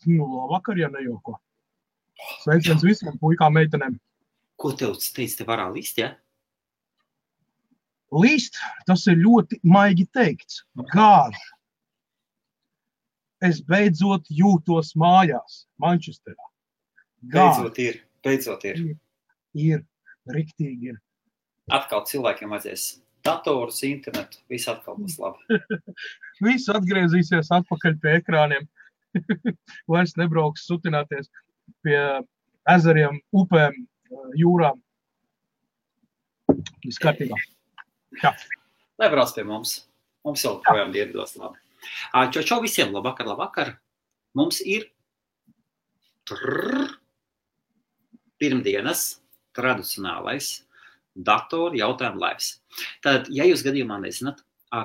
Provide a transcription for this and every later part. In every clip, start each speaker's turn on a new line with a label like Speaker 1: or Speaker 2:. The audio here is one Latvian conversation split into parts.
Speaker 1: Labvakar, ja nejauko. Sveiciens visiem puikām meitenēm.
Speaker 2: Ko tev teici, te varā līst, ja?
Speaker 1: Līst, tas ir ļoti maigi teikts. Gāž. Es beidzot jūtos mājās, Mančesterā.
Speaker 2: Beidzot ir.
Speaker 1: Ir, riktīgi ir.
Speaker 2: Atkal cilvēkiem vajadzēs datorus, internetu, viss atkal būs labi.
Speaker 1: Viss atgriezīsies atpakaļ pie ekrāniem. Vairs nebrauks sutināties pie ezeriem, upēm, jūrām. Viss kārtībā. Jā.
Speaker 2: Lai brauc pie mums. Mums vēl projām dievdos labi. Čau visiem, labvakar. Mums ir pirmdienas tradicionālais datoru jautājumu laivs. Tad, ja jūs gadījumā nezināt,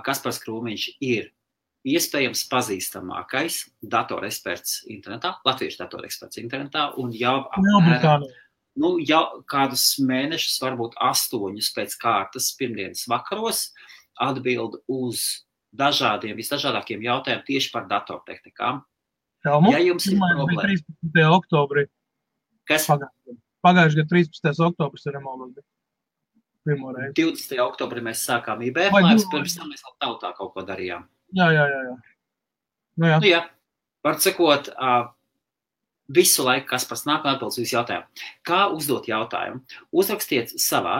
Speaker 2: Kaspars Krūmiņš ir iespējams pazīstamākais datoreksperts internetā, latviešu datoreksperts internetā, un jau kādus mēnešus, varbūt 8 pēc kārtas pirmdienas vakaros atbild uz visdažādākiem jautājumiem tieši par datortehnikām. Ja jums ir problēma.
Speaker 1: 13. oktobrī.
Speaker 2: Kas?
Speaker 1: Pagājuši gadu 13. oktobris ir nemaldos.
Speaker 2: 20. oktobrī mēs sākām IBF laivas, pirms tam mēs vēl tautā kaut ko darījām.
Speaker 1: Jā.
Speaker 2: Jā. Var sakot, visu laiku, kas pats nāk un atbildes visu jautājumu. Kā uzdot jautājumu? Uzrakstiet savā,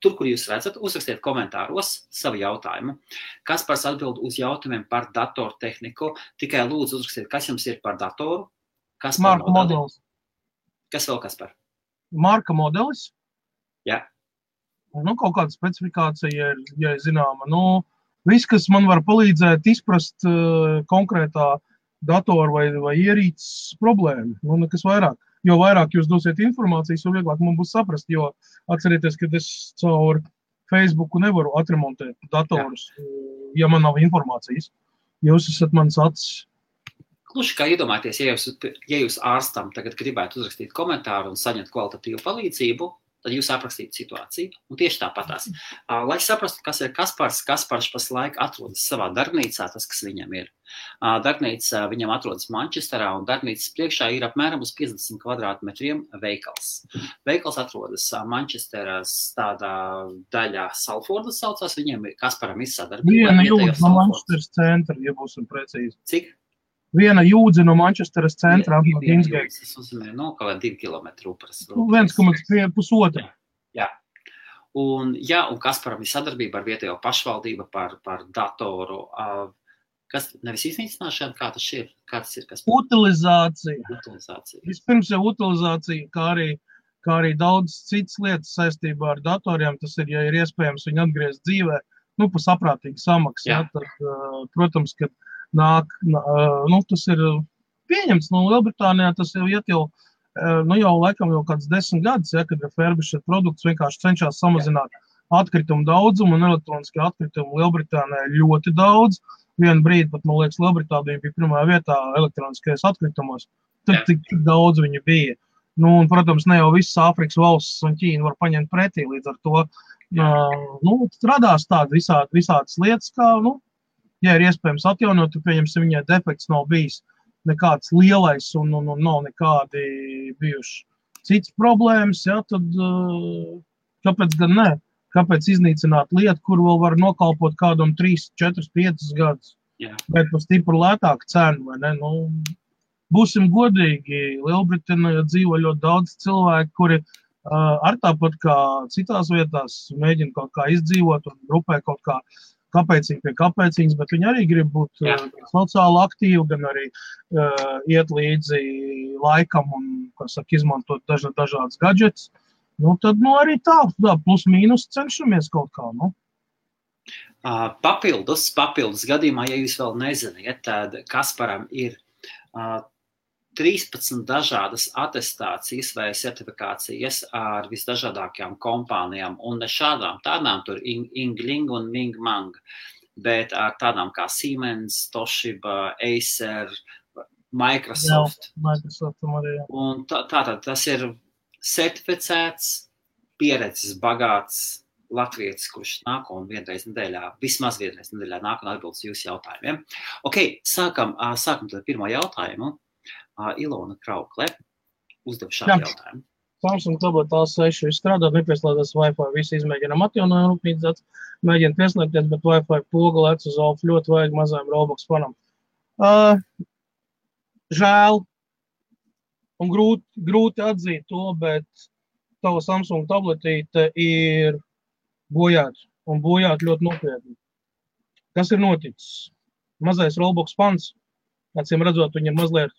Speaker 2: tur, kur jūs redzat, uzrakstiet komentāros savu jautājumu. Kaspars atbild uz jautājumiem par datortehniku. Tikai lūdzu uzrakstiet, kas jums ir par datoru.
Speaker 1: Marka modelis.
Speaker 2: Kas vēl, Kaspar?
Speaker 1: Marka modelis.
Speaker 2: Jā.
Speaker 1: Kaut kāda specifikācija, ja zināma. Viss, kas man var palīdzēt izprast konkrētā datora vai ierīces problēmu. Nekas vairāk. Jo vairāk jūs dosiet informācijas, jo vieglāk man būs saprast, jo atcerieties, ka es caur Facebooku nevaru atremontēt datorus, ja man nav informācijas. Jūs esat mans acis.
Speaker 2: Kluši kā iedomājieties, ja jūs ārstam tagad gribētu uzrakstīt komentāru un saņemt kvalitatīvu palīdzību, tad jūs aprakstītu situāciju, un tieši tāpatās. Lai saprastu, kas ir Kaspars pašlaik atrodas savā darbnīcā, tas, kas viņam ir. Darbnīca viņam atrodas Mančesterā, un darbnīcas priekšā ir apmēram uz 50 kvadrātmetriem veikals. Veikals atrodas Mančesteras tādā daļā Salfordas saucās, viņiem Kasparam ir sadarbība.
Speaker 1: Viena jūdz no Mančesteras centra, ja būsim precīzi.
Speaker 2: Cik?
Speaker 1: Viena jūdze no Mančesteras centra.
Speaker 2: Tas uzmanē, kaut 2 kilometri upras.
Speaker 1: 1,5.
Speaker 2: Jā. Un Kasparam ir sadarbība ar vietējo pašvaldību par datoru. Kas nevis iznīcināšana, kā tas ir? Kaspar?
Speaker 1: Utilizācija. Vispirms jau utilizācija, kā arī daudz citas lietas saistībā ar datoriem. Tas ir, ja ir iespējams viņu atgriezt dzīvē, pa saprātīgu samaksu. Ja, tad, protams, ka tas ir pieņemts no Lielbritānijā, tas jau iet jau laikam jau kāds 10 gadus, kad refurbished produkts vienkārši cenšas samazināt atkritumu daudzumu, un elektroniskie atkritumu Lielbritānijā ir ļoti daudz. Vienu brīdi pat, man liekas, Lielbritānija bija pirmā vietā elektroniskajos atkritumos. Tad tik daudz viņi bija. Un, protams, ne jau visas Āfrikas valstis un Ķīna var paņemt pretī, līdz ar to radās tādi visādas lietas, kā, ja ir iespējams atjaunot, tad pieņemsim, viņai defekts nav bijis nekāds lielais un nav nekādi bijuši cits problēmas, tad kāpēc gan ne? Kāpēc iznīcināt lietu, kur vēl var nokalpot kādam 3, 4, 5 gadus? Bet par stipru lētāku cenu, vai ne? Būsim godīgi, Lielbritānijā dzīvo ļoti daudz cilvēku, kuri ar tāpat kā citās vietās mēģina kaut kā izdzīvot un grupē kaut kā kāpēcīgi pie kāpēcīgas, bet viņi arī grib būt sociāli aktīvi, gan arī iet līdzi laikam un, izmantot dažādas gadžets. Tad arī tā plus mīnus cenšamies kaut kā,
Speaker 2: Papildus gadījumā, ja jūs vēl neziniet, tad Kasparam ir 13 dažādas atestācijas vai certifikācijas ar visdažādākajām kompānijām, un ne šādām tādām tur Yingling un Ming Mang, bet ar tādām kā Siemens, Toshiba, Acer, Microsoft. Un tātad tas ir certificēts, pieredzes bagāts latvietis, kurš nāk un vismaz vienreiz nedēļā nāk un atbild uz jūsu jautājumiem. Ok, sākam tad pirmo jautājumu. Ilona Kraukle uzdev šādu jautājumu.
Speaker 1: Samsung tablet A6 strādā, nepieslēdzas Wi-Fi, visi izmēģinām atjaunojumu rūpnīcas, mēģina pieslēgties, bet Wi-Fi poga lec uz alfu, ļoti vajag mazajam Roblox fanam. Žēl, un grūti atzīt to, bet tava Samsung tabletīte ir bojāta, un bojāta ļoti nopietni. Kas ir noticis? Mazais Roblox fans, acīm redzot, viņam mazliet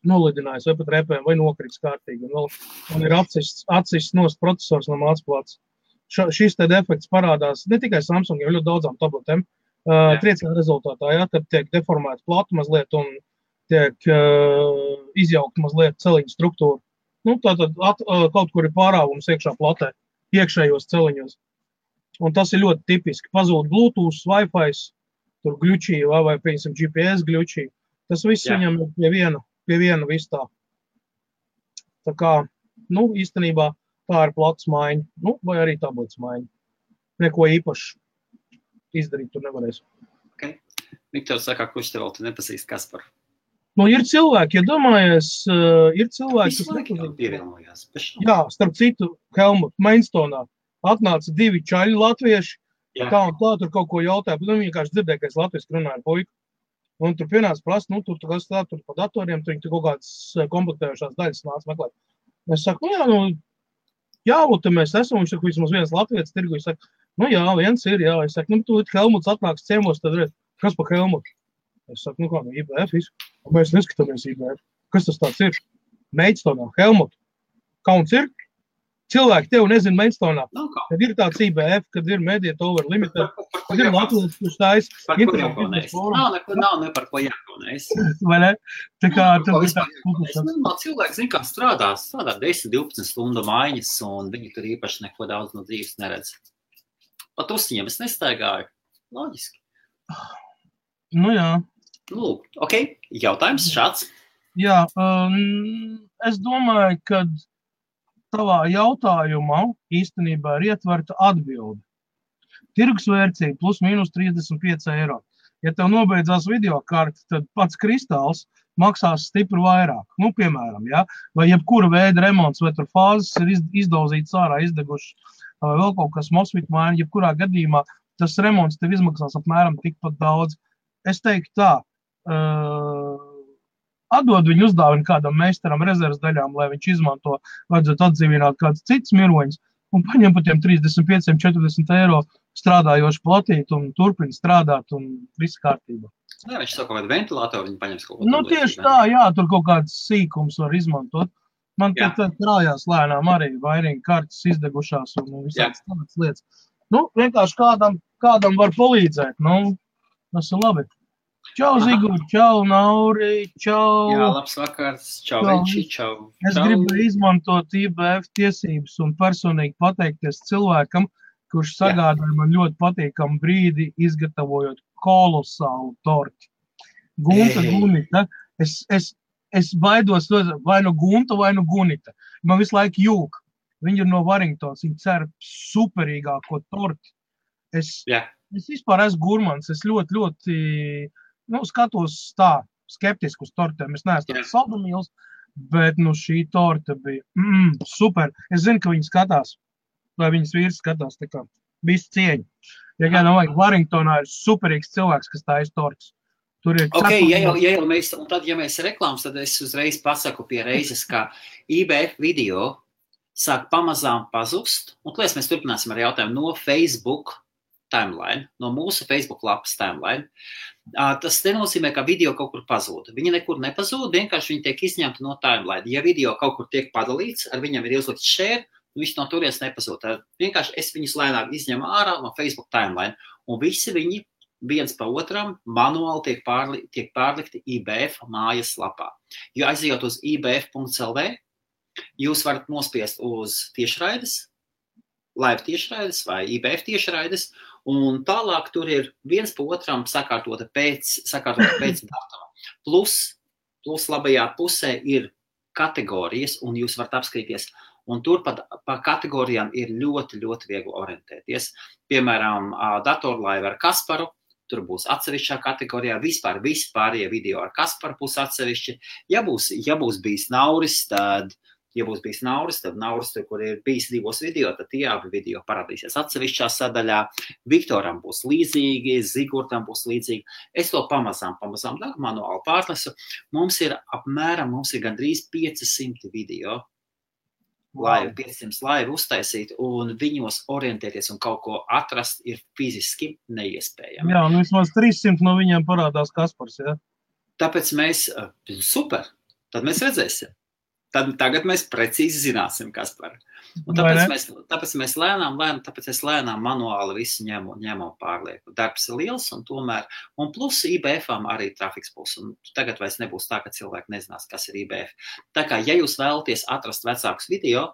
Speaker 1: nolidinājis vai pat repēm, vai nokrits kārtīgi. Un ir atsists nost procesors no mācplāts. Šis te defekts parādās ne tikai Samsung, jau ļoti daudzām tabletēm. Trieciena rezultātā, kad tiek deformēta plata mazliet un tiek izjaukta mazliet celiņu struktūra. Tātad kaut kur ir pārāvums iekšā platē, iekšējos celiņos. Un tas ir ļoti tipiski. Pazūd Bluetooth, Wi-Fi, tur gļučī vai piemēram GPS gļučī. Tas viss viņam ir pie viena viss tā. Tā kā, īstenībā tā ir plats maiņa, vai arī tablets maiņa. Neko īpaši izdarīt tur nevarēs.
Speaker 2: Ok. Viktors saka, kurš te vēl tu nepazīst Kasparu?
Speaker 1: Ir cilvēki, ja domājies, ir cilvēki, kas
Speaker 2: nepazīst.
Speaker 1: Jā, starp citu, Helmut, Mainstonā atnāca 2 čaļi latvieši, tā un tā, tur kaut ko jautāja, bet vienkārši dzirdēja, ka es latviešu runāju ar puiku. Un tur pienāca prasa, tur pa datoriem, tur kaut kādas komplektējušās daļas nāca meklēt. Es saku, jā, te mēs esam, viņš saka, vismaz viens latvietis tirgu, es saku, jā, viens ir, jā. Es saku, tu Helmuts atnāks ciemos, tad redz, kas pa Helmutu? Es saku, IBF visu. Mēs neskatāmies IBF. Kas tas tāds ir? Mainstonā, Helmut. Kauns ir? Cilvēki tev nezina Mainstonā. Kad ir tāds IBF, kad ir Mediet Over Limited, kad ir Latvijas, kurš tājas.
Speaker 2: Par ko jākaunēs? Nav ne par ko jākaunēs.
Speaker 1: Vai ne? Tā kā...
Speaker 2: Cilvēki zina, kā strādā 10-12 stundu maiņas, un viņi tur īpaši neko daudz no dzīves neredz. Pat uzsiņiem es nestaigāju. Loģiski.
Speaker 1: Jā.
Speaker 2: Lūk, ok, jautājums šāds.
Speaker 1: Jā, es domāju, ka tavā jautājumā īstenībā ir ietverta atbilde. Tirgusvērtība plus mīnus 35 eiro. Ja tev nobeidzās videokarte, tad pats kristāls maksās stipri vairāk. Piemēram, vai jebkura veida remonts, vai tur fāzes ir izdauzītas ārā, izdegušas, vai vēl kaut kas mosfit maina, jebkurā gadījumā tas remonts tev izmaksās apmēram tikpat daudz. Es teiktu tā, atdod viņu uzdāvinu kādam meistaram rezerves daļām, lai viņš izmanto, vajadzētu atdzīvināt kāds cits miroņus, un paņem par tiem 35-40 eiro strādājošu platīt un turpina strādāt un viss kārtībā.
Speaker 2: Jā, viņš savu kaut kādu ventilātoru, viņi paņems kaut ko.
Speaker 1: Tieši tā, jā, tur kaut kāds sīkums var izmantot. Man te krājās lēnām arī vairinga kartes izdegušās un visādas tādas lietas. Vienkārši kādam var palīdzēt, tas ir labi. Čau, Zigur, čau, Nauri, čau.
Speaker 2: Jā, labs vakars, čau, Venči, čau.
Speaker 1: Es gribu izmantot IBF tiesības un personīgi pateikties cilvēkam, kurš sagādāja man ļoti patīkamu brīdi, izgatavojot kolosālu torti. Gunta. Es baidos vai no Gunta, vai no Gunita. Man visu laiku jūk. Viņi ir no Warringtons, viņi cer superīgāko torti. Es vispār esmu gurmans, es ļoti skatos tā skeptiski uz tortēm. Es neesmu tāds saldumīls, bet šī torta bija super. Es zinu, ka viņi skatās, vai viņas vīrs skatās, tā kā visu cieņu. Ja kādam vajag, Warringtonā ir superīgs cilvēks, kas tā tortas. Tur ir
Speaker 2: ja mēs reklāmas, tad es uzreiz pasaku pie reizes, ka IBF video sāk pamazām pazust. Un, klēs, mēs turpināsim ar jautājumu no Facebook timeline, no mūsu Facebook lapas timeline. Tas nenozīmē, ka video kaut kur pazūda. Viņi nekur nepazūda, vienkārši viņi tiek izņemti no timeline. Ja video kaut kur tiek padalīts, ar viņam ir ielikt share, viņš no turies nepazūda. Vienkārši es viņus lēnāk izņemu ārā no Facebook timeline. Un visi viņi viens pa otram manuāli tiek pārlikti IBF mājas lapā. Jo aizejot uz ibf.lv, jūs varat nospiest uz tiešraides, live tiešraides vai IBF tiešraides, un tālāk tur ir viens pa otram sakārtota pēc datuma. Plus labajā pusē ir kategorijas, un jūs varat apskatīties Un tur pa kategorijām ir ļoti, ļoti viegli orientēties. Piemēram, datorlaiva ar Kasparu, tur būs atsevišķā kategorijā, vispārējie video ar Kasparu būs atsevišķi. Ja būs bijis Nauris, tad Nauris, kur ir bijis 2 video, tad tie abi video parādīsies atsevišķā sadaļā. Viktoram būs līdzīgi, Zigurtam būs līdzīgi. Es to pamazām manuāli pārnesu. Mums ir gandrīz 500 video, 500 laivu uztaisīt, un viņos orientēties un kaut ko atrast ir fiziski neiespējami.
Speaker 1: Jā, un vismaz 300 no viņiem parādās Kaspars, jā?
Speaker 2: Tāpēc super, tad mēs redzēsim. Tagad mēs precīzi zināsim, Kaspar. Un tāpēc es lēnām manuāli visu ņemu pārlieku. Darbs ir liels un plus IBF-ām arī trafiks būs. Un tagad vairs nebūs tā, ka cilvēki nezinās, kas ir IBF. Tā kā, ja jūs vēlaties atrast vecākus video,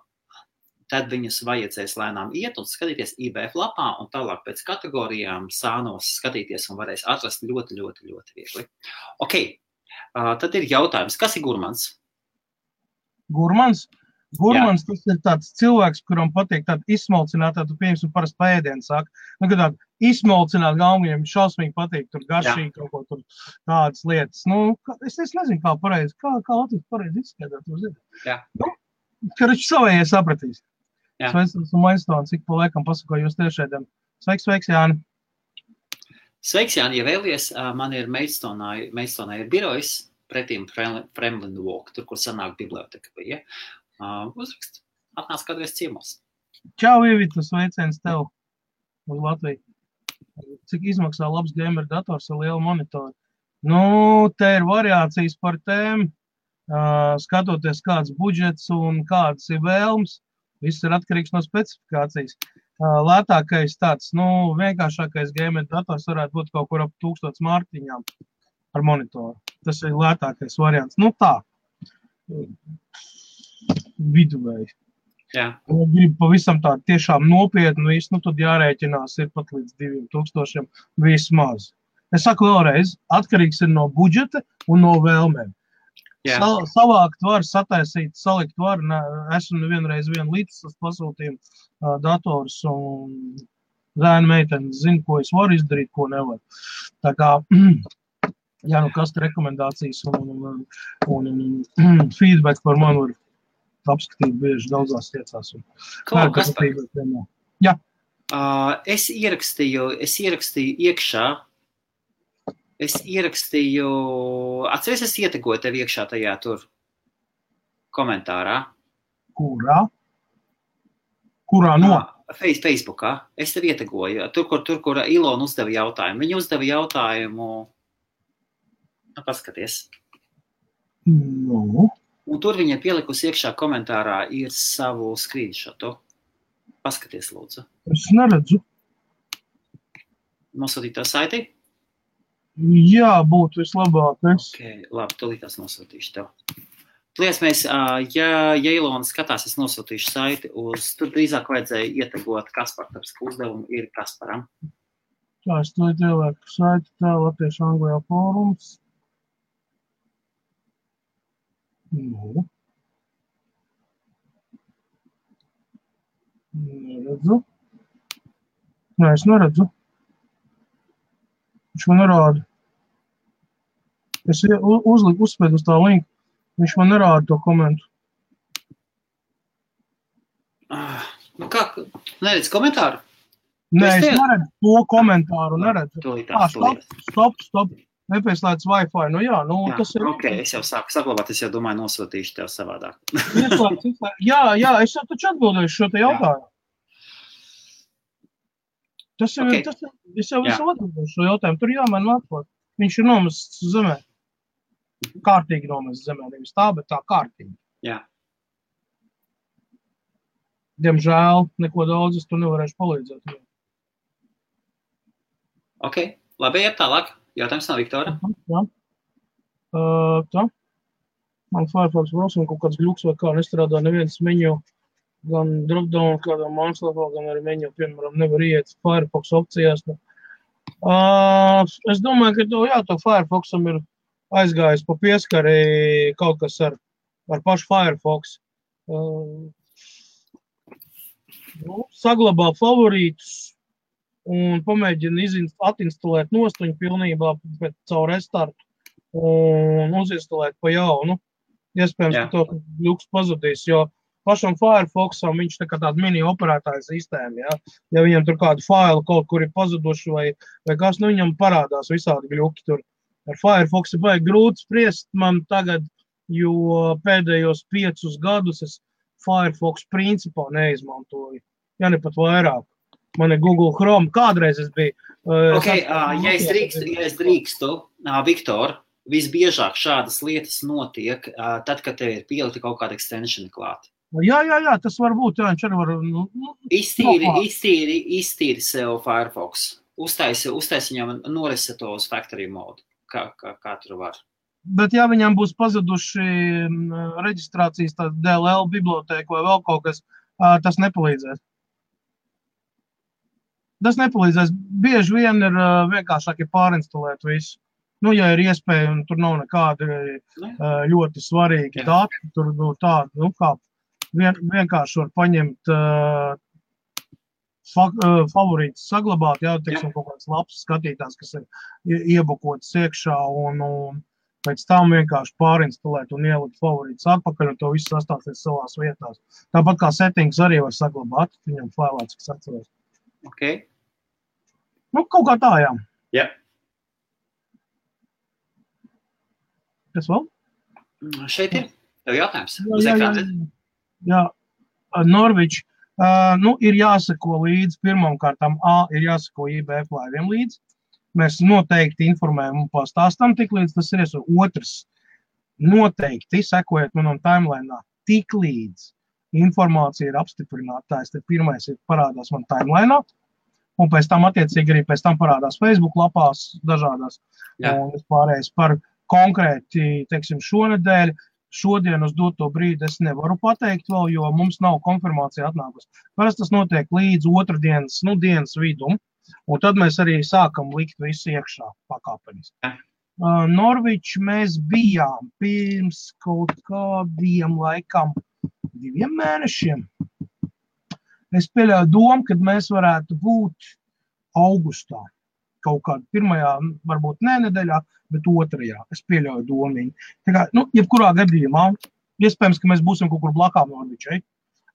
Speaker 2: tad viņus vajadzēs lēnām iet un skatīties IBF lapā un tālāk pēc kategorijām sānos skatīties un varēs atrast ļoti, ļoti, ļoti viegli. Ok, tad ir jautājums, kas ir gurmans?
Speaker 1: Gurmans, tas ir tāds cilvēks, kuram patīk tāda izsmalcinātā, tu pieņemsim parasti pēdienu saka. Kad tāda izsmalcināt galvu, viņam šausmīgi patīk, tur garšīgi kaut ko tur tādas lietas. Es nezinu, kā pareizi, kā Latvijas pareizi izskaidrot, tu zini. Karači savējie sapratīs. Sveiks, esmu Mainstons, ik pa laikam pasakoju jūs tiešēdiem. Sveiks, Jāni.
Speaker 2: Sveiks, Jāni, ja vēlies, man ir Mainstonā ir birojas, pretīm Fremlin Walk, tur, kur sanāk biblioteka bija. Uzrakst, atnāc kādreiz ciemos.
Speaker 1: Čau, Ivita, sveiciens tev uz Latviju. Cik izmaksā labs gamer dators ar lielu monitoru? Te ir variācijas par tēm, skatoties kāds budžets un kādas ir vēlmes. Viss ir atkarīgs no specifikācijas. Lētākais tāds, vienkāršākais gamer dators varētu būt kaut kur ap 1000 mārtiņām ar monitoru. Tas ir lētākais variants. Tā, viduvēji.
Speaker 2: Jā.
Speaker 1: Gribu pavisam tā tiešām nopietni visu, tad jārēķinās ir pat līdz 2000 vismaz. Es saku vēlreiz, atkarīgs ir no budžeta un no vēlmēm. Savākt var, sataisīt, salikt var. Esmu nevienreiz līdzsas pasūtījumu dators un zēna meitene zina, ko es varu izdarīt, ko nevaru. Tā kā kas rekomendācijas un feedback par mani var apskatīt bieži daudzās lietās. Jā.
Speaker 2: Es ierakstīju iekšā. Atceries, es ietegoju tev iekšā tajā tur komentārā.
Speaker 1: Kurā no?
Speaker 2: Facebookā. Es tev ietegoju. Tur, kur Ilona uzdeva jautājumu. Viņa uzdeva jautājumu. Paskaties. Un tur viņa pielikusi iekšā komentārā ir savu screenshotu. Paskaties, lūdzu.
Speaker 1: Es neredzu.
Speaker 2: Nosūtīt tā saiti?
Speaker 1: Jā, būtu vislabākais.
Speaker 2: Ok, labi, tūlītās nosūtīšu tev. Tlies ja Ilona skatās, es nosūtīšu saiti tur drīzāk vajadzēja ietegot Kaspar, tāpēc, ka uzdevumu ir Kasparam.
Speaker 1: Tā, es to ielieku saiti, tā Latviešu Anglijā fórums. Neredzu. Es neredzu. Viņš man nerāda. Es uzspēdu uz tā linku. Viņš man nerāda to komentu.
Speaker 2: Kā? Neredz komentāru?
Speaker 1: Nē, es neredzu to komentāru. Stop. Nepieslēdz Wi-Fi. Tas ir...
Speaker 2: Ok, es jau sāku saglabāt, es jau domāju nosūtīšu tev savādāk.
Speaker 1: Jā, es jau taču atbildēšu šo te jautājumu. Es jau visu atbildēšu šo jautājumu. Tur jāmēn atklāt. Viņš ir nomests zemē. Kārtīgi nomests zemē. Nevis tā, bet tā kārtīgi.
Speaker 2: Jā.
Speaker 1: Diemžēl, neko daudz es tur nevarēšu palīdzēt.
Speaker 2: Ok, labi, iet tālāk. Jautājums no Viktora.
Speaker 1: Jā. Tā. Man Firefox browser kaut kāds gļuks vai kā nestrādā neviens menu, gan dropdown kādā mājaslapā, gan arī menu, piemēram, nevar iet Firefox opcijās. Es domāju, ka to Firefoxam ir aizgājis pa pieskari kaut kas ar pašu Firefox. saglabā favorītus un pamēģina atinstalēt nostuņu pilnībā caur restartu un uzinstalēt pa jaunu. Iespējams, ka to ļuks pazudīs, jo pašam Firefoxam viņš tā kā tāda mini operētāja sistēma, ja? Ja viņam tur kādu failu kaut kur ir pazuduši vai kas, nu viņam parādās visādi gļuki tur. Ar Firefoxu baigi grūti spriest man tagad, jo pēdējos 5 gadus es Firefox principā neizmantoju. Ja ne pat vairāk. Man ir Google Chrome. Kādreiz es biju.
Speaker 2: Ja es drīkstu, Viktor, visbiežāk šādas lietas notiek, tad, kad tev ir pielikti kaut kāda extensioni klāt.
Speaker 1: Jā, tas var būt, jā, viņš arī var...
Speaker 2: Iztīri sev Firefox. Uztaisi viņam noreseto uz factory mode, kā tur var.
Speaker 1: Bet ja viņam būs pazuduši reģistrācijas DLL bibliotēku vai vēl kaut kas, tas nepalīdzēs. Tas nepalīdzēs. Bieži vien ir vienkāršāk pārinstalēt visu. Nu, ja ir iespēja, un tur nav nekādi ļoti svarīgi dati, tur tādi, kā vienkārši var paņemt favorītus saglabāt, jā, teiksim, kaut kāds labs skatītājs, kas ir iebukots iekšā un pēc tam vienkārši pārinstalēt un ielikt favorītus atpakaļ un to visu sastāstīt savās vietās. Tāpat kā settings arī var saglabāt, viņam failā, cik es atceros.
Speaker 2: Okay.
Speaker 1: Nu, kaut kā tā, jā.
Speaker 2: Jā.
Speaker 1: Kas vēl?
Speaker 2: Šeit ir tev jautājums.
Speaker 1: Jā. Norvič, ir jāsako līdzi pirmam kārtām ir jāsako IBF laiviem līdzi. Mēs noteikti informējam un pastāstam tik līdz tas ir. Otrs, noteikti sekojiet manam timelineā tik līdz informācija ir apstiprinātājs. Tad pirmais ir parādās man timelineā un pēc tam attiecīgi arī pēc tam parādās Facebook lapās dažādās. Un pārējais par konkrēti, teiksim, šonedēļ, šodien uz doto brīdi es nevaru pateikt vēl, jo mums nav konfirmācija atnākusi. Parasti tas notiek līdz otrdienas, dienas vidum, un tad mēs arī sākam likt visu iekšā pakāpeniski. Norvič mēs bijām pirms kaut kādiem laikam 2 mēnešiem. Es pieļauju domu, kad mēs varētu būt augustā. Kaut kādā pirmajā, varbūt nedēļā, bet 2. Es pieļauju domiņu. Tā kā, jebkurā gadījumā, iespējams, ka mēs būsim kaut kur blakām Norvičai,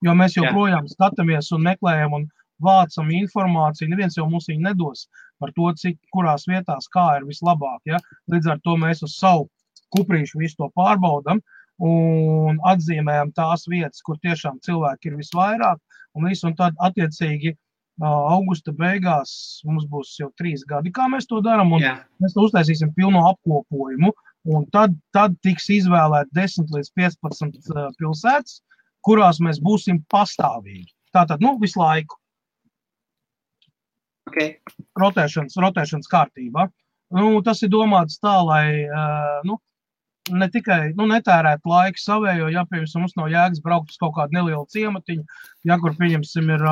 Speaker 1: jo mēs joprojām skatāmies un meklējam un vācam informāciju. Neviens jau mums viņu nedos par to, kurās vietās kā ir vislabāk. Ja? Līdz ar to mēs uz savu kuprīšu visu to pārbaudam un atzīmējam tās vietas, kur tiešām cilvēki ir visvairāk. Un tad attiecīgi augusta beigās mums būs jau 3 gadi, kā mēs to darām, un mēs to uztaisīsim pilno apkopojumu, un tad tiks izvēlēt 10 līdz 15 pilsētas, kurās mēs būsim pastāvīgi. Tātad, visu laiku.
Speaker 2: Okay.
Speaker 1: Rotēšanas kārtībā. Tas ir domāts tā, lai, ne tikai, netērēt laiku savējo, ja, piemēram, mums nav jēgas braukt uz kaut kādu nelielu ciematiņu, ja, kur, pieņemsim, ir,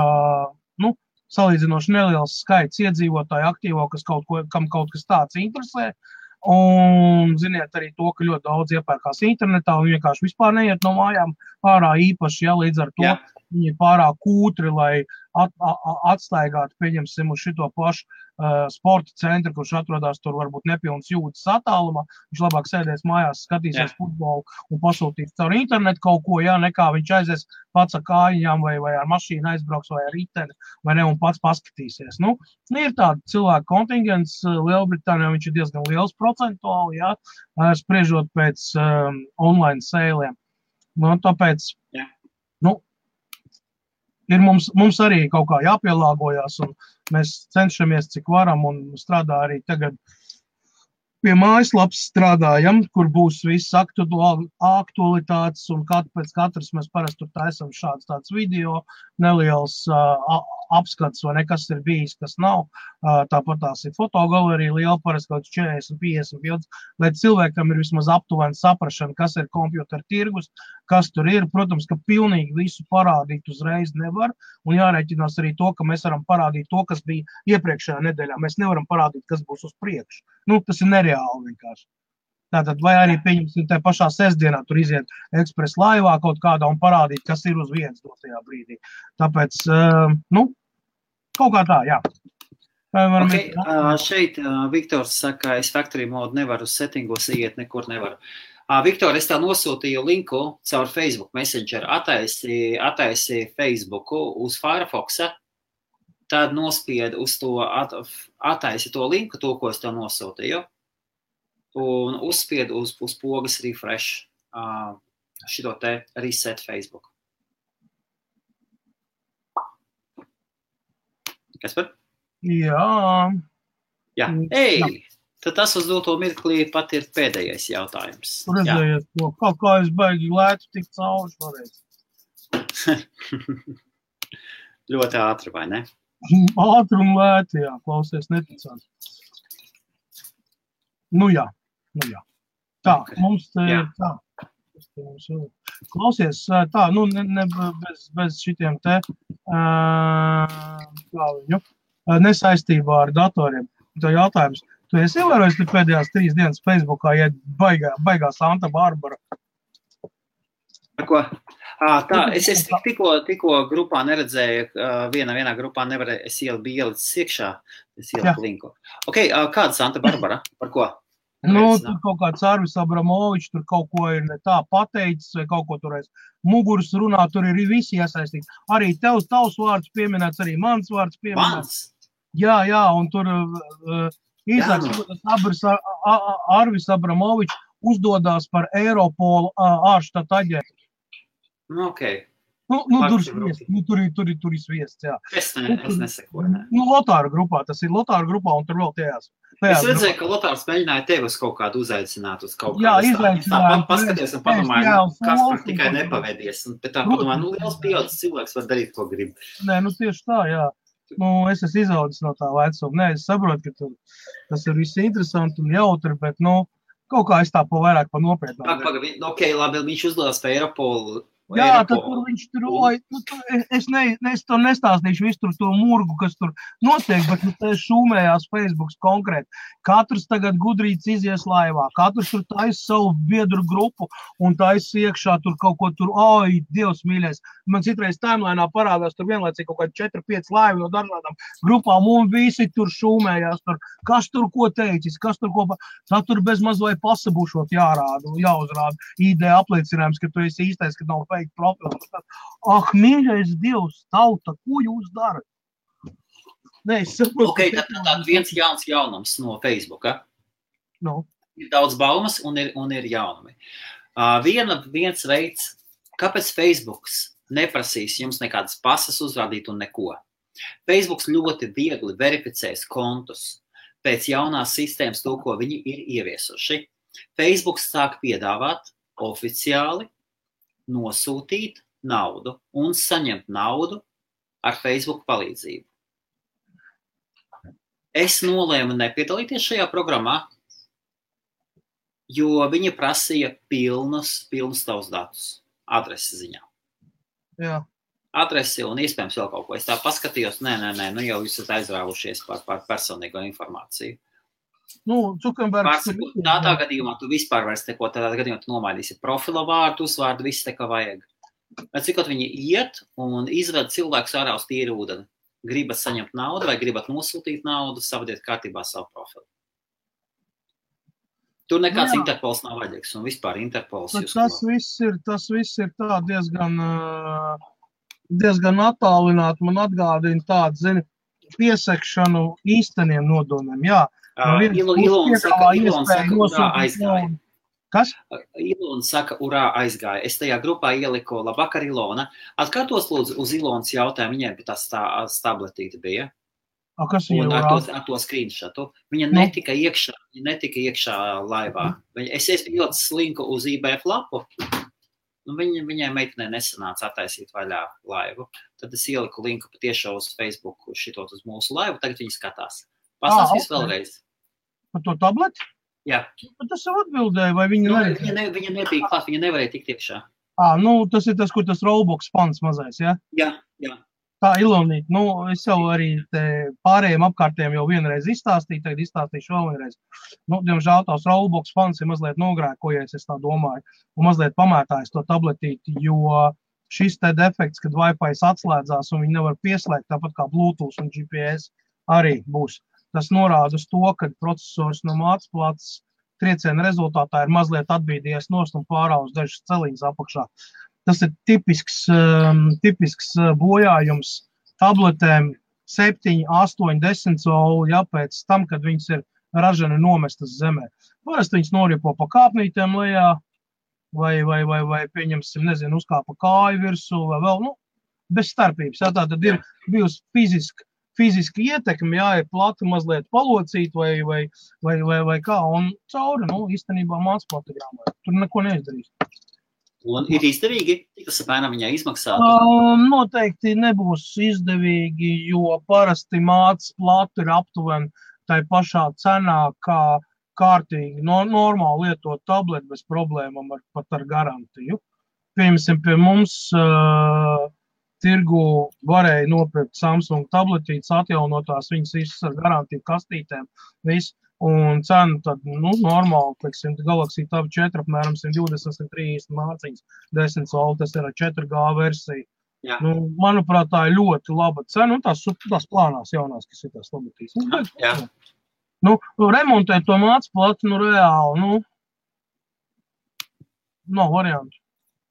Speaker 1: salīdzinoši neliels skaits iedzīvotāju aktīvo, kam kaut kas tāds interesē. Un ziniet arī to, ka ļoti daudz iepērkās internetā un vienkārši vispār neiet no mājām ārā īpaši, ja līdz ar to viņi ir pārāk kūtri, lai atstaigātu, pieņemsim, uz šito pašu sporta centru, kurš atrodas tur varbūt nepilns jūtas attālumā. Viņš labāk sēdēs mājās, skatīsies futbolu un pasūtīs caur internetu kaut ko, nekā viņš aizies pats ar kājām vai ar mašīnu aizbrauks vai ar riteni, vai ne, un pats paskatīsies. Ir tāda cilvēku kontingents, Lielbritānijā viņš ir diezgan liels procentuāli, spriežot pēc online sēliem. Tāpēc, ir mums arī kaut kā jāpielāgojās, un mēs cenšamies, cik varam, un strādā arī tagad pie mājaslapas strādājam, kur būs viss aktualitātes, un pēc katras mēs parasti tur taisam šāds tāds video, neliels apskats, vai nekas ir bijis, kas nav. Tāpat tās ir fotogalerija liela, parasti kaut 40-50 bildes, lai cilvēkam ir vismaz aptuveni saprašana, kas ir kompjuteru tirgus, kas tur ir. Protams, ka pilnīgi visu parādīt uzreiz nevar, un jārēķinās arī to, ka mēs varam parādīt to, kas bija iepriekšējā nedēļā. Mēs nevaram parādīt, kas būs uz priekšu. Tas ir nereāli vienkārši. Tātad, vai arī pieņemsim te pašā sestdienā tur iziet ekspresa laivā kaut kādā un parādīt, kas ir uz vietas dotajā brīdī. Tāpēc, kaut kā tā, jā.
Speaker 2: Okay, šeit Viktors saka, es factory mode nevaru settingos iet, nekur nevaru. Viktor, es tev nosūtīju linku caur Facebook Messenger, ataisi Facebooku uz Firefoxa, tad nospied uz to, ataisi to linku, to, ko es tev nosūtīju, un uzspied uz pogas refresh šito te reset Facebook. Kas par?
Speaker 1: Jā.
Speaker 2: Jā. Ei! Tad tas uz doto mirklī pat ir pēdējais jautājums.
Speaker 1: Redzējiet, kā es baigi lētu tik cauri šoreiz.
Speaker 2: Ļoti ātri, vai ne?
Speaker 1: Ātri un lēti, jā, klausies, neticāt. Nu jā. Tā, okay. Mums te ir tā. Klausies, tā, bez šitiem te, kā viņu, nesaistībā ar datoriem. Tā jautājums. Tu esi ievērojis pēdējās 3 dienas Facebookā, ja baigā Santa Barbara?
Speaker 2: Ar ko? Tā, es tikko grupā neredzēju, vienā grupā nevarēju, es biju ielicis iekšā, es ieliku linku. Ok, kāda Santa Barbara? Par ko?
Speaker 1: Tur kaut kāds Arvis Abramovičs, tur kaut ko ir ne tā pateicis, vai kaut ko tur aiz muguras runā, tur ir visi iesaistīti. Arī tavs vārds pieminēts, arī mans vārds pieminēts. Jā, un tur īsāks Arvis Abramovičs uzdodās par Eiropolu ārštata aģentu.
Speaker 2: Okay.
Speaker 1: Tur ir sviests, jā.
Speaker 2: Es nesekoju, ne.
Speaker 1: Lotāru grupā, tas ir Lotāru grupā, un tur vēl tajās.
Speaker 2: Es redzēju, ka Lotārs mēģināja tevi uz kaut kādu uzaicināt, uz kaut kādu.
Speaker 1: Jā, izaicinājām.
Speaker 2: Paskaties un padomāju, kas par tikai nepavedies. Bet tā padomāju, liels pieaudzis cilvēks var darīt, ko grib.
Speaker 1: Nē, tieši tā, jā. Es esmu izaudzis no tā vecuma. Nē, es saprotu, ka tas ir viss interesanti un jautri, bet, kaut kā es tā vairāk pa nopietnām.
Speaker 2: Ok, labi, viņš uzdodās pa Eiropolu.
Speaker 1: Jā, tad tur viņš tur, es to nestāstīšu visu to murgu, kas tur notiek, bet te šūmējās Facebooks konkrēti. Katrs tagad gudrīts izies laivā, katrs tur taisa savu biedru grupu un taisa iekšā tur kaut ko tur, Dievs mīļais. Man citreiz timelainā parādās tur vienlaicīgi kaut kādi 4-5 laivi no dažādām grupām un visi tur šūmējās tur. Kas tur ko teicis, kas tur ko, tad tur bez maz vai pasabušot jāuzrāda ID apliecinājums, ka tu esi īstais, ka nav fake profils. Mīļais Dievs, tauta, ko jūs darat? Nē, es saprotu.
Speaker 2: Ok, tad viens jauns jaunums no Facebooka. Ir daudz baumas un ir jaunumi. Viens veids, kāpēc Facebooks neprasīs jums nekādas pasas uzrādīt un neko. Facebooks ļoti viegli verificēs kontus pēc jaunās sistēmas to, ko viņi ir ieviesuši. Facebooks sāk piedāvāt oficiāli nosūtīt naudu un saņemt naudu ar Facebook palīdzību. Es nolēmu nepiedalīties šajā programmā, jo viņi prasīja pilnus tavus datus adresi ziņā.
Speaker 1: Jā.
Speaker 2: Adresi un iespējams vēl kaut ko. Es tā paskatījos, nē, jau jūs esat aizrāvušies par personīgo informāciju. Tādā gadījumā tu vispār vairs neko, tādā gadījumā tu nomainīsi profila vārdu, uzvārdu, viss te, kā vajag. Cikot viņi iet un izved cilvēkus ārā uz tīru ūdeni. Gribat saņemt naudu vai gribat nosūtīt naudu, savadiet kārtībā savu profilu. Tur nekāds Interpols nav vajadzīgs un vispār Interpols jūs.
Speaker 1: Tas viss ir tā diezgan attālināt, man atgādina tādu, piesekšanu īsteniem nodomiem, jā.
Speaker 2: Ilona saka, urā aizgāja.
Speaker 1: Kas?
Speaker 2: Ilona saka, urā aizgāja. Es tajā grupā ieliku, labvakar, Ilona. Atkārtos lūdzu uz Ilonas jautājumu, viņai bija tās tabletīte bija.
Speaker 1: Kas ir urā?
Speaker 2: Ar to screenshotu. Viņa netika iekšā laivā. Es ielicis linku uz IBF lapu. Viņai meitenē nesanāca attaisīt vaļā laivu. Tad es ieliku linku patiešo uz Facebook šitot uz mūsu laivu. Tagad viņi skatās. Pastāstīs vēlreiz.
Speaker 1: Par to tableti?
Speaker 2: Jā.
Speaker 1: Bet tas jau atbildēja, vai viņa nevarēja?
Speaker 2: Viņa nebija klāt, viņa nevarēja tikt iekšā.
Speaker 1: Tas ir tas, kur tas Roblox pants mazais, ja?
Speaker 2: Jā.
Speaker 1: Tā, Ilonīt, es jau arī pārējiem apkārtiem jau vienreiz izstāstīju, tagad izstāstīšu vēl vienreiz. Diemžēl tās Roblox fans ir mazliet nogrēkojies, es tā domāju, un mazliet pamētājis to tabletīti, jo šis te defekts, kad Wi-Fi atslēdzās un viņi nevar pieslēgt, tāpat kā Bluetooth un GPS arī būs. Tas norāda uz to, ka procesors no mācplātes trieciena rezultātā ir mazliet atbīdījies nost un pārāvis dažas celiņas apakšā. Tas ir tipisks bojājums tabletēm 7, 8, 10 colu, pēc tam, kad viņas ir ražani nomestas zemē. Parasti viņas noripo pa kāpnītēm lejā, vai pieņemsim, nezinu, uzkāpa kāju virsū, vai vēl, bez starpības. Tā tad ir bijusi fiziski ietekmi, ir plati mazliet palocīt vai kā, un cauri, īstenībā mācplātegrāmai. Tur neko neizdarīs.
Speaker 2: Un ir izdevīgi, cik tas apmēram viņai izmaksātu?
Speaker 1: Noteikti nebūs izdevīgi, jo parasti mācplāte ir aptuveni tai pašā cenā, kā kārtīgi, normāli lietot tableti bez problēmām pat ar garantiju. Piemēram, pie mums tirgu varēja nopirkt Samsung tabletītes, atjaunotās viņas visas ar garantiju kastītēm, un cena tad, normāli, teiksim, Galaxy Tab 4 apmēram 120-130 mārciņas, 10 colu, tas ir 4G versija. Manuprāt, tā ir ļoti laba cena, un tās plānās jaunās, kas ir tās tabletītes. Remontēt to mācplāti, reāli, nav variantu.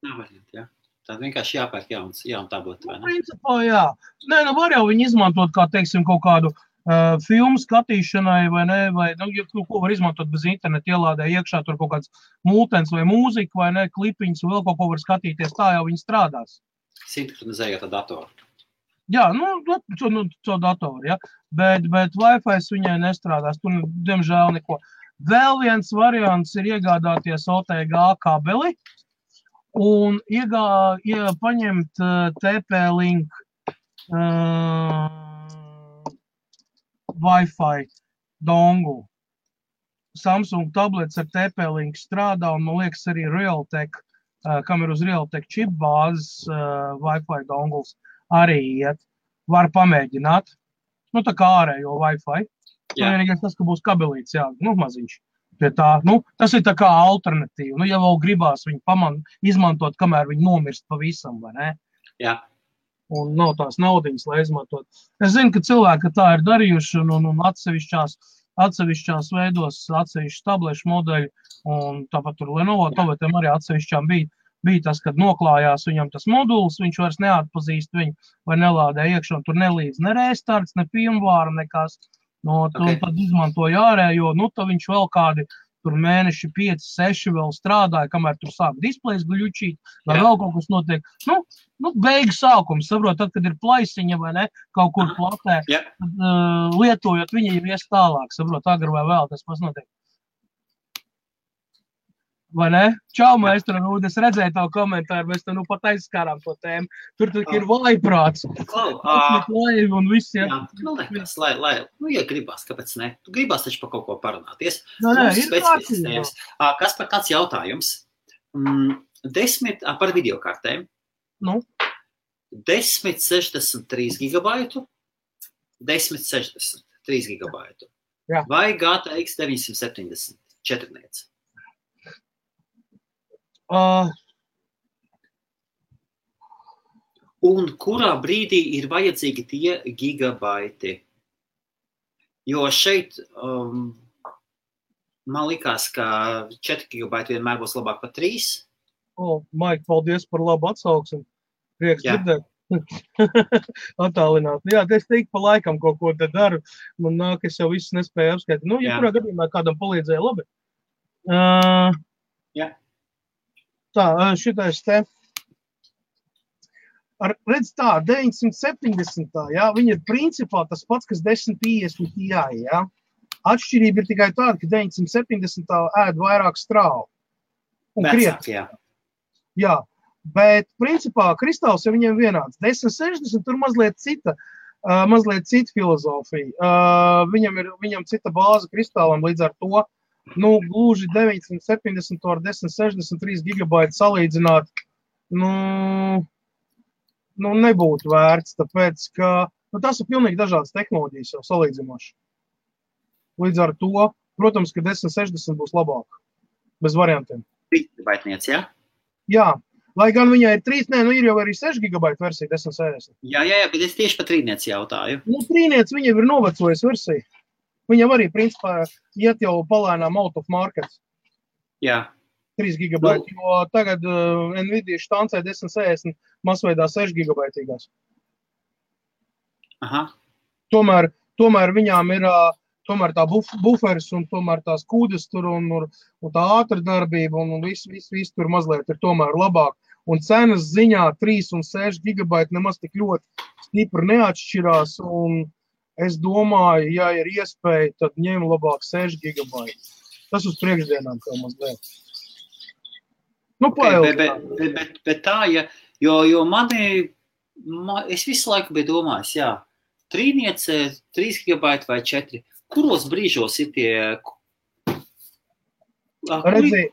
Speaker 2: Nav variantu, jā. Tad vienkārši jāpērk jaunu tableti, vai ne?
Speaker 1: Principā, jā. Var jau viņu izmantot kā, teiksim, kaut kādu filmu skatīšanai, vai ne, vai, ko var izmantot bez interneta, ielādē iekšā tur kaut kāds multens vai mūzika, vai ne, klipiņas, vēl kaut ko var skatīties, tā jau viņi strādās.
Speaker 2: Sinhronizējot ar datoru.
Speaker 1: Jā, caur datoru, jā, bet Wi-Fi viņai nestrādās, tur, diemžēl, neko. Vēl viens variants ir iegādāties OTG kabeli, un paņemt TP-Link Wi-Fi dongu. Samsung tablets ar TP-Link strādā, un man liekas arī Realtek, kam ir uz Realtek chip bāzes Wi-Fi donguls, arī iet. Var pamēģināt. Tā kā ārējo Wi-Fi. Vienīgais tas, ka būs kabelīts, maziņš. Pie tā, tas ir tā kā alternatīva. Ja vēl gribās viņu izmantot, kamēr viņi nomirst pavisam, vai ne?
Speaker 2: Jā.
Speaker 1: Un nav tās naudiņas, lai izmantot. Es zinu, ka cilvēki tā ir darījuši un atsevišķās veidos, atsevišķi tablešu modeļi, un tāpat tur Lenovo tabletiem arī atsevišķām bija tas, kad noklājās viņam tas moduls, viņš vairs neatpazīst viņu vai nelādē iekšā, un tur nelīdz ne restarts, ne firmware, nekas. Tad izmantoja ārējo, tad viņš vēl kādi tur mēneši 5, 6 vēl strādāja, kamēr tur sāk displejs gļučīt, vai vēl kaut kas notiek. Beigu sākums, saprot, tad, kad ir plaisiņa vai ne, kaut kur platē, lietojot viņa jau ies tālāk, saprot, agri vai vēl tas pats notiek. Vai ne? Čau, maestro Rūd, es redzēju tavu komentāru, mēs te pat aizskārām to tēmu. Tur ir vājprāts. Un viss, jā.
Speaker 2: Ja gribās, kāpēc ne? Tu gribās taču par kaut ko parunāties.
Speaker 1: Ir
Speaker 2: kārtības. Kas par kāds jautājums? 10 par videokartēm. 1063 gigabaitu, 1063 gigabaitu. Vai GTX 970 četrniec? Un kurā brīdī ir vajadzīgi tie gigabaiti? Jo šeit man likās, ka 4 gigabaiti vienmēr būs labāk par 3.
Speaker 1: Maik, paldies par labu atsauksmi. Prieks dzirdēt. Attālināt. Jā, es teiktu pa laikam kaut ko te daru. Man nāk, es jau viss nespēju apskaitīt. Ja kurā gadījumā kādam palīdzēja labi. Tā, šitais te. Redz tā, 970, viņa ir principā tas pats, kas 1050 Ti, Atšķirība ir tikai tāda, ka 970 ēd vairāk strāvu.
Speaker 2: Vecāk,
Speaker 1: Jā, bet principā kristāls ir viņiem vienāds. 1060 tur mazliet cita filozofija. Viņam cita bāze kristālam, līdz ar to, gluži 970 ar 1063 gigabaitu salīdzināt, nebūtu vērts, tāpēc, ka tas ir pilnīgi dažādas tehnoloģijas jau salīdzinoši. Līdz ar to, protams, ka 1060 būs labāk, bez variantiem.
Speaker 2: 3 gigabaitniec, jā?
Speaker 1: Jā, lai gan viņai ir 3, ir jau arī 6 gigabaita versija 1060.
Speaker 2: Jā, bet es tieši par 3 jautāju.
Speaker 1: 3 viņa ir novecojas versija. Viņam arī, principā, iet jau palēnām out of market.
Speaker 2: Jā.
Speaker 1: 3 gigabaiti, jo tagad Nvidia štancē 1060 masveidā 6 gigabaitīgās.
Speaker 2: Aha.
Speaker 1: Tomēr viņām ir tomēr tā buferis un tomēr tās kūdes tur un tā ātra darbība un viss tur mazliet ir tomēr labāk. Un cenas ziņā 3 un 6 gigabaiti nemaz tik ļoti stipri neatšķirās un es domāju, ja ir iespēja, tad ņem labāk 6 gigabaiti. Tas uz priekšdienām kā mazliet.
Speaker 2: Bet tā, jo es visu laiku biju domājis, 3 gigabaiti vai 4. Kuros brīžos ir tie?
Speaker 1: Redzi,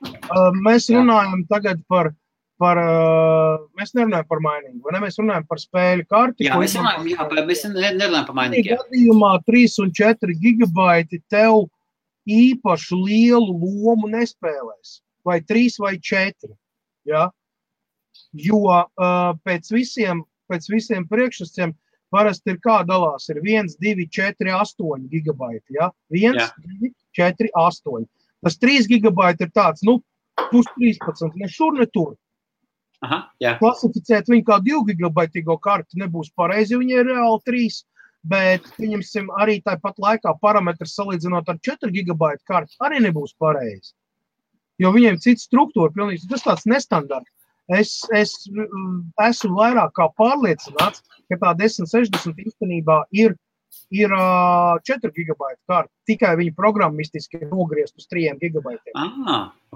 Speaker 1: mēs runājam tagad par mēs nerunājam par mainīgu, vai ne? Mēs runājam par spēļu karti.
Speaker 2: Jā, mēs nerunājam par mainīgu.
Speaker 1: Gadījumā 3 un 4 gigabaiti tev īpašu lielu lomu nespēlēs. Vai 3 vai 4, ja? Jo pēc visiem priekšsaciem parasti ir kā dalās, ir 1, 2, 4, 8 gigabaiti, ja? 1, 2, 4, 8. Tas 3 gigabaiti ir tāds, plus 13, ne šur, ne tur.
Speaker 2: Aha, jā.
Speaker 1: Klasificēt viņu kā 2 gigabaitīgo karti nebūs pareizi, jo viņi ir reāli 3, bet viņam arī tāpat laikā parametrs salīdzinot ar 4 gigabaitu karti arī nebūs pareizi. Jo viņiem cita struktūra, pilnīgi, tas tāds nestandarts. Es esmu vairāk kā pārliecināts, ka tā 1060 īstenībā ir 4 gigabaitu karta. Tikai viņi programmistiski ir nogriezt uz 3 gigabaitiem.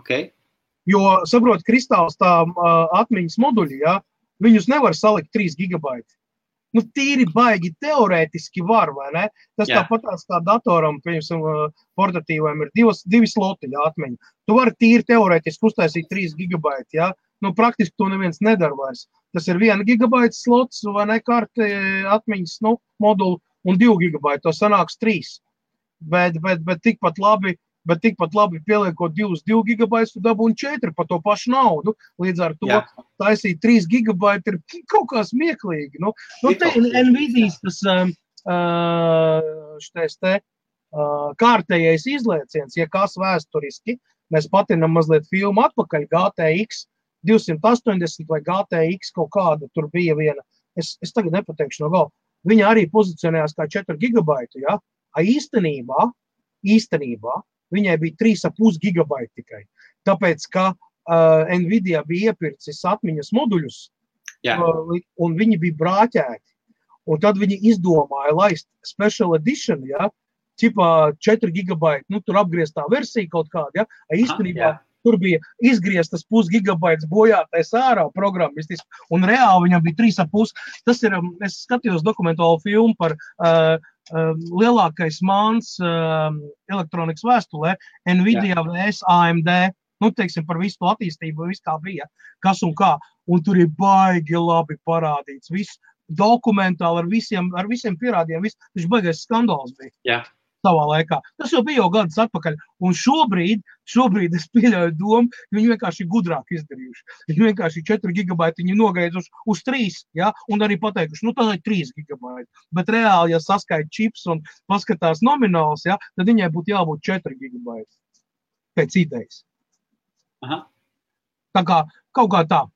Speaker 2: Okay.
Speaker 1: Jo, saprot, kristāls tā atmiņas moduļi, viņus nevar salikt 3 gigabaiti. Tīri baigi teorētiski var, vai ne? Tas tāpatās kā datoram, portatīviem ir 2 sloti atmiņa. Tu vari tīri teorētiski uztaisīt 3 gigabaiti, praktiski to neviens nedara vairs. Tas ir 1 gigabaita slots, vai ne, karti atmiņas, moduli, un 2 gigabaiti, to sanāks 3. Bet tikpat labi pieliekot 2 gigabaitus, tu dabūni 4 par to pašu naudu. Līdz ar to taisīt 3 gigabaiti ir kaut kā smieklīgi. Nvidias tas kārtējais izlieciens, ja kas vēsturiski, mēs patinam mazliet filmu atpakaļ, GTX 280 vai GTX kaut kāda, tur bija viena, es tagad nepateikšu no galva, viņa arī pozicionējās kā 4 gigabaitu, ja? Īstenībā viņai bija 3,5 gigabaiti tikai. Tāpēc, ka Nvidia bija iepircis atmiņas moduļus, un viņi bija brāķēti. Un tad viņi izdomāja laist special edition, ķipā 4 gigabaiti, tur apgrieztā versija kaut kāda, īstenībā tur bija izgrieztas 0,5 gigabaits bojātais ārā programmistiski, un reāli viņam bija 3,5. Tas ir, es skatījos dokumentālu filmu par lielākais māns elektronikas vēstulē, Nvidia vs AMD, teiksim par visu to attīstību, viss kā bija, kas un kā, un tur ir baigi labi parādīts, viss dokumentāli ar visiem pierādījumiem, viņš baigais skandāls bija. Savā laikā. Tas jau bija gadus atpakaļ. Un šobrīd es pieļauju domu, viņi vienkārši gudrāk izdarījuši. Viņi vienkārši 4 gigabaiti viņi nogaiduši uz 3, un arī pateikuši, tā ir 3 gigabaiti. Bet reāli, ja saskaita čips un paskatās nomināls, tad viņai būtu jābūt 4 gigabaiti. Pēc idejas.
Speaker 2: Aha.
Speaker 1: Tā kā, kaut kā tā.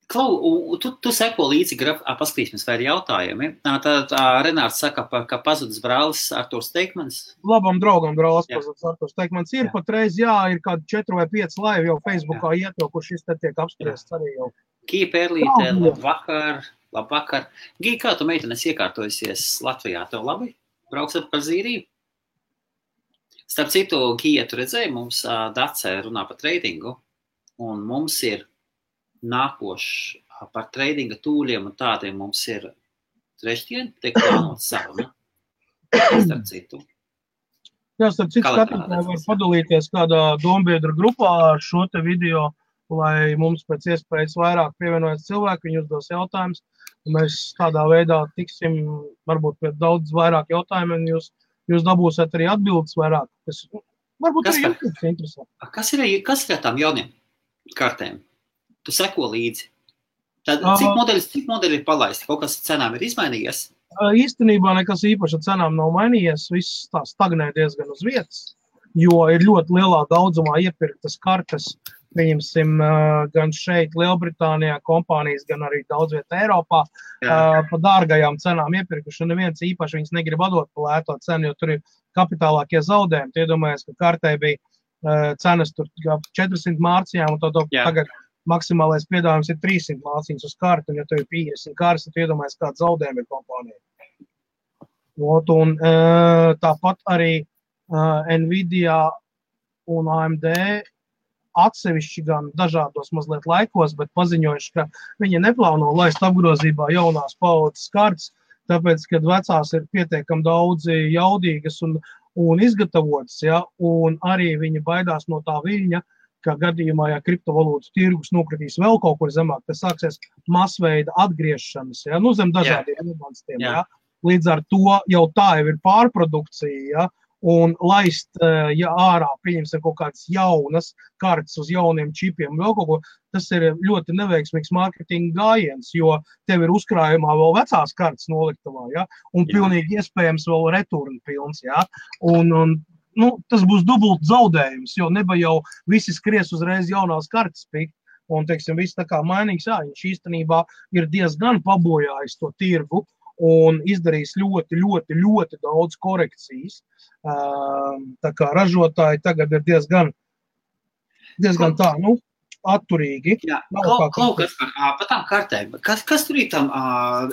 Speaker 2: Klau, tu seko līdzi paskatīsimies, vai ir jautājumi. Tad Renārs saka, ka pazudis brālis Arturs Teikmans.
Speaker 1: Labam draugam brālis pazudis Arturs Teikmans. Ir patreiz, ir kādi 4 vai 5 laivi jau Facebookā iet, kur šis te tiek apspriests arī jau.
Speaker 2: Gija Pērlīte, labvakar. Gija, kā tu meitenes iekārtojusies Latvijā? Tev labi? Brauks par Zīriju? Starp citu, Gija, tu redzēji, mums Dacē runā par tradingu, un mums ir nākoši par tradinga tūļiem un tādiem mums ir trešdien, tiek plānots saruna. Starp citu.
Speaker 1: Starp citu skatītāji var padalīties kādā dombiedru grupā ar šo te video, lai mums pēc iespējas vairāk pievienojas cilvēki, viņi uzdos jautājumus. Mēs tādā veidā tiksim varbūt pie daudz vairāk jautājumiem, jūs dabūsiet arī atbildes vairāk, kas varbūt arī jums interesē.
Speaker 2: Kas ir tām jauniem kartēm? Tu seko līdzi. Tad, cik modeļi ir palaisti? Kaut kas cenām ir izmainījies?
Speaker 1: Īstenībā nekas īpaši ar cenām nav mainījies. Viss tā stagnē diezgan uz vietas, jo ir ļoti lielā daudzumā iepirktas kartes. Pieņemsim gan šeit Lielbritānijā kompānijas, gan arī daudz vietā Eiropā pa dārgajām cenām iepirkuši. Neviens īpaši viņas negrib atdot pa lēto cenu, jo tur ir kapitālākie zaudējumi. Iedomājies, ka kartē bija cenas tur 400 mārciņām, un tagad maksimālais piedāvājums ir 300 mārciņas uz kartu, un ja tev ir 50 kartes, tad iedomājies, kāds zaudējumi ir kompānijai. Un tāpat arī Nvidia un AMD atsevišķi gan dažādos mazliet laikos, bet paziņojuši, ka viņi neplāno laist apgrozībā jaunās paudzes kartes, tāpēc, kad vecās ir pietiekami daudzi jaudīgas un izgatavotas, ja, un arī viņi baidās no tā viļņa, ka gadījumā, ja kriptovalūtas tirgus nokritīs vēl kaut kur zemāk, tas sāksies masveida atgriešanas, ja, zem dažādiem iemanstiem, ja. Līdz ar to jau tā jau ir pārprodukcija, ja, un laist, ja ārā pieņemsim kaut kādas jaunas kartes uz jauniem čipiem, vēl kaut ko, tas ir ļoti neveiksmīgs mārketinga gājiens, jo tev ir uzkrājumā vēl vecās kartes noliktavā, ja, un pilnīgi iespējams vēl return pilns, ja, un tas būs dubult zaudējums, jo neba jau visi skries uzreiz jaunās kartes pikt, un, teiksim, viss tā kā mainīgs, viņš īstenībā ir diezgan pabojājis to tirgu, un izdarījis ļoti, ļoti, ļoti daudz korekcijas. Tā kā ražotāji tagad ir diezgan tā, atturīgi.
Speaker 2: Jā, kaut kas par tām kartēm. Kas tur ir tam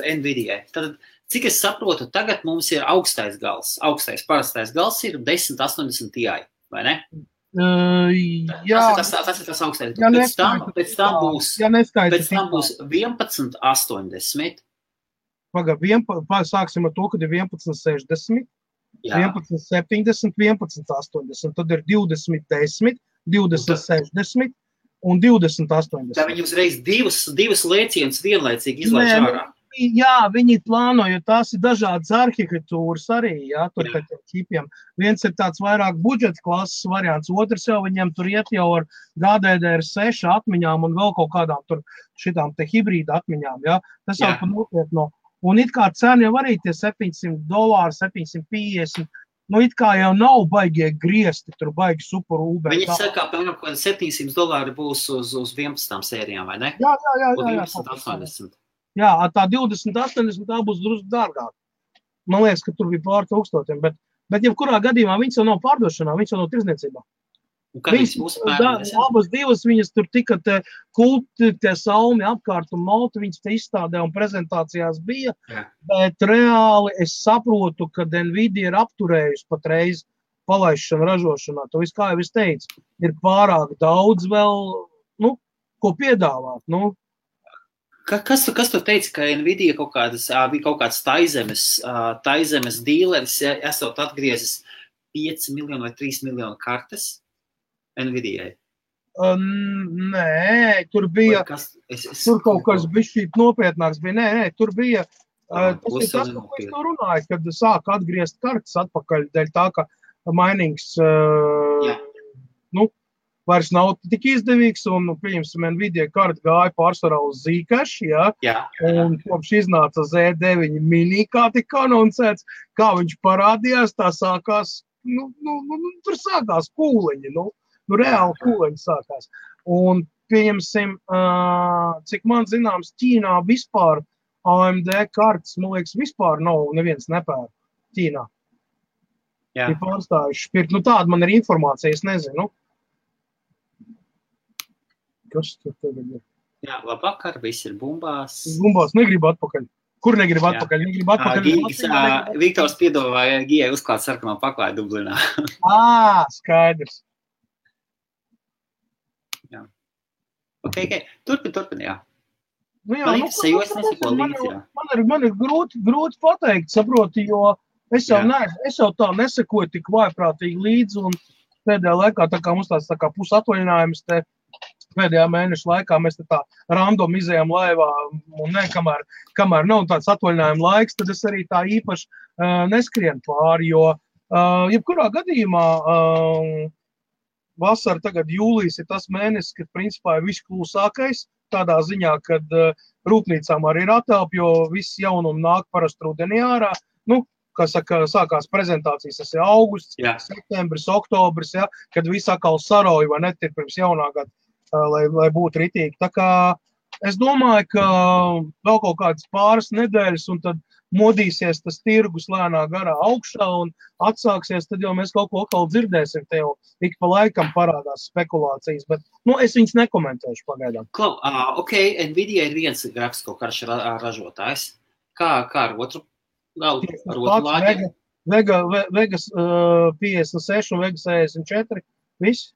Speaker 2: Nvidia? Tad, cik es saprotu, tagad mums ir augstais gals. Parastais gals ir 1080 Ti, vai ne?
Speaker 1: Jā.
Speaker 2: Tas ir tas augstais. Pēc tam būs 1180.
Speaker 1: Sāksim ar to, kad ir 1160, 1170, 1180, tad ir 2010, 2060 un 2080.
Speaker 2: Tā viņi uzreiz divas lēcienus vienlaicīgi izlaiž ārā.
Speaker 1: Jā, viņi plāno, jo tās ir dažādas arhitektūras arī, jā, tur pēc ķipiem. Viens ir tāds vairāk budžeta klases variants, otrs jau viņiem tur iet jau ar GDDR6 atmiņām un vēl kaut kādām tur šitām te hibrīda atmiņām, jā. Tas jau pa nopietno. Un it kā cena jau arī tie $700, 750, it kā jau nav baigie griezti, tur baigi super UB.
Speaker 2: Viņi saka, piemēram, ka $700 būs uz 11 sērijām, vai ne?
Speaker 1: Jā.
Speaker 2: 1180.
Speaker 1: Jā, tā 2080 tā būs drusku dārgāk. Man liekas, ka tur bija pār 1000, bet jebkurā gadījumā viņas jau nav pārdošanā, viņas jau nav tirzniecībā. Abas divas viņas tur tika te kulti, tie salmi apkārt un malti, viņas te izstādē un prezentācijās bija, bet reāli es saprotu, ka Nvidia ir apturējusi patreiz palaišanu ražošanā. To viss, kā jau es teicu, ir pārāk daudz vēl, ko piedāvāt,
Speaker 2: Kas tu teici, ka Nvidia kaut kāds taizemes dīleris, esot atgriezis 5 miljonu vai 3 miljonu kartes Nvidia?
Speaker 1: Nē, tur bija, tur kaut kas bišķīt nopietnāks bija, nē, tur bija, tas ir tas, ko es to runāju, kad sāk atgriezt kartes atpakaļ, dēļ tā, ka mainings, vairs nav tik izdevīgs, un, pieņemsim, Nvidia karta gāja pārsvarā uz Zcash, un kopš iznāca Z9 mini, kā tika anoncēts, kā viņš parādījās, tā sākās, tur sākās kūleņi, reāli kūleņi sākās. Un, pieņemsim, cik man zināms, Ķīnā vispār AMD kartas, man liekas, vispār nav neviens nepēr Ķīnā. Ir pārstājuši pirkt. Tāda man ir informācija, es nezinu. Kas tur tagad ir?
Speaker 2: Jā, labvakar, viss ir bumbās.
Speaker 1: Bumbās negribu atpakaļ. Kur negribu atpakaļ? Negribu atpakaļ.
Speaker 2: Viktors piedāvāja Gijai uzklāt sarkanā paklāja Dublinā.
Speaker 1: Skaidrs.
Speaker 2: Jā. Ok. Turpin, jā.
Speaker 1: Man ir grūti pateikt, saproti, jo es jau tā nesekoju tik vājprātīgi līdzi, un pēdējā laikā, tā kā mums tāds tā kā pusatvaļinājums te pēdējā mēneša laikā mēs tā random izējām laivā, un kamēr nav tāds atvaļinājuma laiks, tad es arī tā īpaši neskrienu pāri, jo jebkurā gadījumā vasara tagad jūlijas ir tas mēnesis, kad principā ir viss klusākais, tādā ziņā, kad rūpnīcām arī ir atelpa, jo viss jaunumi nāk parasti rudenī ārā. Nu, kā saka, sākās prezentācijas, tas ir augusts, septembris, oktobris, ja, kad viss atkal saroja, vai net ir pirms jaunā gada, lai būtu ritīgi. Tā kā es domāju, ka vēl kaut kādas pāris nedēļas, un tad modīsies tas tirgus lēnā garā augšā, un atsāksies, tad jau mēs kaut ko atkal dzirdēsim, te jau ik pa laikam parādās spekulācijas, bet, es viņas nekomentēšu pagaidām.
Speaker 2: Klau, ok, Nvidia ir viens grafisko karšu ražotājs. Kā ar otru? Ar otru lāģi?
Speaker 1: Vegas 56 un Vegas 64, viss?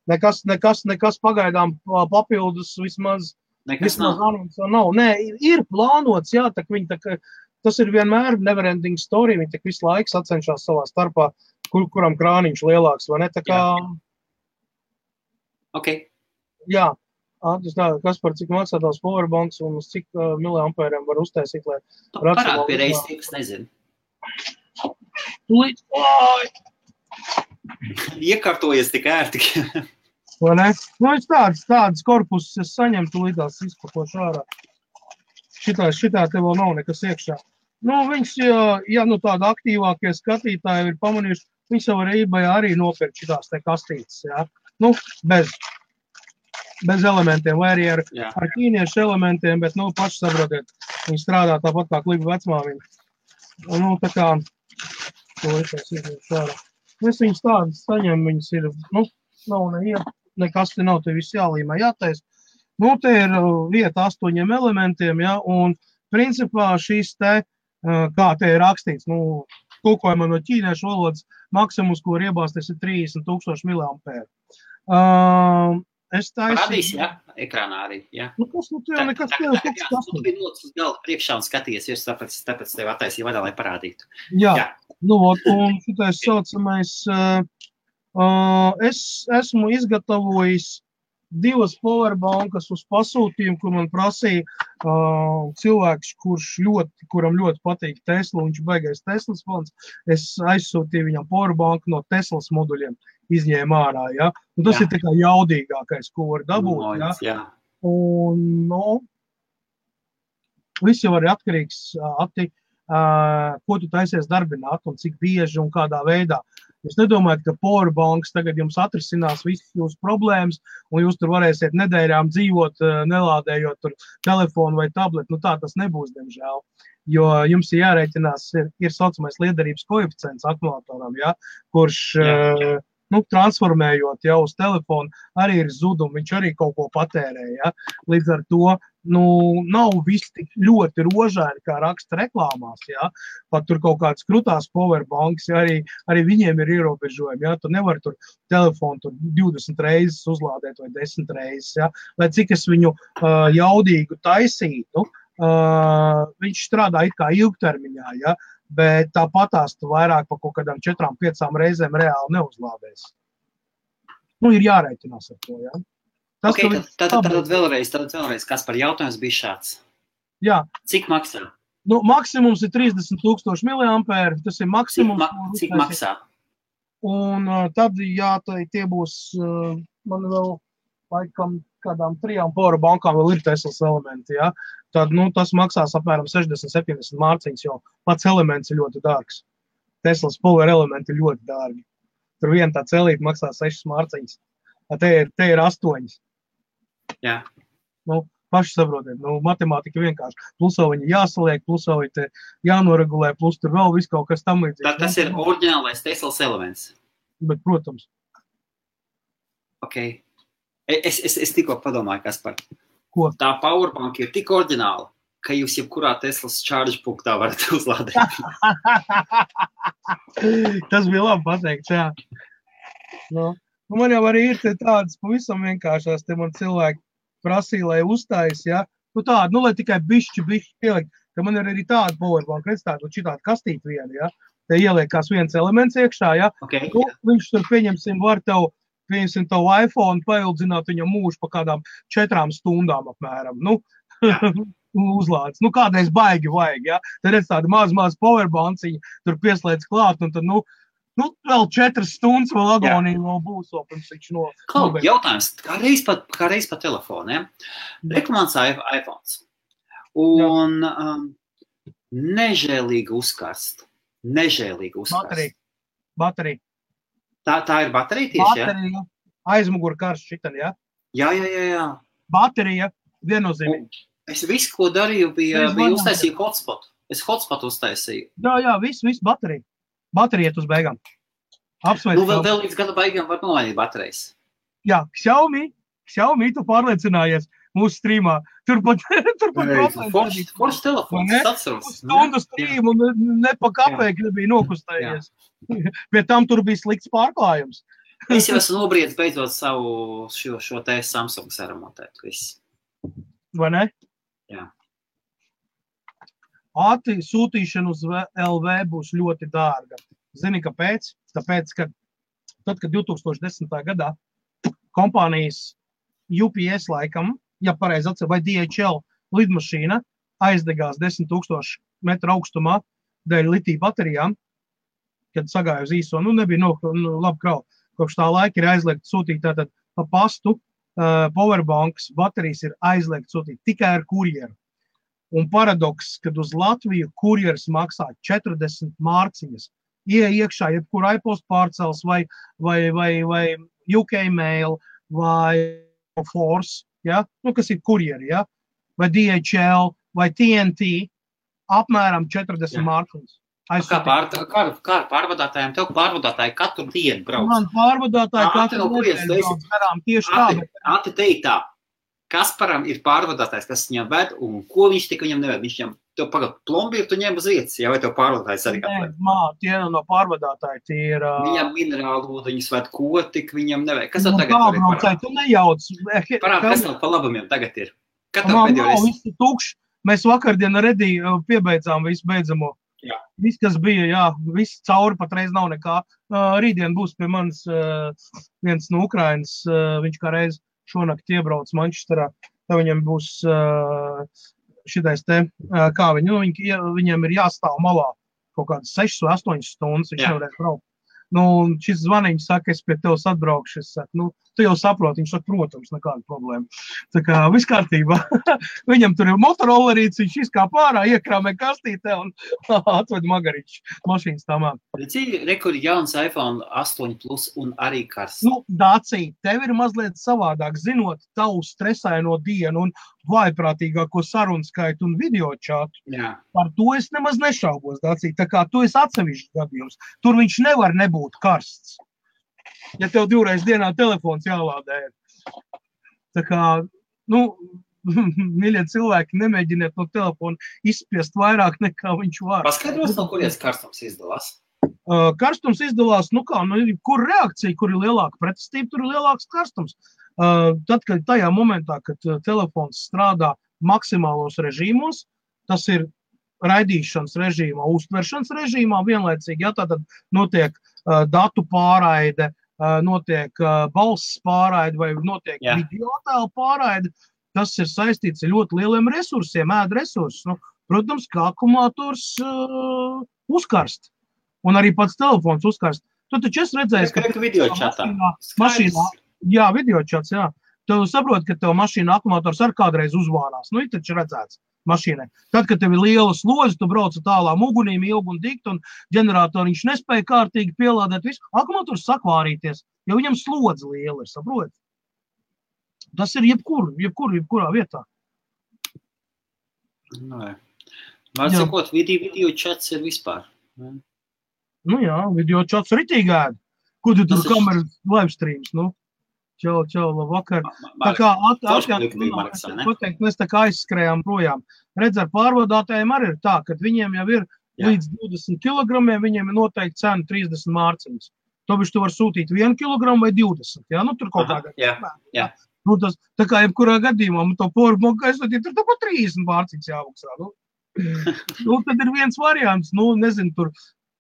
Speaker 1: Nekas pagaidām papildus vismaz anons nav. Nē, ir plānots, jā, tas ir vienmēr neverending story, viņi tak visu laiku sacenšās savā starpā, kuram krāniņš lielāks, vai ne? Tā kā...
Speaker 2: Ok.
Speaker 1: Jā. Kaspar, cik maksā tās powerbanks un uz cik miliampēriem var uztaisīt, lai...
Speaker 2: Parād pie reizes, tie, kas nezinu. Iekārtojies tik ērti.
Speaker 1: Vai ne? Es tādas korpusus es saņemtu līdās izpakošu ārā. Šitā te vēl nav nekas iekšā. Viņš, ja tāda aktīvākie skatītāji ir pamanījuši, viņš jau var eBayā arī nopirkt šitās te kastītes, jā. Bez elementiem, vai arī ar ķīniešu elementiem, bet, paši saprotiet, viņi strādā tāpat kā klipa vecmāmiņa. Tā kā, es izņemšu ārā. Es viņus tādas saņemu, viņas ir, nav nekas te nav, te viss jālīmē, jātais. Te ir vieta 8 elementiem, ja, un principā šīs te, kā te ir rakstīts, tulkojumā no ķīniešu valodas, maksimums, ko var iebāzt, tas ir 30,000 miliampēru.
Speaker 2: Parādīs, jā, ekrānā arī, jā.
Speaker 1: Kas tev nekas tev kaut kas?
Speaker 2: Tu biji nocis uz galda priekšā un skaties, tāpēc tev attaisīja vadā, lai parādītu.
Speaker 1: Jā. Un šitais saucamais, es esmu izgatavojis 2 powerbankas uz pasūtījumu, kur man prasīja cilvēks, kuram ļoti patīk Tesla, viņš baigais Teslas fans. Es aizsūtīju viņam powerbanku no Teslas moduļiem, izņēma ārā, ja. Un tas ir tā kā jaudīgākais, ko var dabūt, ja. Un, viss jau arī atkarīgs, ko tu taisies darbināt un cik bieži un kādā veidā. Jūs nedomājat, ka powerbanks tagad jums atrisinās visas jūsu problēmas, un jūs tur varēsiet nedēļām dzīvot, nelādējot tur telefonu vai tabletu. Tā tas nebūs, diemžēl. Jo jums ir jārēķinās, ir saucamais liederības koeficients akumulatoram, ja, kurš, transformējot jau uz telefonu, arī ir zudumi, viņš arī kaut ko patērē, ja. Līdz ar to, nav viss tik ļoti rožaini, kā raksta reklāmās, ja. Pat tur kaut kāds krutās powerbanks, ja, arī viņiem ir ierobežojumi, ja. Tu nevar tur telefonu tur 20 reizes uzlādēt vai 10 reizes, ja. Lai cik es viņu jaudīgu taisītu, viņš strādā it kā ilgtermiņā, ja. Bet tāpatās tu vairāk pa kaut kādām 4-5 reizēm reāli neuzlādēs. Ir jārēķinās ar to, jā.
Speaker 2: Tātad vēlreiz, kas par jautājums bija šāds?
Speaker 1: Jā.
Speaker 2: Cik maksā?
Speaker 1: Maksimums ir 30,000 miliampēri, tas ir maksimums.
Speaker 2: Cik maksā?
Speaker 1: Un tad, jā, tie būs, man vēl laikam kādām 3 powerbankām vēl ir Teslas elementi, jā. Tad, tas maksās apmēram 60-70 mārciņas, jo pats elements ir ļoti dārgs. Teslas power elementi ir ļoti dārgi. Tur viena tā celīte maksā 6 mārciņas. Te ir 8.
Speaker 2: Jā.
Speaker 1: Paši saprotiet, matemātika vienkārši. Plus vēl viņi jāsaliek, plus vēl viņi jānoregulē, plus tur vēl viss kaut kas tam līdzīgs.
Speaker 2: Tas ir oriģinālais Teslas elements.
Speaker 1: Bet, protams.
Speaker 2: Ok. Es tikko padomāju, Kaspar.
Speaker 1: Ko?
Speaker 2: Tā powerbank ir tik oriģināla, ka jūs jebkurā Teslas charge punktā varat uzlādēt.
Speaker 1: Tas bija labi pateikts, jā. Man jau arī ir tādas pavisam vienkāršās, te man cilvēki prasīja, lai uzstājas, ja. Tāda, lai tikai bišķi pielikt, ka man ir arī tāda powerbank, redz tāda, šitāda kastīt viena, ja. Te ieliekās viens elements iekšā, ja.
Speaker 2: Okay.
Speaker 1: Viņš tur, pieņemsim, var tev pieņemsim tavu iPhone, paildzināt viņam mūžu pa kādām 4 stundām apmēram. Nu, uzlādes. Nu, kādreiz baigi vajag, ja? Tad redz tādu maz powerbanciņu, tur pieslēdz klāt, un tad, nu, vēl 4 stundas vēl agonija vēl būs, vēl pirms viņš
Speaker 2: nobeidz. Jautājums, kā reiz pa telefoniem, reklamants iPhones, un nežēlīgi uzkarst.
Speaker 1: Baterija.
Speaker 2: Tā ir baterija tieši,
Speaker 1: baterija, aizmugura karsts šitan, ja?
Speaker 2: Jā.
Speaker 1: Baterija, viennozīmīgi.
Speaker 2: Es visu, ko darīju, bija uztaisīju hotspot. Es hotspot uztaisīju.
Speaker 1: Jā, viss baterija. Baterija iet uz beigām. Apsveic.
Speaker 2: Nu, vēl līdz gada beigām var nomainīt baterijas.
Speaker 1: Jā, Xiaomi, tu pārliecinājies mūsu streamā. Turpat
Speaker 2: Foršs telefons, atceros.
Speaker 1: Stundu streamu ne pa kapēku nebija nokustējies. Pie tam tur bija slikts pārklājums.
Speaker 2: Es jau esmu nobriedis beidzot savu šo te Samsung saremontēt. Viss.
Speaker 1: Vai ne?
Speaker 2: Jā.
Speaker 1: Ātri sūtīšana uz LV būs ļoti dārga. Zini, kāpēc? Tāpēc, ka tad, kad 2010. gadā kompānijas UPS laikam, ja pareizi atcer, vai DHL lidmašīna aizdegās 10,000 metru augstumā dēļ litija baterijām, kad sagāja uz īso, nebija labi kravu. Kopš tā laika ir aizliegt sūtīt tātad pa pastu, powerbanks, baterijas ir aizliegt sūtīt tikai ar kurjeru. Un paradoks, kad uz Latviju kurjeris maksā 40 mārciņas, iekšā jebkur iPost pārcels vai UK Mail vai Force, ja? Kas ir kurjeri, ja? Vai DHL vai TNT, apmēram 40 mārciņas.
Speaker 2: Kā pārvadātājiem, tev pārvadātāji katru dienu brauc?
Speaker 1: Man pārvadātāji katru dienu brauc garām tieši tā.
Speaker 2: Ati teikt tā. Kasparam ir pārvadātājs, kas viņam ved, un ko viņš tik viņam neved? Viņš viņam, tev pagad plombīru, tu ņem uz vietas, vai tev pārvadātājs arī kāpēc?
Speaker 1: Nē, tie no pārvadātāji, tie ir...
Speaker 2: Viņam minerālu ūdeņus ved, ko tik viņam neved? Kas tev tagad
Speaker 1: var ir parād? Tu nejauc.
Speaker 2: Parād, kas tev pa labumiem tagad ir? Kad tev pēdējo reizi?
Speaker 1: Viss ir tukšs. Mēs vakardien ar Ediju piebeidzām visu beidzamo.
Speaker 2: Jā.
Speaker 1: Viss, kas bija, jā, viss cauri patreiz nav nekā. Rītdien būs pie manis viens no Ukrainas, viņš kā reiz šonakt iebrauc Manchesterā, tad viņam būs šitais te, kā viņam ir jāstāv malā kaut kādas 6 vai 8 stundas, viņš nevarēs braukt. Šis zvaniņš saka, es pie tevs atbraukšu, es saku, tu jau saproti, viņš saka, protams, nekāda problēma. Tā kā viss kārtībā. Viņam tur ir motorollerīts, viņš izkāp ārā, iekrāmē kastītē un atved magariņš mašīnas tamā.
Speaker 2: Rekur jauns iPhone 8 Plus un arī karsts.
Speaker 1: Dācija, tev ir mazliet savādāk, zinot tavu stresaino dienu un vājprātīgāko sarunu skaitu un video čatu.
Speaker 2: Jā.
Speaker 1: Par to es nemaz nešaubos, Dācija. Tā kā tu esi atsevišķs gadījums. Tur viņš nevar nebūt karsts. Ja tev 2 reizes dienā telefons jālādē. Tā kā, mīļie cilvēki, nemēģiniet no telefona izspiest vairāk nekā viņš var.
Speaker 2: Paskaidros, no kurienes karstums izdalās?
Speaker 1: Karstums izdalās, kur reakcija, kur ir lielāka pretestība, tur ir lielāks karstums. Tad, kad tajā momentā, kad telefons strādā maksimālos režīmos, tas ir raidīšanas režīmā, uztveršanas režīmā vienlaicīgi, ja tātad notiek datu pārraide, notiek balss pārraide vai notiek video attēlu pārraide, tas ir saistīts ar ļoti lieliem resursiem, resursus. Protams, kā akumulators uzkarst. Un arī pats telefons uzkarst. Tu taču esi redzējis, ka mašīnā, jā, videočats, jā. Tu saproti, ka tev mašīna akumulators ar kādreiz uzvārās. Ir taču redzēts mašīnai. Tad, kad tev ir liela slodze, tu brauc tālām ugunīm ilgi un dikt, un ģeneratoriņš nespēja kārtīgi pielādēt visu. Akumulators sāk vārīties, jo viņam slodze liela ir, saproti? Tas ir jebkurā vietā.
Speaker 2: Var sakot, video čats ir vispār.
Speaker 1: Jā, video čats ritīgi ēd. Ko tu tur kameras live streams, Čau, labvakar. Tā kā pateikt, mēs tā kā aizskrējām projām. Redz, ar pārvadātājiem arī ir tā, ka viņiem jau ir līdz 20 kilogramiem, viņiem ir noteikti cena 30 mārciņas. Tobiši tu var sūtīt 1 kilogramu vai 20, jā? Tur kaut kādā.
Speaker 2: Jā.
Speaker 1: Tā kā jebkurā gadījumā, to powerbanku aizsūtīt, tur pa 30 mārciņas jāmaksā. Tad ir viens variants, nezinu, tur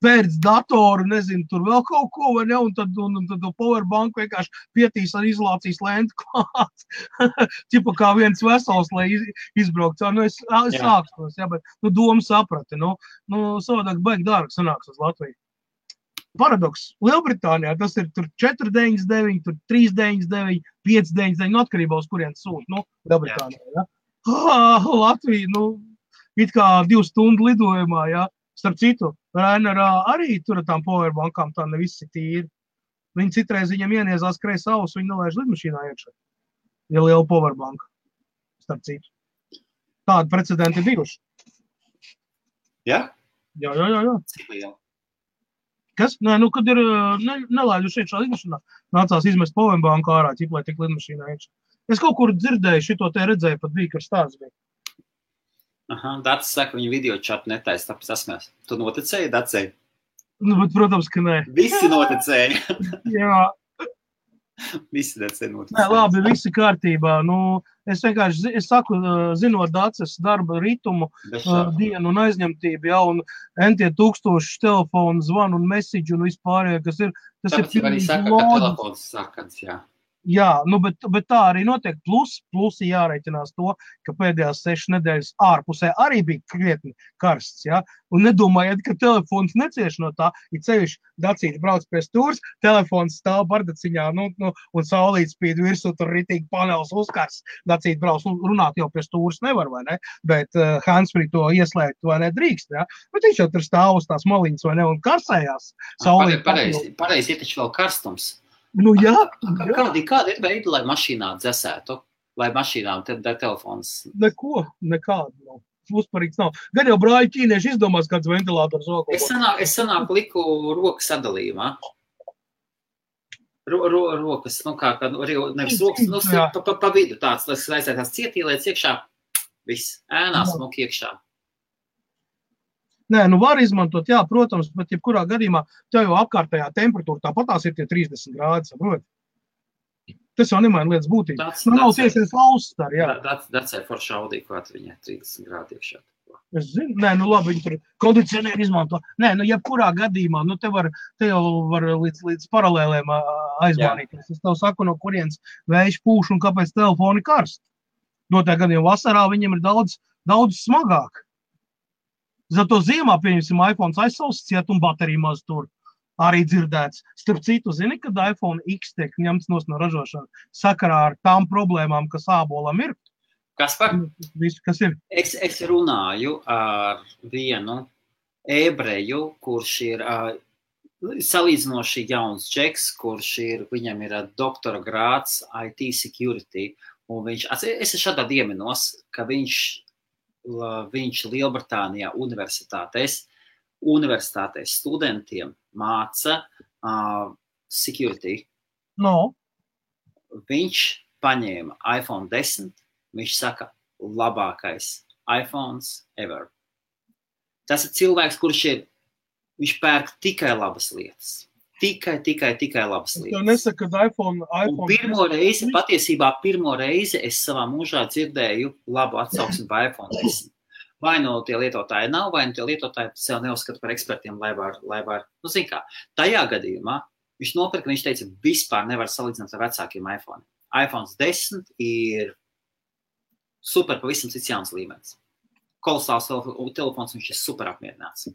Speaker 1: pērc datoru, nezinu, tur vēl kaut ko, vai ne, un tad to powerbanku vienkārši pietīs ar izolācijas lentu klāt. Ķipa kā viens vesels, lai izbraukt. Nu, es sākstos, jā, bet, domu saprati, savādāk baigi dārgi sanāks uz Latviju. Paradoks. Lielbritānijā tas ir tur 4,99, tur 3,99, 5,99, atkarībā uz kurien sūt, Lielbritānijā, ja. Latvija, it kā 2 stundu lidojumā, ja. Starp citu, Rainarā arī tur ar tām powerbankām tā ne visi tīri. Viņi citreiz viņam ieniezās kreis ausu, viņi nelaiž lidmašīnā iekšā. Ja liela powerbanka. Starp citu. Tādi precedenti bijuši.
Speaker 2: Ja?
Speaker 1: Jā.
Speaker 2: Cik liela?
Speaker 1: Kas? Nē, kad ir nelaiduši iekšā lidmašīnā, nācās izmest powerbanku ārā, lai tik lidmašīnā iekšā. Es kaut kur dzirdēju, šito te redzēju, pat bija, kad stāsts bija.
Speaker 2: Dats saka, viņa video čatu netaisa, tāpēc esmēs. Tu noticēji, Dacei?
Speaker 1: Bet, protams, ka nē.
Speaker 2: Visi noticēja.
Speaker 1: Jā.
Speaker 2: Visi Dacei noticēja.
Speaker 1: Nē, labi, visi kārtībā. Es vienkārši, saku, zinot Daces darba ritumu, dienu un aizņemtību, un entie tūkstoši telefonu zvanu un message un vispārējā, kas ir, tas
Speaker 2: tāpēc
Speaker 1: ir
Speaker 2: arī saka, ka telefons sarkans, jā.
Speaker 1: Jā, bet tā arī notiek. Plusi jāreiķinās to, ka pēdējās 6 nedēļas ārpusē arī bija krietni karsts, ja? Un nedomājiet, ka telefons necieš no tā, ja ceļš Dacīti brauc pie stūrs, telefons stāv bardaciņā, un saulīt spīd virsū, tur ritīgi panels uzkars. Dacīti brauc, runāt jau pie stūrs nevar, vai ne? Bet handsfree to ieslēgt, vai ne, drīkst, ja? Bet viņš jau tur stāv uz tās maliņas, vai ne, un karsējās.
Speaker 2: Pareizi, ir taču vēl karstums.
Speaker 1: Jā.
Speaker 2: Kāda ir veida, lai mašīnā dzesētu? Lai mašīnām telefons?
Speaker 1: Nekādu nav. Uzparīgs nav. Gan jau brāļi ķīnieši izdomās kāds ventilators vēl.
Speaker 2: Es sanāku liku rokas sadalījumā. Rokas, nevis rokas, pa vidu tāds, lai aizsētās cietīlēts iekšā, viss, ēnā smuk iekšā.
Speaker 1: Nē, var izmantot, jā, protams, bet jebkurā gadījumā tev jau apkārtējā temperatūra tāpatās ir tie 30 grādi, saprot? Tas jau nemaina lietas būtību. Nav tieši faustar, jā.
Speaker 2: Dacē forši Audi, kā viņai 30 grādi iekšā.
Speaker 1: Es zinu, labi, viņi tur kondicionieri izmanto. Jebkurā gadījumā, te jau var līdz paralēlēm aizmārīties. Es tev saku, no kurienes vējš pūš un kāpēc telefoni karst. Notā gadījumā vasarā viņiem ir daudz smagāk. Zato ziemā, pieņemsim, iPhone aizsausts ciet un baterija maz tur arī dzirdēts. Starp citu, zini, kad iPhone X tiek ņemts no ražošana sakarā ar tām problēmām, kas ābolam ir? Kas ir?
Speaker 2: Es runāju ar vienu ebreju, kurš ir salīdzinoši jauns džeks, viņam ir doktora grāds IT security, un es šādā ieminos, ka viņš Lielbritānijā universitātēs studentiem māca security. Viņš paņēma iPhone 10, viņš saka, labākais iPhones ever. Tas ir cilvēks, viņš pērk tikai labas lietas. Tikai labas lietas.
Speaker 1: Es nesaku, ka iPhone...
Speaker 2: Pirmo reizi es savā mūžā dzirdēju labu atsauksmi par iPhone 10. Vai tie lietotāji nav, vai tie lietotāji sev neuzskata par ekspertiem, lai var, zin kā. Tajā gadījumā viņš nopirka, viņš teica, vispār nevar salīdzināt ar vecākiem iPhone. iPhones 10 ir super pavisam cits jauns līmenis. Kolosāls telefons, viņš ir super apmierināts.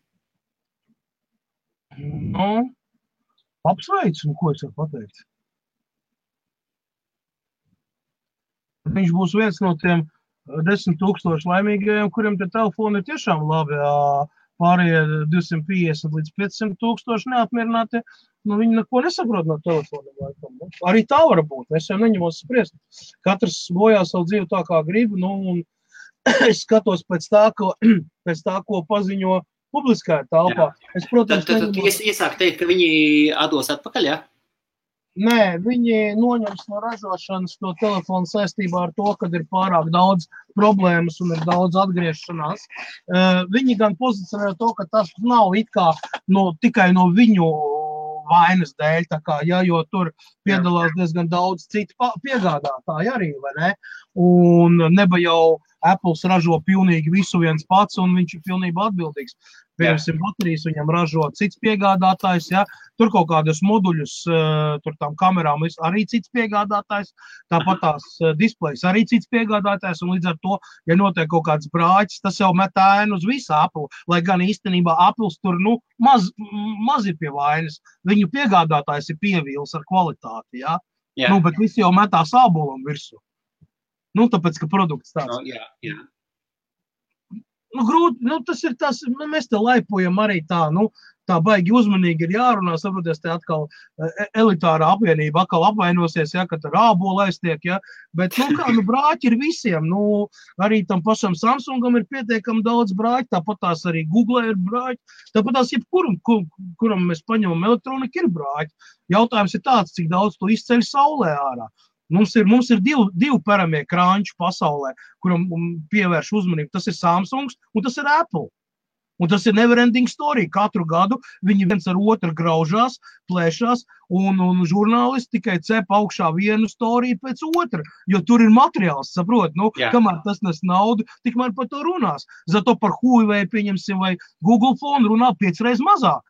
Speaker 1: Apsveicu, ko es varu pateikt. Viņš būs viens no tiem 10,000 laimīgajiem, kuriem tie telefoni ir tiešām labi. Pārējie 250 līdz 500,000 neapmierināti, viņi neko nesaprot no telefoniem. Arī tā var būt, es jau neņemos spriest. Katrs bojā savu dzīvi tā, kā grib, un es skatos pēc tā, ko paziņo publiskajā telpā.
Speaker 2: Tad iesāk teikt, ka viņi atdos atpakaļ, jā?
Speaker 1: Nē, viņi noņems no ražošanas to telefonu saistībā ar to, kad ir pārāk daudz problēmas un ir daudz atgriešanās. Viņi gan pozicionē to, ka tas nav it kā tikai no viņu vainas dēļ, jo tur piedalās diezgan daudz citu piegādātāji arī, vai ne? Un neba jau Apples ražo pilnīgi visu viens pats, un viņš ir pilnībā atbildīgs. Piemēram, baterijas viņam ražo cits piegādātājs, ja? Tur kaut kādus moduļus, tur tām kamerām arī cits piegādātājs, tāpat tās displejs arī cits piegādātājs, un līdz ar to, ja notiek kaut kāds brāķis, tas jau met ēnu uz visu Apple, lai gan īstenībā Apples tur, maz ir pie vainas. Viņu piegādātājs ir pievīls ar kvalitāti, ja? Bet visi jau metā sābolam virsū. Tāpēc, ka produkts tāds. Grūti, tas ir tas, mēs te laipojam arī tā, tā baigi uzmanīgi ir jārunā, saproties, te atkal elitārā apvienība atkal apvainosies, ja, ka tur ābola aiztiek, ja, bet, brāķi ir visiem, arī tam pašam Samsungam ir pietiekami daudz brāķi, tāpat tās arī Google ir brāķi, tāpat tās kuram mēs paņemam elektroniku ir brāķi. Jautājums ir tāds, cik daudz tu izceļ saulē ārā. Mums ir divi paramie krāņši pasaulē, kuram pievērš uzmanību. Tas ir Samsungs un tas ir Apple. Un tas ir neverending story. Katru gadu viņi viens ar otru graužās, plēšās, un žurnālisti tikai cep augšā vienu storiju pēc otra, jo tur ir materiāls, saprot, kamēr tas nes naudu, tikmēr par to runās. Zato par Huawei, pieņemsim, vai Google phone runā 5 reizes mazāk.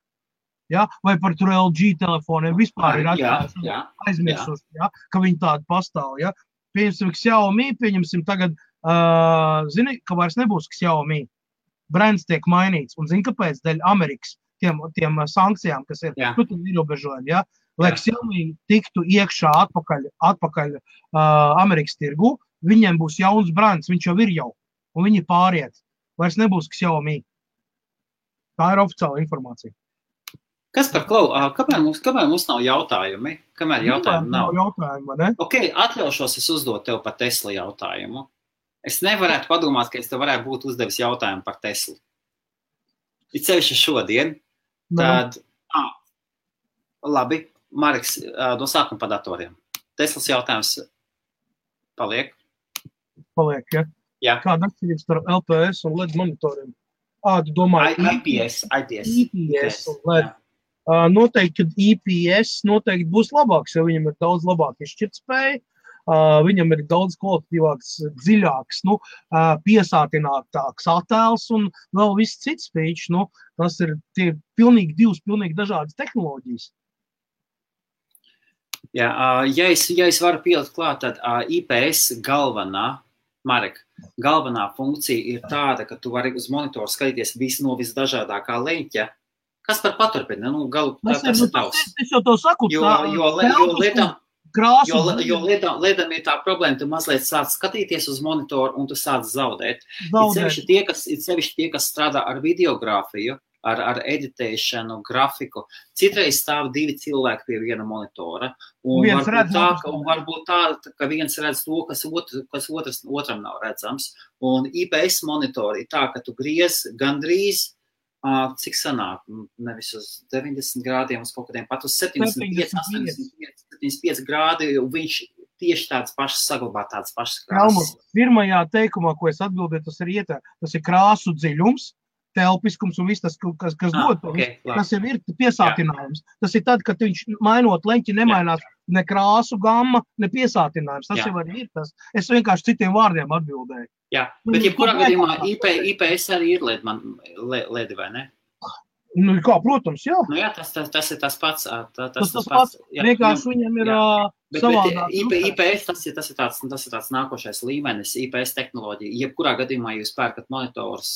Speaker 1: Ja? Vai par tur LG telefoniem vispār ir aizmirsuši, ja? Ka viņi tādi pastāv. Ja? Pieņemsim Xiaomi, tagad, zini, ka vairs nebūs Xiaomi. Brands tiek mainīts. Un zini, kāpēc? Dēļ Amerikas tiem sankcijām, kas ir, ierobežojumi. Ja? Lai Xiaomi tiktu iekšā atpakaļ Amerikas tirgu, viņiem būs jauns brands, viņš jau ir jau. Un viņi pāriet. Vairs nebūs Xiaomi. Tā ir oficiāla informācija.
Speaker 2: Kas par Klau? Kamēr mums nav jautājumi? Kamēr jautājumi nav?
Speaker 1: Ne?
Speaker 2: Ok, atļaušos es uzdot tev par Tesla jautājumu. Es nevarētu padomāt, ka es tev varētu būt uzdevis jautājumu par Teslu. Ir sevišķi šodien. Tad, labi, Mareks, no sākuma par datoriem. Teslas jautājums paliek?
Speaker 1: Paliek, ja?
Speaker 2: Jā.
Speaker 1: Kāda atšķirības starp LPS un LED monitoriem? Tu domā,
Speaker 2: IPS
Speaker 1: un LED. Noteikti, ka IPS noteikti būs labāks, jo viņam ir daudz labāk izšķirtspēja, viņam ir daudz kvalitatīvāks, dziļāks, piesātinātāks attēls un vēl viss cits feature. Tas ir divas pilnīgi dažādas tehnoloģijas.
Speaker 2: Jā, ja es varu pielikt klāt, tad IPS galvenā funkcija ir tāda, ka tu vari uz monitoru skatīties visu no visdažādākā leņķa. Kas par paturpina? Tas ir tavs.
Speaker 1: Es jau to saku.
Speaker 2: Jo lietām ir tā problēma, tu mazliet sāc skatīties uz monitoru un tu sāc zaudēt. Ir sevišķi tie, kas strādā ar videogrāfiju, ar editēšanu, grafiku. Citreiz stāv 2 cilvēki pie viena monitora. Un varbūt tā, ka viens redz to, kas otram nav redzams. Un IPS monitori ir tā, ka tu griez gandrīz cik sanāk, nevis uz 90 grādiem, uz kaut kādiem pat uz 75 grādi, viņš tieši tāds pašs saglabā, tāds pašs krāsas.
Speaker 1: Pirmajā teikumā, ko es atbildēju, tas ir krāsu dziļums, telpiskums un viss tas, kas dod, tas jau ir piesātinājums. Tas ir tad, kad viņš mainot leņķi nemainās ne krāsu gamma, ne piesātinājums. Tas jau arī ir tas. Es vienkārši citiem vārdiem atbildēju.
Speaker 2: Jā, bet jebkurā gadījumā IPS arī ir ledi, vai ne?
Speaker 1: Kā, protams, jā.
Speaker 2: Jā, tas ir tas pats.
Speaker 1: Tas pats. Vienkārši viņam ir savādāk.
Speaker 2: IPS, tas ir tāds nākošais līmenis, IPS tehnoloģija. Jebkurā gadījumā jūs pērkat monitors,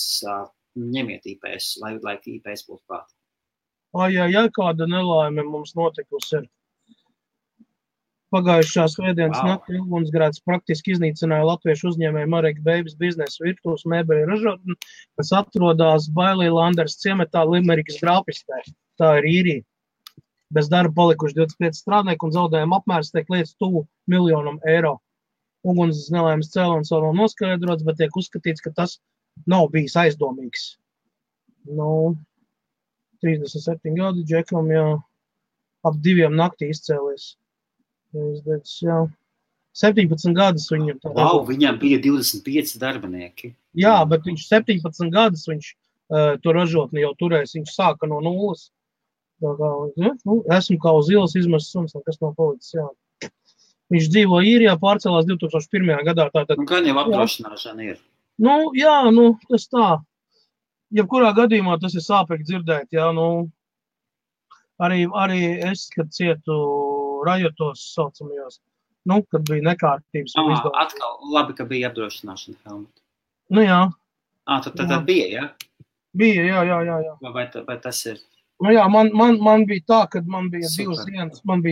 Speaker 2: ņemiet IPS, lai IPS būtu klāt.
Speaker 1: Kāda nelaime mums notikusi ir. Pagājušā svētdienas naktī ugunsgrēks praktiski iznīcināja latviešu uzņēmēju Marek Beigas biznesa virtuves mēbeļu ražotni, kas atrodas Bailī Landers ciematā Limerikas grāpistē. Tā ir īrija. Bez darba palikuši 25 strādnieki un zaudējuma apmērs tiek lietas tuvu €1 miljonu. Uguns nelaimes cēlonis vēl nav noskaidrots, bet tiek uzskatīts, ka tas nav bijis aizdomīgs. 37 gadi džekam, ap 2 naktī izcēlies. 17 gadus viņam tā.
Speaker 2: Viņam bija 25 darbinieki.
Speaker 1: Jā, bet viņš 17 gadus viņš to ražotni jau turēs, viņš sāka no nulles. Esmu kā uz ielas izmests suns, kas nav palicis, jā. Viņš dzīvo īrijā, pārcēlās 2001. gadā.
Speaker 2: Gan jau apdrošināšana ir.
Speaker 1: Tas tā. jebkurā gadījumā tas ir sāpīgi dzirdēt, jā, nu, arī es, kad cietu rajotos saucamajos, nu, kad bija nekārtības un izdevums.
Speaker 2: Atkal labi, ka bija apdrošināšana, Helmut.
Speaker 1: Nu, jā.
Speaker 2: Tad bija, jā?
Speaker 1: Bija, jā.
Speaker 2: Vai tas ir?
Speaker 1: Nu, jā, man bija tā, kad man bija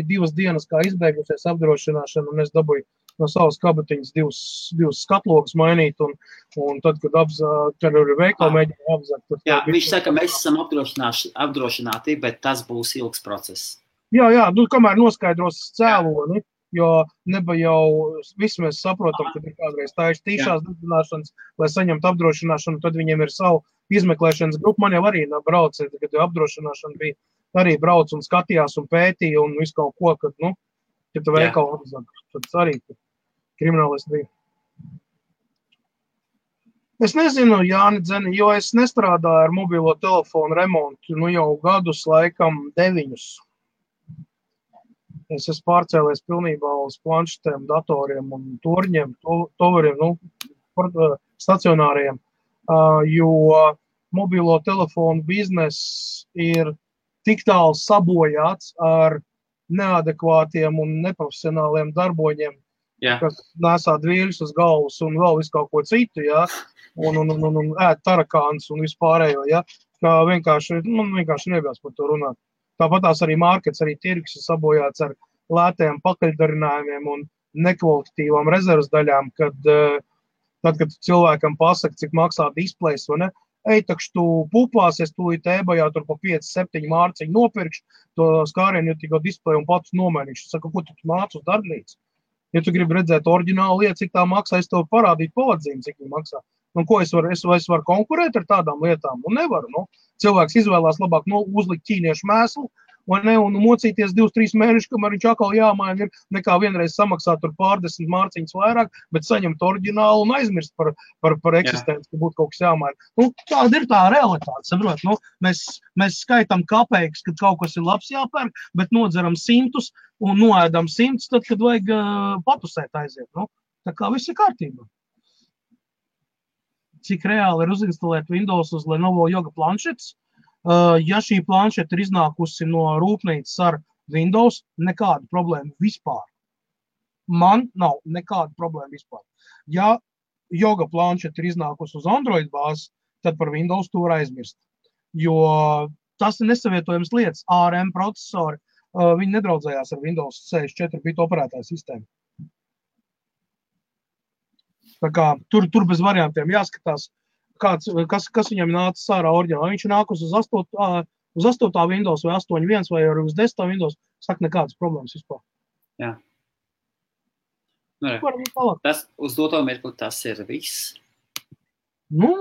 Speaker 1: divas dienas, kā izbeigusies apdrošināšana, un es dabūju no savas kabatiņas divas skatlogas mainīt, un tad, kad ar veikalu mēģināju apzakt.
Speaker 2: Jā, viņš saka, mēs esam apdrošināti, bet tas būs ilgs process.
Speaker 1: Jā, nu, kamēr noskaidros cēloni, jo neba jau visi mēs saprotam, kad ir kādreiz tīšās dedzināšanas, lai saņemtu apdrošināšanu, tad viņiem ir savu izmeklēšanas grupu. Man jau arī brauc, kad apdrošināšana bija, arī brauc un skatījās un pētīja un visu kaut ko, kad, nu, ja tu veikalu apzakt, tad arī kriminālisti bija. Es nezinu, Jāni Dzeni, jo es nestrādāju ar mobilo telefonu remontu, nu jau gadus laikam 9. Es esmu pārcēlies pilnībā uz planšetēm, datoriem un torņiem, toveriem, nu, stacionāriem, jo mobilo telefonu biznes ir tik tālu sabojāts ar neadekvātiem un neprofesionāliem darboņiem, kas nesā dvīļus uz galvas un vēl visu kaut ko citu, jā, un ēd tarakāns un vispārējo, jā, kā man vienkārši negribas par to runāt. Tāpat tās arī markets, arī tirgus ir sabojāts ar lētajiem pakaļdarinājumiem un nekvalitatīvām rezervas daļām, kad cilvēkam pasaka, cik maksā displejs, vai ne? Takš tu pupāsies, tu tēbajā tur pa 5-7 mārciņu nopirkšu to skārienu, jo tikko displeju un pats nomainīšu. Saka, ko tu māc uz darbnīcu? Ja tu gribi redzēt oriģinālu lietu, cik tā maksā, es tev parādītu pavadzīmu, cik viņa maksā. Un ko es varu konkurēt ar tādām lietām? Un nevaru, nu. Cilvēks izvēlās labāk uzlikt ķīniešu mēslu, un mocīties 2-3 mēnešus, kamēr viņš atkal jāmaina ir, nekā vienreiz samaksāt tur pārdesmit mārciņas vairāk, bet saņemt oriģinālu un aizmirst par eksistenci, ka būtu kaut kas jāmaina. Nu, tāda ir tā realitāte, saprot? Nu, mēs skaitam kapeikas, kad kaut kas ir labs jāpērk, bet nodzeram 100 un noēdam 100, tad, kad vajag patusēt aiziet. Nu, tā kā viss ir kārtībā. Cik reāli ir uzinstalēt Windows uz Lenovo Yoga planšetes? Ja šī planšeta ir iznākusi no rūpnīcas ar Windows, nekāda problēma vispār. Man nav nekāda problēma vispār. Ja Yoga planšeta ir iznākusi uz Android bāzes, tad par Windows to var aizmirst. Jo tas ir nesavietojams lietas. ARM procesori, viņi nedraudzējās ar Windows 64 bitu operētāju sistēmu. Tā kā tur bez variantiem jāskatās, kas viņam nāca sārā oriģināli. Viņš nākus uz 8. Windows vai 8.1 vai arī uz 10. Windows, saka nekādas problēmas vispār.
Speaker 2: Jā. Tas uz doto mirkli tas ir viss.
Speaker 1: Nu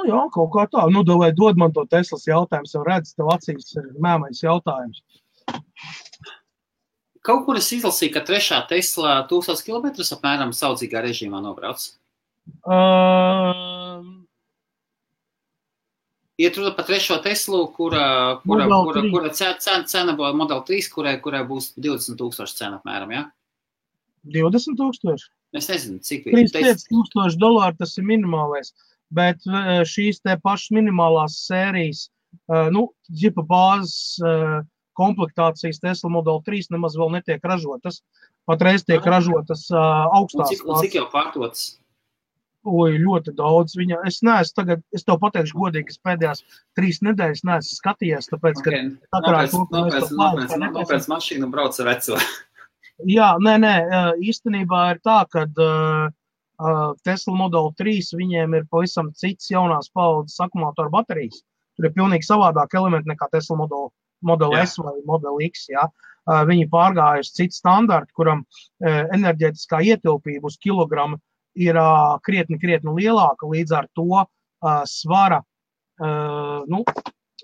Speaker 1: jā, kaut kā tā. Nu, vai dod man to Teslas jautājums, jau redz, tev acīs ir mēmais jautājums.
Speaker 2: Kaut kur es izlasīju, ka 3. Tesla 1000 km apmēram saudzīgā režīmā nobrauc. Iet runa par 3. Teslu, kura cena Model 3, kurai būs 20,000 cena apmēram, jā?
Speaker 1: 20,000?
Speaker 2: Es nezinu, cik
Speaker 1: $35,000 tas ir minimālais, bet šīs te pašas minimālās sērijas, ģipa bāzes komplektācijas Tesla Model 3 nemaz vēl netiek ražotas. Patreiz tiek ražotas augstās.
Speaker 2: Un cik jau pārdotas?
Speaker 1: Ļoti daudz. Es tev pateikšu godīgi, es pēdējās 3 nedēļas neesmu skatījies, tāpēc, ka...
Speaker 2: Nopēc mašīnu brauc ar veco.
Speaker 1: Jā, nē, īstenībā ir tā, kad Tesla Model 3 viņiem ir pavisam cits jaunās paaudzes akumulātoru baterijas. Tur ir pilnīgi savādāk elementi nekā Tesla Model S vai Model X, jā. Viņi pārgājuši citu standartu, kuram enerģētiskā ietilpība uz kilogramu ir krietni lielāka, līdz ar to svara,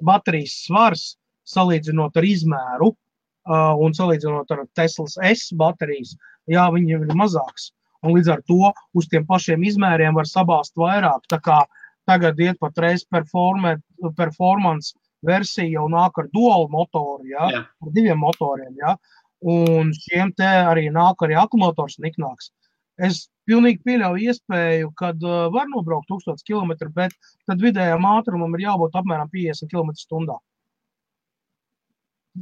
Speaker 1: baterijas svars, salīdzinot ar izmēru un salīdzinot ar Teslas S baterijas, jā, viņiem ir mazāks. Un līdz ar to uz tiem pašiem izmēriem var sabāzt vairāk, tā kā tagad iet patreiz performance versija jau nāk ar dual motoru, jā, ar 2 motoriem, jā, un šiem te arī nāk arī akumulators niknāks. Es pilnīgi pieļauju iespēju, kad var nobraukt 1000 km, bet tad vidējām ātrumam ir jābūt apmēram 50 km/h.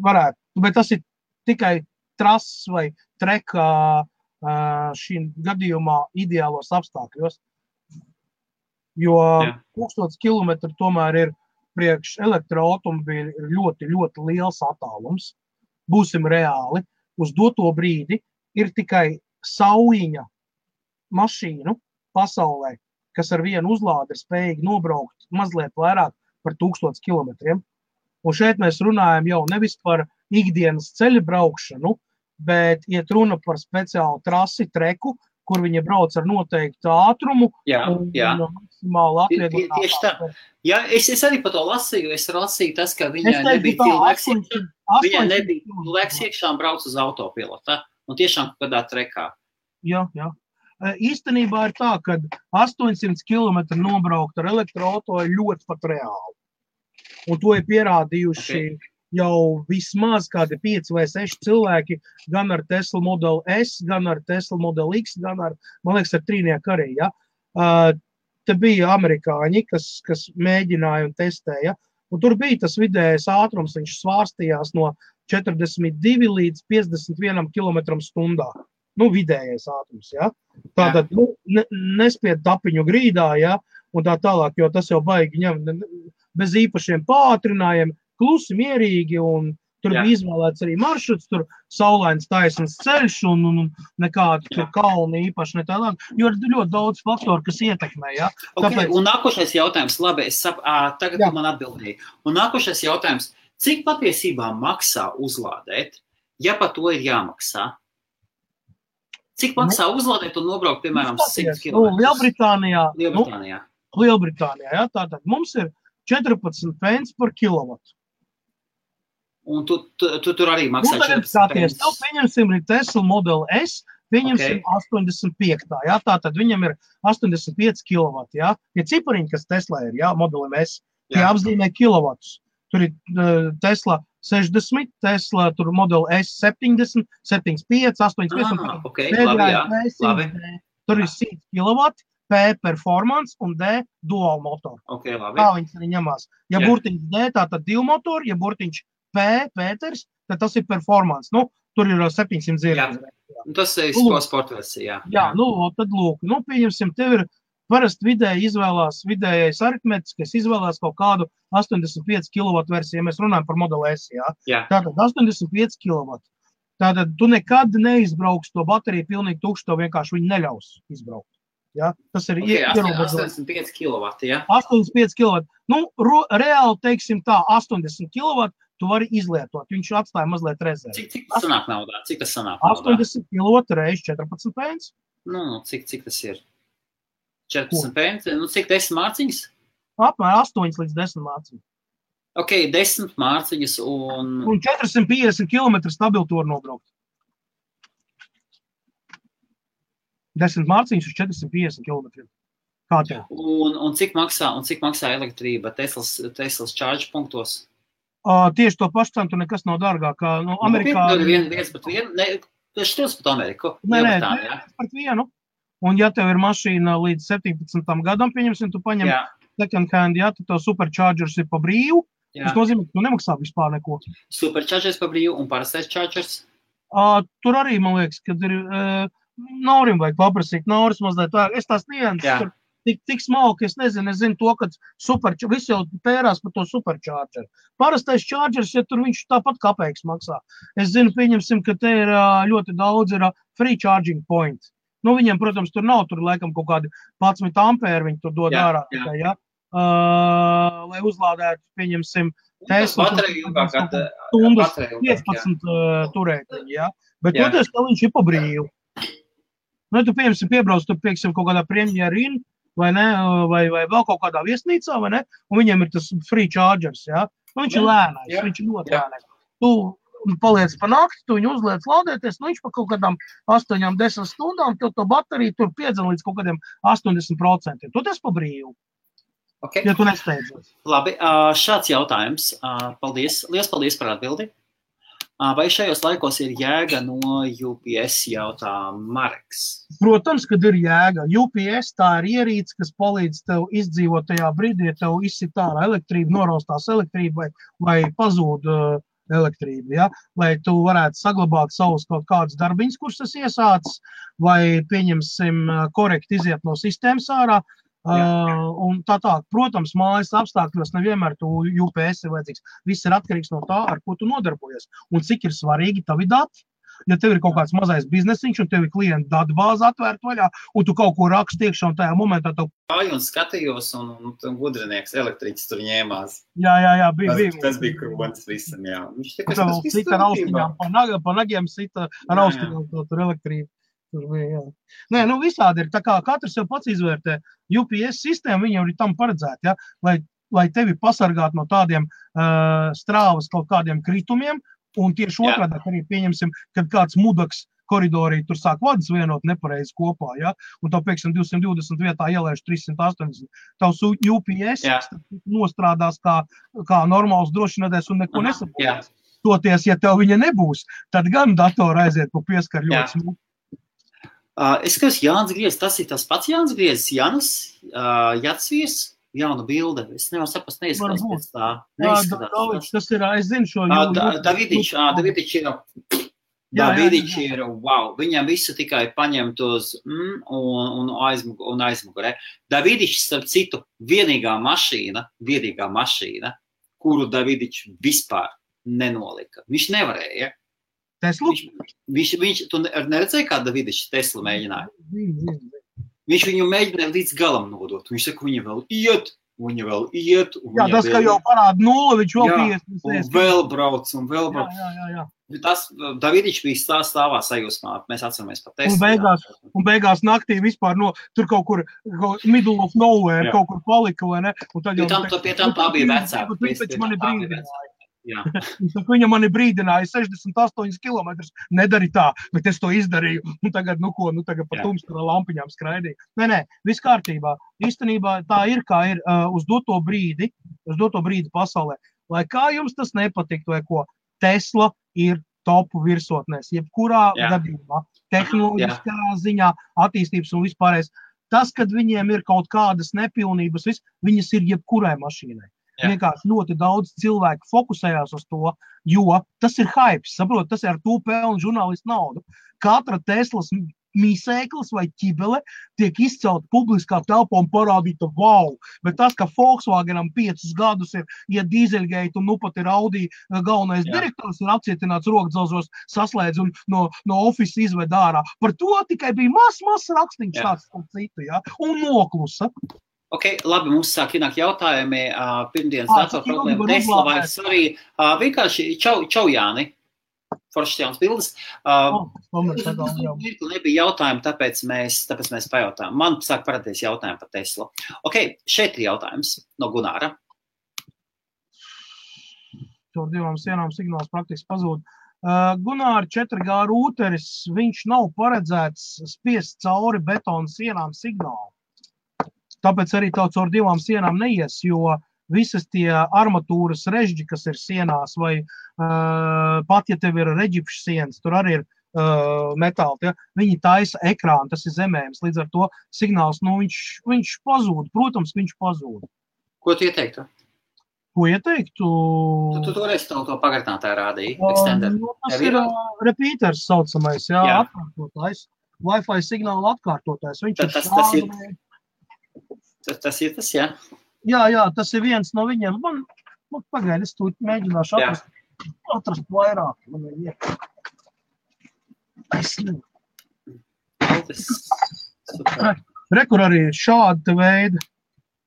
Speaker 1: Varētu, bet tas ir tikai trases vai treka šī gadījumā ideālos apstākļos. Jo 1000 km tomēr ir priekš elektroautomobīļu ļoti, ļoti liels attālums. Būsim reāli. Uz doto brīdi ir tikai saujiņa mašīnu pasaulē, kas ar vienu uzlādi ir spējīgi nobraukt mazliet vairāk par 1000 km. Un šeit mēs runājam jau nevis par ikdienas ceļa braukšanu, bet iet runa par speciālu trasi, treku, kur viņi brauc ar noteiktu ātrumu un maksimāli atvieglinātā.
Speaker 2: Tieši tā. Jā, es arī par to lasīju. Es lasīju tas, ka viņai nebija cilvēks iekšā un brauc uz autopilota. Un tiešām kādā trekā.
Speaker 1: Jā. Īstenībā ir tā, ka 800 km nobraukt ar elektroauto ir ļoti pat reāli. Un to ir pierādījuši jau vismaz kādi 5 vai 6 cilvēki, gan ar Tesla Model S, gan ar Tesla Model X, gan ar, man liekas, ar trīnieku arī. Ja? Te bija amerikāņi, kas mēģināja un testēja. Un tur bija tas vidējais ātrums, viņš svārstījās no 42 līdz 51 km/h. Vidējais ātrums, ja? Tātad, nespied tapiņu grīdā, ja? Un tā tālāk, jo tas jau baigi ņem bez īpašiem pātrinājiem, klusi, mierīgi, un tur bija izvēlēts arī maršruts, tur saulains taisns ceļš un nekādu tur kalni īpaši ne tālāk, jo ir ļoti daudz faktoru, kas ietekmē, ja?
Speaker 2: Tāpēc... Un nākošais jautājums, labi, tagad man atbildēja. Un nākošais jautājums, cik patiesībā maksā uzlādēt, ja par to ir jāmaksā? Cik maksā uzlādēt un nobraukt, piemēram, 100 km?
Speaker 1: Lielbritānijā, ja? Tātad mums ir 14 pence par kilovatu.
Speaker 2: Un tu tur arī maksā 14 pence?
Speaker 1: Tev pieņemsim ir Tesla Model S, pieņemsim 85. Ja? Tātad viņam ir 85 kilovati. Ja? Tie cipariņi, kas Tesla ir, ja? Modelim S, tie apzīmē kilovatus. Tur ir Tesla 60, Tesla tur Model S 70, 75, 85.
Speaker 2: Labi.
Speaker 1: Tur ir 100 kilovati, P performance un D dual motor.
Speaker 2: Labi.
Speaker 1: Tā viņas arī ņemās. Ja burtiņš D, tātad 2 motori, ja burtiņš P, Pēters, tad tas ir performance. Tur ir 700 zirgas.
Speaker 2: Tas ir sportversija.
Speaker 1: Tad lūk, pieņemsim, tev ir parasti vidējais aritmetiskais izvēlās kaut kādu 85 kW versiju, ja mēs runājam par Model S, Tātad 85 kW. Tātad tu nekad neizbrauks to bateriju pilnīgi tukšu, to vienkārši viņi neļaus izbraukt. Ja? Tas ir
Speaker 2: 85 kW,
Speaker 1: 85 kW. Reāli, teiksim tā, 80 kW tu vari izlietot. Viņš atstāja mazliet rezervi.
Speaker 2: Cik tas sanāk naudā?
Speaker 1: 80 kW reiz 14 pence.
Speaker 2: Cik tas ir? 14 pence? Cik 10 mārciņas?
Speaker 1: Apmēram 8 līdz 10 mārciņas.
Speaker 2: 10 mārciņas un...
Speaker 1: Un 450 km stabilu tur nobraukt. 10 mārciņas uz 450 km. Kā tev?
Speaker 2: Un cik maksā elektrība Teslas charge punktos?
Speaker 1: Tieši to pašu cenu, nekas nav dārgāk. Amerikā...
Speaker 2: Viens pret vienu? Tas šķils pat Ameriku?
Speaker 1: Viens pret vienu. Un ja tev ir mašīna līdz 17. gadam, pieņemsim, tu paņem second hand, tad tev superchargers ir pa brīvu. Tas nozīmē, ka tu nemaksā vispār neko.
Speaker 2: Superchargers pa brīvu un parastais chargers?
Speaker 1: Tur arī, man liekas, kad ir... Naurim vajag paprasīt, Nauris mazliet vajag. Es tās nianses tur tik smalki, es nezinu to, ka visi jau pērās par to supercharger. Parastais chargers, ja tur viņš tāpat kapeiks maksā. Es zinu, pieņemsim, ka te ir ļoti daudz ir free charging point. Viņiem, protams, tur nav, tur laikam kaut kādi 11 ampēri viņi tur dod ārā tikai, lai uzlādētu, pieņemsim, Tesla, stundas 15 turētiņi, Bet toties, ka viņš ir pa brīvu. Tu, pieņemsim, piebrauc, tu, pieksim, kaut kādā Premier Inn, vai ne, vai vēl kaut kādā viesnīcā, vai ne, un viņiem ir tas free chargers, viņš ir lēnais, viņš ir ļoti lēnais. Tu paliec pa nakti, tu viņu uzliec lādēties, viņš pa kaut kādām 8-10 stundām, tev to bateriju tur piedzina līdz kaut kādiem 80%. Tu tas pa brīvu. Ja tu nesteidzies.
Speaker 2: Labi, šāds jautājums. Paldies. Liels paldies par atbildi. Vai šajos laikos ir jēga no UPS, jautā Mareks?
Speaker 1: Protams, kad ir jēga. UPS tā ir ierīce, kas palīdz tev izdzīvot tajā brīdī, ja tev izsit ārā elektrība, noraustās elektrība vai pazūd elektrība, ja? Lai tu varētu saglabāt savus kaut kādus darbiņus, kurus es iesācis, vai pieņemsim korekti iziet no sistēmas ārā. Un tā. Protams, mājas apstākļos nevienmēr tu UPS ir vajadzīgs. Viss ir atkarīgs no tā, ar ko tu nodarbojies. Un cik ir svarīgi tavi dati. Ja tev ir kaut kāds mazais biznesiņš un tev ir klienta datu bāze atvērta vaļā, un tu kaut ko raksti iekšā un tajā momentā tev...
Speaker 2: Un skatījos, un gudrinieks elektriķis tur ņēmās.
Speaker 1: Jā, bija.
Speaker 2: Tas bija kronis visam, jā. Viņš
Speaker 1: tikai sita ar austiņām, pa nagiem sita ar austiņām tur elektrību. Tur bija, jā. Nē, visādi ir. Tā kā katrs jau pats izvērtē. UPS sistēma, viņa ir tam paredzēta, ja? Lai tevi pasargātu no tādiem strāvas kaut kādiem kritumiem, un tieši otrādi arī pieņemsim, kad kāds mudaks koridorī tur sāk vadas vienot nepareizi kopā, ja? Un tev, pieksim, 220 vietā ielēš 380. Tavs UPS nostrādās kā normāls drošinādēs un neko nesabūs. Toties, ja tev viņa nebūs, tad gan datora aiziet pa pieskaru ļoti smūgi.
Speaker 2: Es skatos, Jānis Griezis, tas ir tas pats Jānis Griezis, Jānis Jatsviers, jauna bilde. Es nevaru saprast, neizskatās pēc tā.
Speaker 1: Tas ir, es zinu šo
Speaker 2: Davidič ir, wow, viņam visu tikai paņemt uz un aizmugurē. Davidič, starp citu, vienīgā mašīna, kuru Davidič vispār nenolika. Viņš nevarēja.
Speaker 1: Teslu?
Speaker 2: Tu neredzēji, kā Davidičs Teslu mēģināja? Viņš viņu mēģināja līdz galam nodot. Viņš saka, viņa vēl iet.
Speaker 1: Jā, tas, ka jau parāda 0, viņš vēl 50.
Speaker 2: Un vēl brauc.
Speaker 1: Jā.
Speaker 2: Tas Davidičs bija stāvā sajūsmā. Mēs atceramies par Teslu.
Speaker 1: Un beigās naktī vispār tur kaut kur middle of nowhere kaut kur palika, vai ne?
Speaker 2: Pie tam tā bija vecāka.
Speaker 1: Viņš mani brīdināja. Viņa mani brīdināja 68 kilometrus, nedari tā, bet es to izdarīju, un tagad, tagad pa tumstu lampiņām skraidīju. Nē, viss kārtībā. Īstenībā tā ir, kā ir uz doto brīdi pasaulē. Lai kā jums tas nepatiktu, vai ko, Tesla ir topu virsotnēs, jebkurā gadījumā, tehnoloģiskā ziņā, attīstības un vispārējais. Tas, kad viņiem ir kaut kādas nepilnības, viņas ir jebkurai mašīnai. Vienkārši ļoti daudz cilvēku fokusējās uz to, jo tas ir hypes, saprot, tas ir ar to pelnu žurnālistu naudu. Katra Teslas mīsēklis vai ķibele tiek izcelt publiskā telpā un parādīta wow, bet tas, ka Volkswagenam 5 gadus ir dīzeļgeit un pat ir Audi galvenais direktors ir apcietināts rokdzelžos saslēdz un no office izved ārā. Par to tikai bija mazs rakstīns tāds citu, un noklusa.
Speaker 2: Ok, labi, mums sāk ienāk jautājumi, pirmdienas datora problēma Tesla vai arī vienkārši čau Jāni, foršas jaunas bildes. Nebija jautājumi, tāpēc mēs pajautājām. Man sāk parādīties jautājumi par Teslu. Ok, šeit ir jautājums no Gunāra.
Speaker 1: Tur 2 sienām signāls praktiski pazūd. Gunāra 4G rūteris, viņš nav paredzēts spiest cauri betona sienām signālu. Tāpēc arī caur 2 sienām neies, jo visas tie armatūras režģi, kas ir sienās, vai pat, ja tev ir reģipšu sienas, tur arī ir metāli, viņi taisa ekrānu, tas ir zemējums. Līdz ar to signāls, viņš pazūd, protams, viņš pazūd.
Speaker 2: Ko tu ieteiktu?
Speaker 1: Ko ieteiktu?
Speaker 2: Tu toreiz to pagartinātāju rādīji, extender.
Speaker 1: Tas ir repeaters saucamais, atkārtotājs. Wi-Fi signāla atkārtotājs.
Speaker 2: Tas ir tas, jā?
Speaker 1: Jā, tas ir viens no viņiem. Man pagaidi, es tūlīt mēģināšu atrast vairāk. Rekur arī šādi veidi.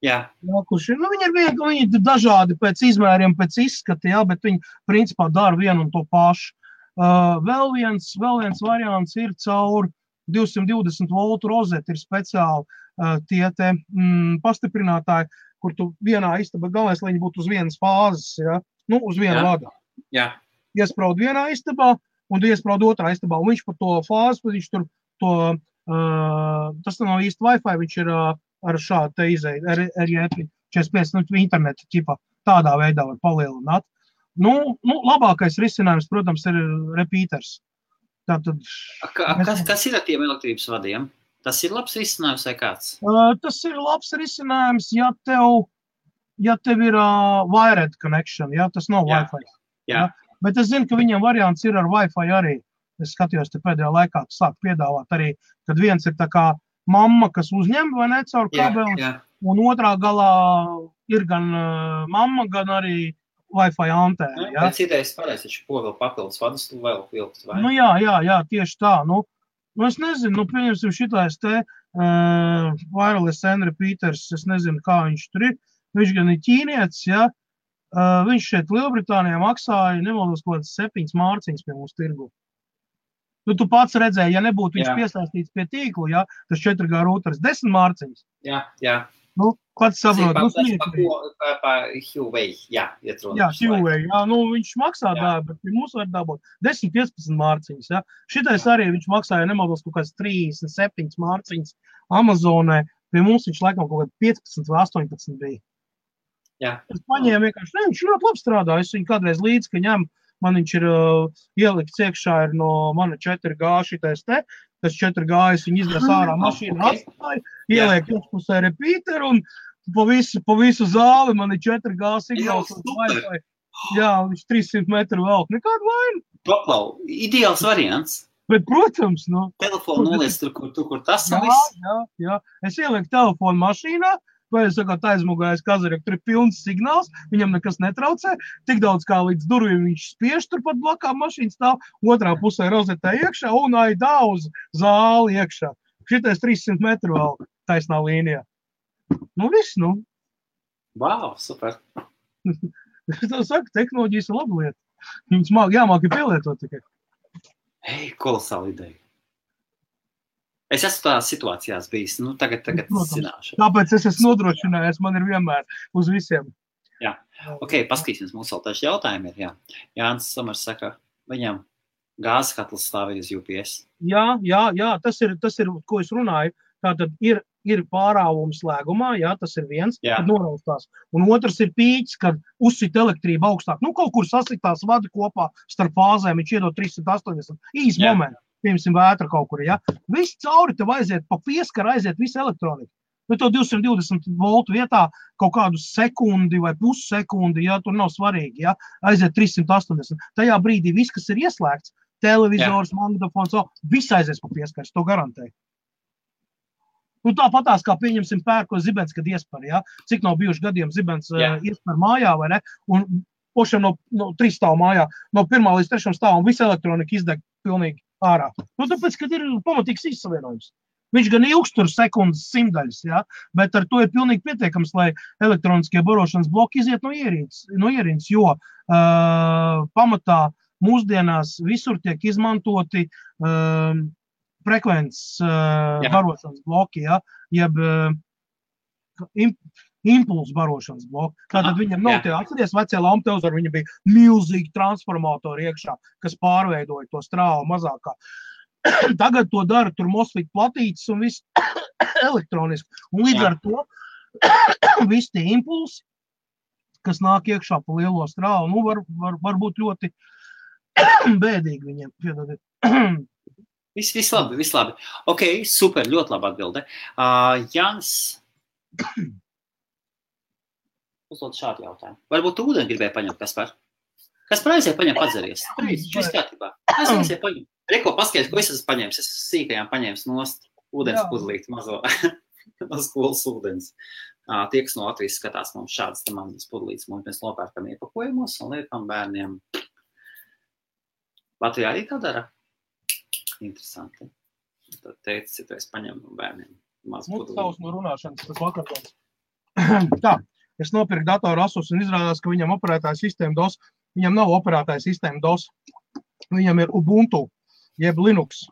Speaker 2: Jā.
Speaker 1: Viņi ir dažādi pēc izmēriem, pēc izskata, bet viņi principā dara vienu un to pašu. Vēl viens variants ir caur 220 voltu rozeti, ir speciāli tie pastiprinātāji, kur tu vienā istabā, galvenais, lai viņi būtu uz vienas fāzes, uz vienu vadu. Iespraud vienā istabā, un tu iespraud otrā istabā, un viņš par to fāzi, viņš tur tas nav īsti Wi-Fi, viņš ir ar šādu te izēju, RJ45, interneta ķipā, tādā veidā var palielināt. Labākais risinājums, protams, ir repeaters. Tātad,
Speaker 2: kas ir ar tiem elektrības vadiem? Tas ir labs risinājums vai kāds?
Speaker 1: Tas ir labs risinājums, ja tev ir wired connection, ja? Tas nav Wi-Fi.
Speaker 2: Jā.
Speaker 1: Ja? Bet es zinu, ka viņiem variants ir ar Wi-Fi arī. Es skatījos te pēdējā laikā, sāk piedāvāt arī, kad viens ir tā kā mamma, kas uzņem vai ne caur kabeli, un otrā galā ir gan mamma, gan arī Wi-Fi antēna. Ja?
Speaker 2: Pēc idejas pareizi, taču ko vēl papildus vadus tu vēl vilkt, vai?
Speaker 1: Jā, tieši tā. Es nezinu, pieņemsim šitais te wireless and repeaters, es nezinu, kā viņš tur ir. Viņš gan ir ķīnietis, ja? Viņš šeit Lielbritānijā maksāja, nemaldos, kaut kāds 7 mārciņas pie mūsu tirgu. Tu pats redzēji, ja nebūtu viņš piesaistīts pie tīklu, ja, tas 4G routers 10 mārciņas.
Speaker 2: Jā.
Speaker 1: Pats saprot.
Speaker 2: Huawei,
Speaker 1: Huawei, viņš maksā bet pie mūs var dabūt 10-15 mārciņas, ja. Šitais arī viņš maksāja, nemaldos, kaut kāds 37 mārciņas Amazonē, pie mums viņš laikam kaut kāds 15 vai 18 bija. Es paņēmu vienkārši, viņš ļoti labi strādā, es viņu kādreiz līdz, ka ņem, man viņš ir ielikts iekšā ir no mana 4G šitais te, tas 4G es viņu iznes ārā mašīnu atstāju, ieliek iekšpusē repeateru un pa visu zāli man ir 4G signāls un Wi-Fi. Jā, viņš 300 metru velk, nekādu vainu.
Speaker 2: Paklau, ideāls variants.
Speaker 1: Bet, protams,
Speaker 2: telefonu noliec tur, kur tas un viss.
Speaker 1: Jā. Es ielieku telefonu mašīnā, vai es sakot aizmugājas kazarek, tur ir pilns signāls, viņam nekas netraucē, tik daudz kā līdz durvīm viņš spiež turpat blakā mašīnas stāv, otrā pusē rozetē iekšā un aidā uz zāli iekšā. Šitais 300 metru vēl taisnā līnijā. Viss,
Speaker 2: Wow, super.
Speaker 1: Es tev saku, tehnoloģijas ir laba lieta. Viņas jāmāk ir pielietot tikai.
Speaker 2: Kolosāla ideja. Es esmu tādās situācijās bijis, tagad zināšu.
Speaker 1: Tāpēc es esmu nodrošinājies, man ir vienmēr uz visiem.
Speaker 2: Jā, paskatīsimies, mums vēl taču jautājumi ir, Jānis Samars saka, viņam gāzes katls stāvēja uz UPS.
Speaker 1: Jā, tas ir, ko es runāju, tātad ir pārāvums slēgumā, tas ir viens, kad noraustās. Un otrs ir pīķis, kad uzsit elektrība augstāk. Kaut kur sasiktās vadi kopā starp fāzēm, viņš iedod 380, īs momenti. Piemēram, vētra kaut kur, Viss cauri tev aiziet, pa pieskaru aiziet visu elektroniku. To 220 voltu vietā kaut kādu sekundi vai pussekundi, tur nav svarīgi, aiziet 380. Tajā brīdī viss, kas ir ieslēgts, televizors, magnetofons, viss aizies pa pieskaru, to garantēju. Tāpatās, kā pieņemsim pērko zibens, kad iespar, Cik nav bijuši gadiem zibens iespar mājā, vai ne? Un pošam no 3 stāvu mājā, no 1. līdz 3. stāvam, visa elektronika izdeg pilnīgi ārā. Tāpēc, kad ir pamatīgs izsavienojums. Viņš gan ilgstur sekundes simtaļas, bet ar to ir pilnīgi pietiekams, lai elektroniskie barošanas bloki iziet no ierīces, jo pamatā mūsdienās visur tiek izmantoti frekvences barošanas bloki, jeb impulsu barošanas bloki. Tātad viņam nav tie atceries vecie lamptelzori, viņam bija milzīgi transformatori iekšā, kas pārveidoja to strāvu mazākā. Tagad to dara tur MOSFET platītes un viss elektroniski. Un līdz ar to visi tie impulsi, kas nāk iekšā pa lielo strāvu, var būt ļoti bēdīgi viņiem.
Speaker 2: Viss labi. Super, ļoti labi atbilde. Jānis uzdod šādu jautājumu. Varbūt tu ūdeni gribēji paņemt, Kaspar? Kaspar aiziet paņem padzeries. Šis kārtībā. Aiziet paņem. Reko, paskaties, ko es esmu paņēmis. Es sīkajām paņēmis nost ūdens pudlīt mazo no skolas ūdens. Tie, kas no Latvijas skatās, mums šādas te mazas pudlītes, mēs nopērkam iepakojumos un liekam bērniem. Latvijā arī tā dara? Interesanti. Tad teicis, ja tu esi paņem no bērniem mazu pudlīti.
Speaker 1: Tavs no runāšanas, tas vakartons. Tā. Es nopirku datoru Asus un izrādās, ka viņam operētāja sistēma DOS. Viņam nav operētāja sistēma DOS. Viņam ir Ubuntu, jeb Linux.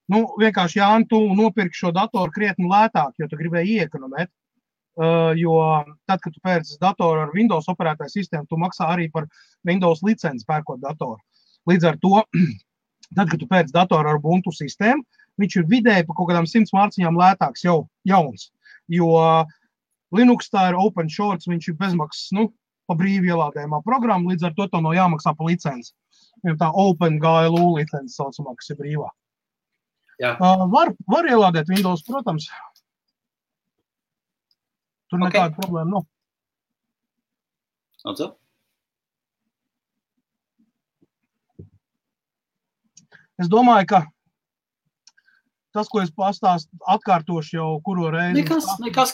Speaker 1: Vienkārši, Jāni, tu nopirki šo datoru krietni lētāk, jo tu gribēji iekonomēt. Jo tad, kad tu pērci datoru ar Windows operētāja sistēmu, tu maksā arī par Windows licenci pērkot datoru. Līdz ar to, tad, kad tu pērci datoru ar Ubuntu sistēmu, viņš ir vidēji pa kaut kādām 100 mārciņām lētāks jau jauns. Jo Linux tā ir open source, viņš ir bezmaksas, pa brīvi ielādējumā programma, līdz ar to nav jāmaksā pa licenci. Viņam tā OpenGLU licenci saucamā, kas ir brīvā. Var ielādēt Windows, protams. Tur nekāda problēma nav.
Speaker 2: Lūdzu.
Speaker 1: Es domāju, ka tas, ko es atkārtošu jau kuro reizi.
Speaker 2: Nekas.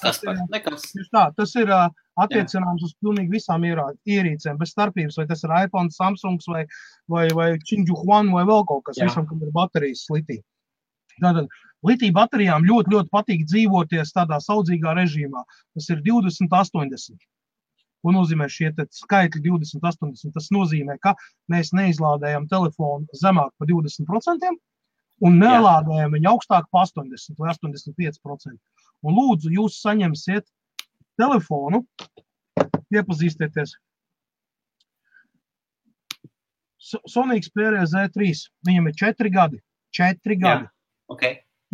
Speaker 1: Tas ir attiecināms uz pilnīgi visām ierīcēm, bez starpības, vai tas ir iPhone, Samsungs vai Qingju Huan vai vēl kaut kas, visam, kam ir baterijas litī. Tātad litī baterijām ļoti patīk dzīvoties tādā saudzīgā režīmā. Tas ir 20-80. Ko nozīmē šie skaitļi 20-80? Tas nozīmē, ka mēs neizlādējam telefonu zemāk pa 20% un nelādējam viņu augstāk pa 80 vai 85%. Un lūdzu, jūs saņemsiet telefonu, iepazīstieties. Sony Xperia Z3, viņam ir 4 gadi. 4 gadi.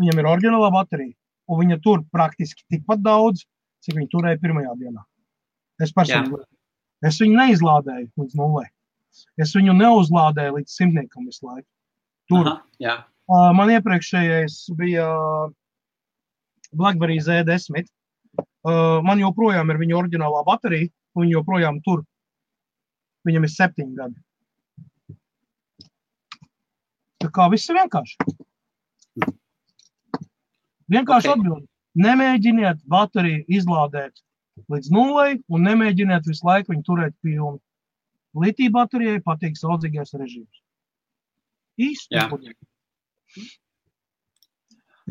Speaker 1: Viņam ir oriģinālā baterija, un viņa tur praktiski tikpat daudz, cik viņa turēja pirmajā dienā. Es personīgi. Es viņu neizlādēju līdz 0. Es viņu neuzlādēju līdz 100 visu laiku. Tur. Man iepriekšējais bija BlackBerry Z10. Man joprojām ir viņa oriģinālā baterija, un viņa joprojām tur. Viņam ir 7 gadi. Tā kā viss ir vienkārši. Vienkārši atbildi. Nemēģiniet bateriju izlādēt līdz 0 un nemēģiniet visu laiku viņu turēt pilnu. Litī baterijai patīk saudzīgais režīms. Īsti.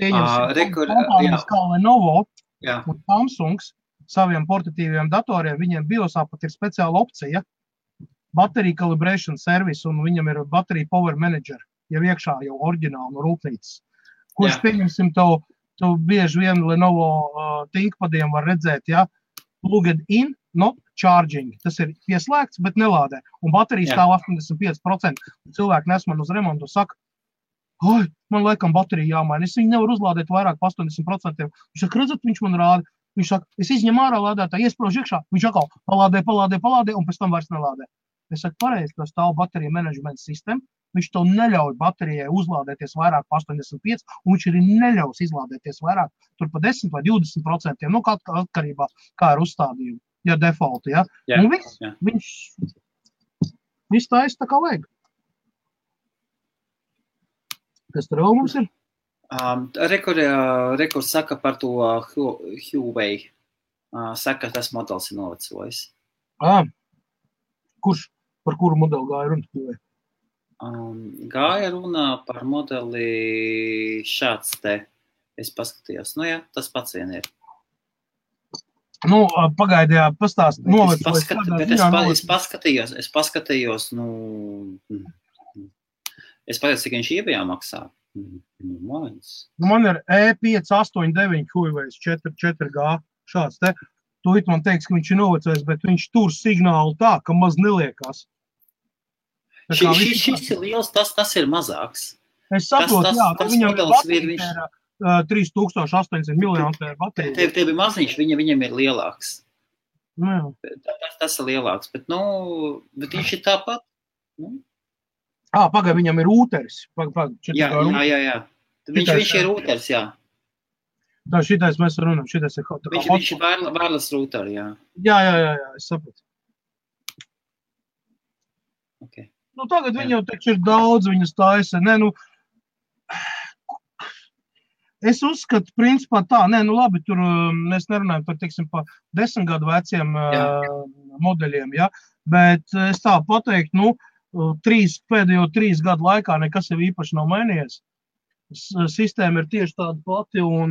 Speaker 1: Kompānijas kā Lenovo un Samsungs saviem portatīviem datoriem, viņiem BIOSā pat ir speciāla opcija Battery Calibration Service, un viņam ir Battery Power Manager, jau iekšā jau oriģināli no rūpnīcas. Kurš pieņemsim tu bieži vien Lenovo ThinkPadiem var redzēt, plugged in, not charging. Tas ir pieslēgts, bet nelādē. Un baterija stāv 85%. Cilvēki nes man uz remontu un saka, man laikam baterija jāmaina. Es viņu nevaru uzlādēt vairāk pa 80%. Viņš saka, redzat, viņš man rāda. Viņš saka, es izņem ārā lādētāju, iespraužu iekšā. Viņš atkal palādē, un pēc tam vairs nelādē. Es saku, pareizi, tas stāv baterija menedžmenta sistēma. Viņš to neļauj baterijai uzlādēties vairāk pa 85, un viņš arī neļaus izlādēties vairāk tur pa 10 vai 20%, nu atkarībā, kā ir uzstādījumi, defaulti, Un viņš taisa tā kā vajag. Kas tur vēl mums ir?
Speaker 2: Rekurs saka par to Huawei. Saka, tas modelis ir novecojis.
Speaker 1: Par kuru modeli gāja runa Huawei?
Speaker 2: Gāja runa par modeli šāds te. Es paskatījos. Tas pats vien ir.
Speaker 1: Pagaidījā pastāst.
Speaker 2: Es paskatījos, es pagaidu, cik viņš iebijā maksā.
Speaker 1: Man ir E589 Huawei 4G šāds te. Tūlīt man teiks, ka viņš ir novecojis, bet viņš tur signālu tā, ka maz neliekās.
Speaker 2: Šis ir liels, tas ir mazāks.
Speaker 1: Es saprotu, viņam ir baterija 3800 mAh baterija.
Speaker 2: Tev ir maziņš, viņam ir lielāks. Tas ir lielāks, bet viņš ir tāpat.
Speaker 1: Pagaid, viņam ir rūteris.
Speaker 2: Jā. Viņš ir rūteris, jā.
Speaker 1: Tā šitais mēs runājam, šitais ir kaut kā.
Speaker 2: Viņš ir wireless router, jā.
Speaker 1: Jā, es saprotu.
Speaker 2: Okay.
Speaker 1: Tagad viņam taču ir daudz, viņas taisa. Es uzskatu, principā tā, labi, tur mēs nerunājam par, teiksim, pa 10 gadu veciem modeļiem, bet es tā pateiktu, pēdējo 3 gadu laikā nekas jau īpaši nav mainījies. Sistēma ir tieši tāda pati un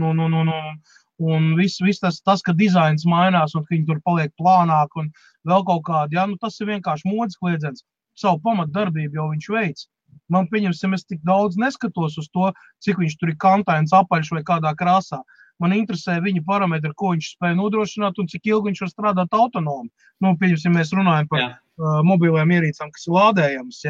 Speaker 1: viss tas, ka dizains mainās un ka viņi tur paliek plānāk un vēl kaut kādi, tas ir vienkārši modes kliedziens. Savu pamatdarbību jau viņš veic. Man pieņemsim, es tik daudz neskatos uz to, cik viņš tur ir kantains, apaļš vai kādā krāsā. Man interesē viņa parametri, ko viņš spēja nodrošināt un cik ilgi viņš var strādāt autonomi. Pieņemsim, mēs runājam par mobiliem ierīcām, kas ir lādējams,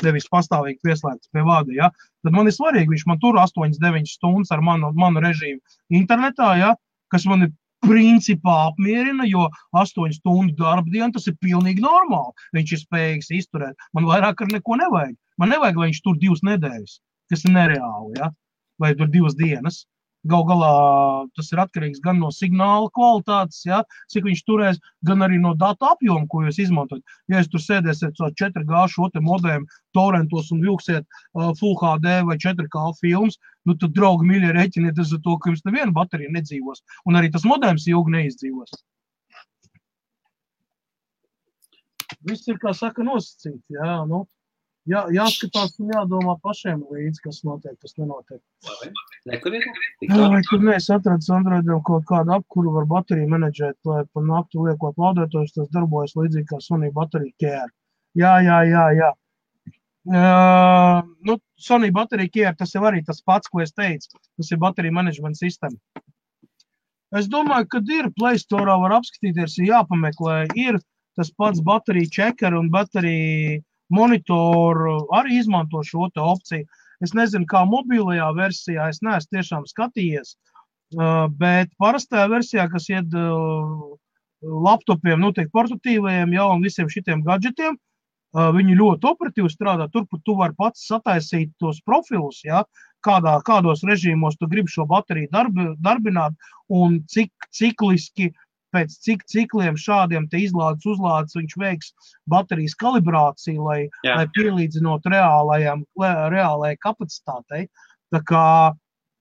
Speaker 1: nevis pastāvīgi pieslēgts pie vada, Tad man ir svarīgi, viņš man tur 8-9 stundas ar manu režīmu internetā, kas man ir principā apmierina, jo 8 stundu darba diena, tas ir pilnīgi normāli. Viņš ir spējīgs izturēt. Man vairāk ar neko nevajag. Man nevajag, lai viņš tur 2 nedēļas, kas ir nereāli, ja? Vai tur 2 dienas. Gal galā tas ir atkarīgs gan no signāla kvalitātes, ja, cik viņš turēs, gan arī no datu apjoma, ko jūs izmantojat. Ja jūs tur sēdēsiet 4G šo te modēm, torrentos un vilksiet Full HD vai 4K filmas, nu tad, draugi, mīļie, reķiniet uz to, ka jums neviena baterija nedzīvos. Un arī tas modems ilgi neizdzīvos. Viss ir, kā saka, nosacīts, jā, nu. Jā, jāskatās un jādomā pašiem līdzi, kas notiek, kas nenotiek. Vai tur mēs atradis Androidam kaut kādu apkuru var bateriju menedžēt, lai pa nakti liekot lādētojus, tas darbojas līdzīgi kā Sony Battery Care. Jā. Nu, Sony Battery Care, tas jau arī tas pats, ko es teicu. Tas ir bateriju management sistēma. Es domāju, ka ir Play Store var apskatīties, ir jāpameklē, ir tas pats bateriju checker un bateriju monitoru arī izmanto šo te opciju. Es nezinu, kā mobilajā versijā, es neesmu tiešām skatījies, bet parastajā versijā, kas ied laptopiem, nu, tiek portatīvajiem, jau un visiem šitiem gadžetiem, viņi ļoti operatīvi strādā. Turpat tu vari pats sataisīt tos profilus, ja, kādos režīmos tu gribi šo bateriju darbināt un cik cikliski pēc cik cikliem šādiem te izlādes uzlādes viņš veiks baterijas kalibrāciju, lai pielīdzinot reālajai kapacitātei. Tā kā,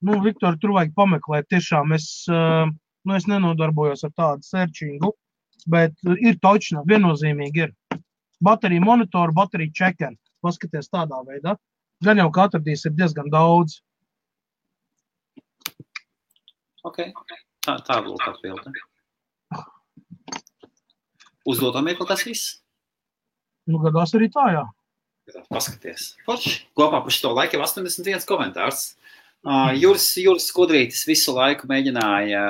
Speaker 1: nu, Viktor, tur vajag pameklēt. Tiešām es nenodarbojos ar tādu searchingu, bet ir točna, viennozīmīgi ir. Baterija monitoru, baterija checker. Paskaties tādā veidā. Gan jau, ka atradīs ir diezgan daudz.
Speaker 2: Ok, tā lūk atbilde. Uzdodam kaut kas viss?
Speaker 1: Nu, gadās arī tā, jā.
Speaker 2: Paskaties. Forši. Kopā par šito laiku jau 81 komentārs. Juris Skudrītis visu laiku mēģināja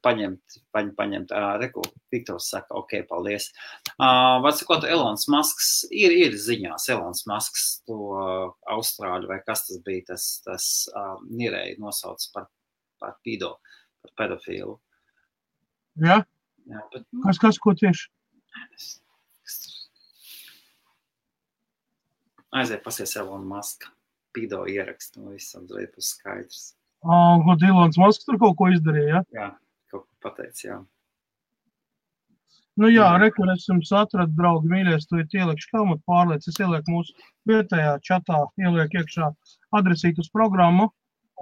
Speaker 2: paņemt reku. Viktors saka, ok, paldies. Var sakot, Elons Musks ir ziņās. Elons Musks to Austrāļu vai kas tas bija, tas nirēji nosauc par pido, par pedofilu.
Speaker 1: Jā? Jā, bet... Kas, ko tieši?
Speaker 2: Aiziet pasies Elon Muska. Pido ierakst, no visam būs skaidrs.
Speaker 1: Ko Elons Musks tur kaut ko izdarīja, ja?
Speaker 2: Jā, kaut ko pateic, jā.
Speaker 1: Nu jā, rekur, es jums atradu, draugi, mīļies, tu ielikšu helmutu pārliec, es ielieku mūsu vietējā čatā, ielieku iekšā adresīt uz programmu.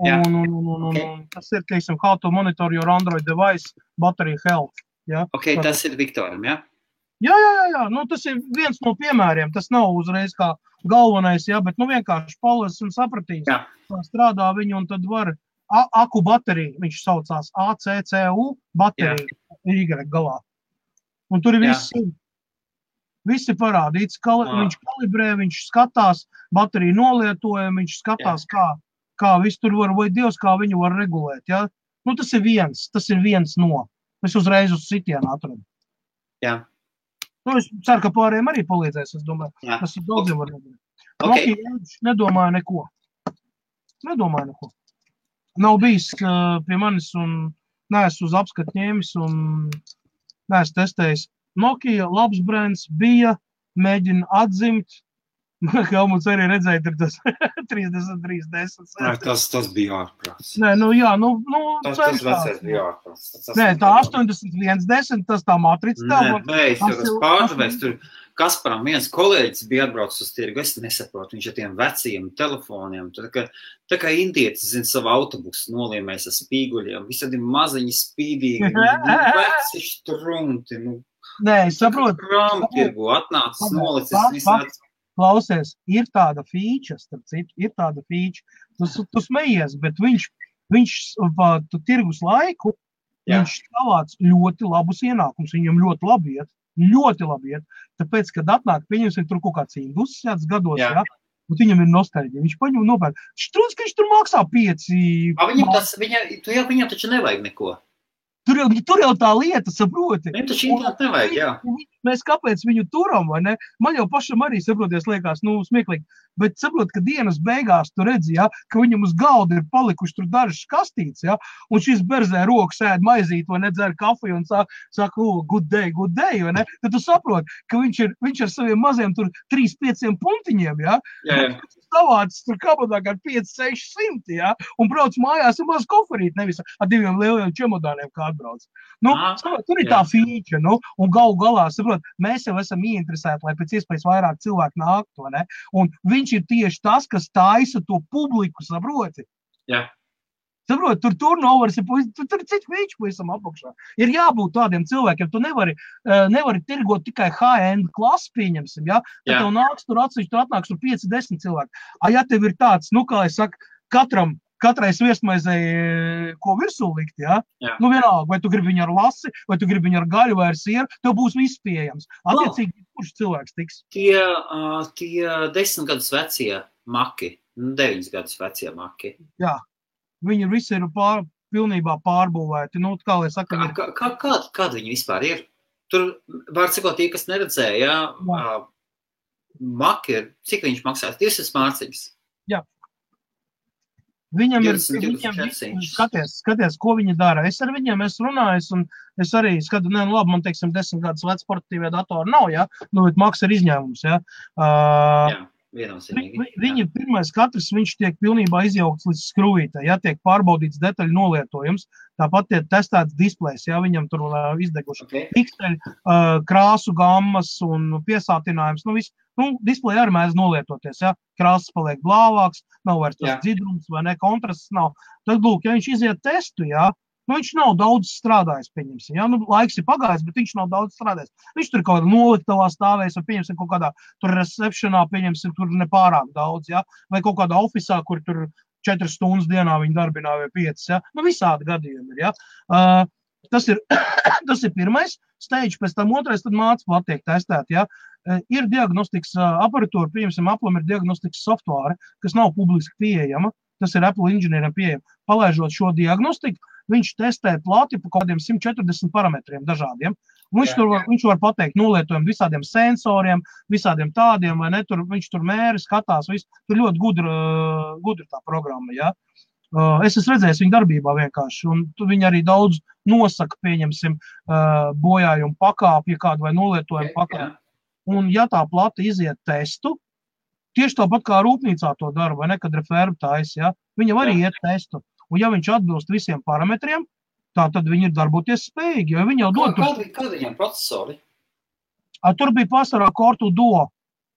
Speaker 1: Un tas ir, teiksim, how to monitor your Android device battery health. Ja?
Speaker 2: Ok, tas ir Viktoram, ja?
Speaker 1: Jā. Nu, tas ir viens no piemēriem. Tas nav uzreiz kā galvenais, ja? Bet nu, vienkārši palas un sapratīs. Jā. Strādā viņu un tad var aku bateriju. Viņš saucās ACCU bateriju Y galā. Un tur ir visi parādīts. Viņš kalibrē, viņš skatās bateriju nolietojumu, viņš skatās, kā viss tur var, vai Dievs, kā viņu var regulēt. Ja? Nu, tas ir viens no. Es uzreiz uz sitienu atradu.
Speaker 2: Jā.
Speaker 1: Nu, es ceru, ka pārējiem arī palīdzēs, es domāju. Jā. Tas ir daudziem var nedarīt. Okay. Nedomāju neko. Nav bijis pie manis un neesmu uz apskatu ņēmis un neesmu testējis. Nokia, labs brands, bija, mēģina atzimt. Helmuts arī redzēja, tur tas 3310.
Speaker 2: Tas bija ārprāts.
Speaker 1: Nē, nu jā,
Speaker 2: tas vecais bija ārprāts.
Speaker 1: Nē, tā 8110, tas tā matrica tev.
Speaker 2: Nē, tas pārdevēs, tur Kasparam viens kolēģis bija atbraucis uz tirgu, es nesaprotu, viņš ar tiem veciem telefoniem, tā kā indietis, zin, savu autobusu noliemēs ar spīguļiem, visādi maziņi spīdīgi, veci štrumti,
Speaker 1: Nē, es saprotu.
Speaker 2: Krāmtirgu atnācis, nolicis visādi.
Speaker 1: Klausies, ir tāda fīča, starp citu, tu smejies, bet viņš tirgus laiku, viņš savāc ļoti labus ienākumus, viņam ļoti labi iet, tāpēc, kad atnāk, pieņemsim tur kaut kāds industriāts gados, ja, un viņam ir nostalģija, viņš paņem nopērk, štrūns, ka viņš tur maksā 5.
Speaker 2: Viņam taču nevajag neko.
Speaker 1: Tur jau tā lieta, saproti.
Speaker 2: Viņam taču internetu nevajag, jā.
Speaker 1: Mēs kāpēc viņu turam, vai ne? Man jau pašam arī, saproties, liekas, smieklīgi. bet saprot, ka dienas beigās tu redzi, ja, ka viņam uz galda ir palikuši tur dažas kastītes, ja, un šis berzē rokas ēd maizīt, vai nedzer kafiju un saka, good day, vai ne? Tad tu saprot, ka viņš ar saviem maziem tur 3-5 puntiņiem, ja, savāds tur kabadā kā 5-600, ja, un brauc mājās ar maz koferīt, nevis ar 2 lieliem čemodāniem, kā atbrauc. Nu, tur ir tā fīča, nu, un galu galā, saprot, mēs jau esam ieinteresēti, lai pēc iespējas vairāk cilvēku nāktu, vai ne? Un viņš ir tieši tas, kas taisa to publiku, saproti?
Speaker 2: Jā.
Speaker 1: Saprot, tur turnovers ir, tur ir cits fīčs pavisam apakšā. Ir jābūt tādiem cilvēkiem, tu nevari tirgot tikai high-end klasi, pieņemsim, ja? Tad tev nāks tur atsevišķi, tur atnāks tur 5-10 cilvēki. Ja tev ir tāds, nu, kā es saku, katrai sviestmaizei, ko virsū likt, ja? Nu, vienalga, vai tu gribi viņu ar lasi, vai tu gribi viņu ar gaļu vai ar sieru, tev būs viss pieejams. Attiecīgi, kurš cilvēks tiks?
Speaker 2: Tie 10 gadus vecie maki, 9 gadus vecie maki.
Speaker 1: Jā. Viņi visi ir pilnībā pārbūvēti. Nu, kā lai saka,
Speaker 2: kāda viņi vispār ir? Tur, var sakot, tie, kas neredzēja, maki ir, cik viņš maksās? 200 mārciņas.
Speaker 1: Jā. Viņam ir, skaties, ko viņi dara. Es ar viņiem esmu runājis, un es arī skatu, labi, man, teiksim, 10 gadus vec sportīvie datori nav, ja? Nu, bet maks ir izņēmums, ja?
Speaker 2: Jā.
Speaker 1: Viņi pirmais katrs, viņš tiek pilnībā izjaukts līdz skrūvītē, ja tiek pārbaudīts detaļu nolietojums, tāpat tiek testēts displejs, ja viņam tur izdeguši pikseļi, krāsu gammas un piesātinājums, nu viss, nu, displeja arī mēdz nolietoties, ja, krāsas paliek blāvāks, nav vairs tas dzidrums vai ne, kontrasts nav, tad, lūk, ja viņš iziet testu, ja, nu, viņš nav daudz strādājis, pieņemsim, ja? Nu, laiks ir pagājis, bet viņš nav daudz strādājis. Viņš tur kaut kādā noliktavā stāvēs, vai pieņemsim kaut kādā tur receptionā, pieņemsim tur nepārāk daudz, ja? Vai kaut kādā ofisā, kur tur 4 stundas dienā viņi darbinā vai 5, ja? Nu, visādi gadījumi ir, ja? Tas ir pirmais stage, pēc tam otrais, tad māca plat tiek testēt, ja? Ir diagnostikas aparatūra, pieņemsim, Apple'am ir diagnostikas softvāre, kas nav publiski pieejama, tas ir Apple inženieriem pieejama. Palaižot šo diagnostiku, viņš testē plati pa kādiem 140 parametriem dažādiem. Viņš var pateikt nolietojumu visādiem sensoriem, visādiem tādiem, vai ne, viņš tur mēri, skatās, visu. Tur ļoti gudra tā programma, ja. Es esmu redzējis viņu darbībā vienkārši, un viņi arī daudz nosaka, pieņemsim, bojājumu pakāpju kādu vai nolietojumu pakāpju. Un ja tā plata iziet testu, tieši tāpat kā rūpnīcā to dara, vai ne, kad referbu tais, ja, viņam arī iet testu. Un ja viņš atbilst visiem parametriem, tā tad viņi ir darboties spējīgi, jo viņi jau dod...
Speaker 2: Kāda viņam procesori?
Speaker 1: Tur bija pārsvarā Cortu Duo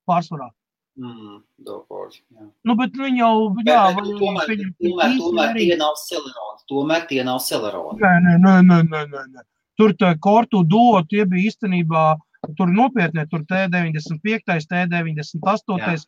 Speaker 1: pārsvarā.
Speaker 2: Duo Core, jā.
Speaker 1: Nu, bet viņi jau...
Speaker 2: Tomēr tie nav Celeron. Tomēr tie nav Celeron.
Speaker 1: Nē. Tur Cortu Duo, tie bija īstenībā... Tur nopietnie, tur T95, T98.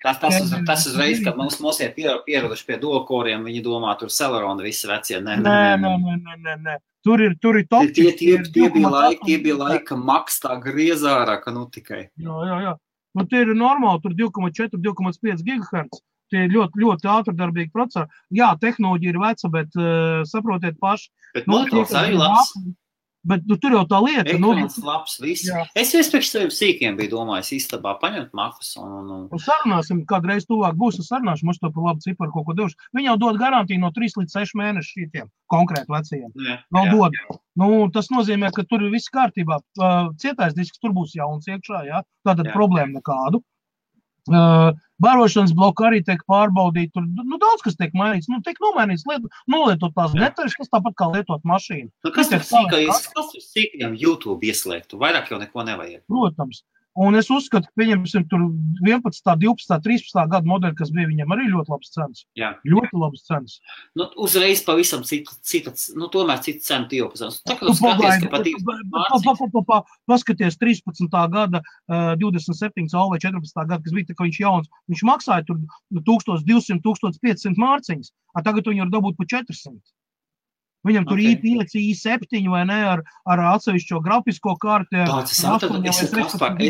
Speaker 2: Tas uzreiz, kad mums ir pieraduši pie duokoriem, viņi domā, tur Celerona visi vecie. Nē.
Speaker 1: Tur ir top.
Speaker 2: Tie bija laika maks tā griezārā, ka nu tikai.
Speaker 1: Jā. Nu, tie ir normāli, tur 2,4, 2,5 GHz. Tie ir ļoti, ļoti ātrdarbīgi procesori. Jā, tehnoloģija ir veca, bet saprotiet paši.
Speaker 2: Bet monitors arī labs.
Speaker 1: Bet tur jau tā lieta.
Speaker 2: Ekrāns labs, viss. Es priekš saviem sīkiem biju domājis istabā paņemt makus un...
Speaker 1: Sarunāsim, kādreiz tuvāk būs, sarunāšu, mums to par labu ciparu kaut ko devuši. Viņi jau dod garantiju no 3 līdz 6 mēnešu šitiem konkrēti vecajiem. Vēl dod. Nu, tas nozīmē, ka tur ir viss kārtībā. Cietais disks tur būs jauns iekšā, jā. Tātad problēma nekādu. Barošanas bloku arī tiek pārbaudīt, tur daudz kas tiek mainīts, tiek nomainīts, nolietot tās detaļas, kas tāpat kā lietot mašīnu.
Speaker 2: Kas tur sīkajam YouTube ieslēgtu? Vairāk jau neko nevajag.
Speaker 1: Protams. Un es uzskatu, ka pieņemsim tur 11, 12, 13 gadu modeļi, kas bija viņam arī ļoti labs cenas.
Speaker 2: Jā.
Speaker 1: Ļoti labs cenas.
Speaker 2: Nu, uzreiz pavisam tomēr citu cenu iepazīstināts. Tā kā tu skaties, ka patīk.
Speaker 1: Paskaties 13. gada 27 vai 14. gada, kas bija tā, ka viņš jauns. Viņš maksāja tur 1200, 1500 mārciņas, tagad viņi var dabūt pa 400. Viņam tur i5, i7 vai ne, ar atsevišķo grafisko karti.
Speaker 2: Es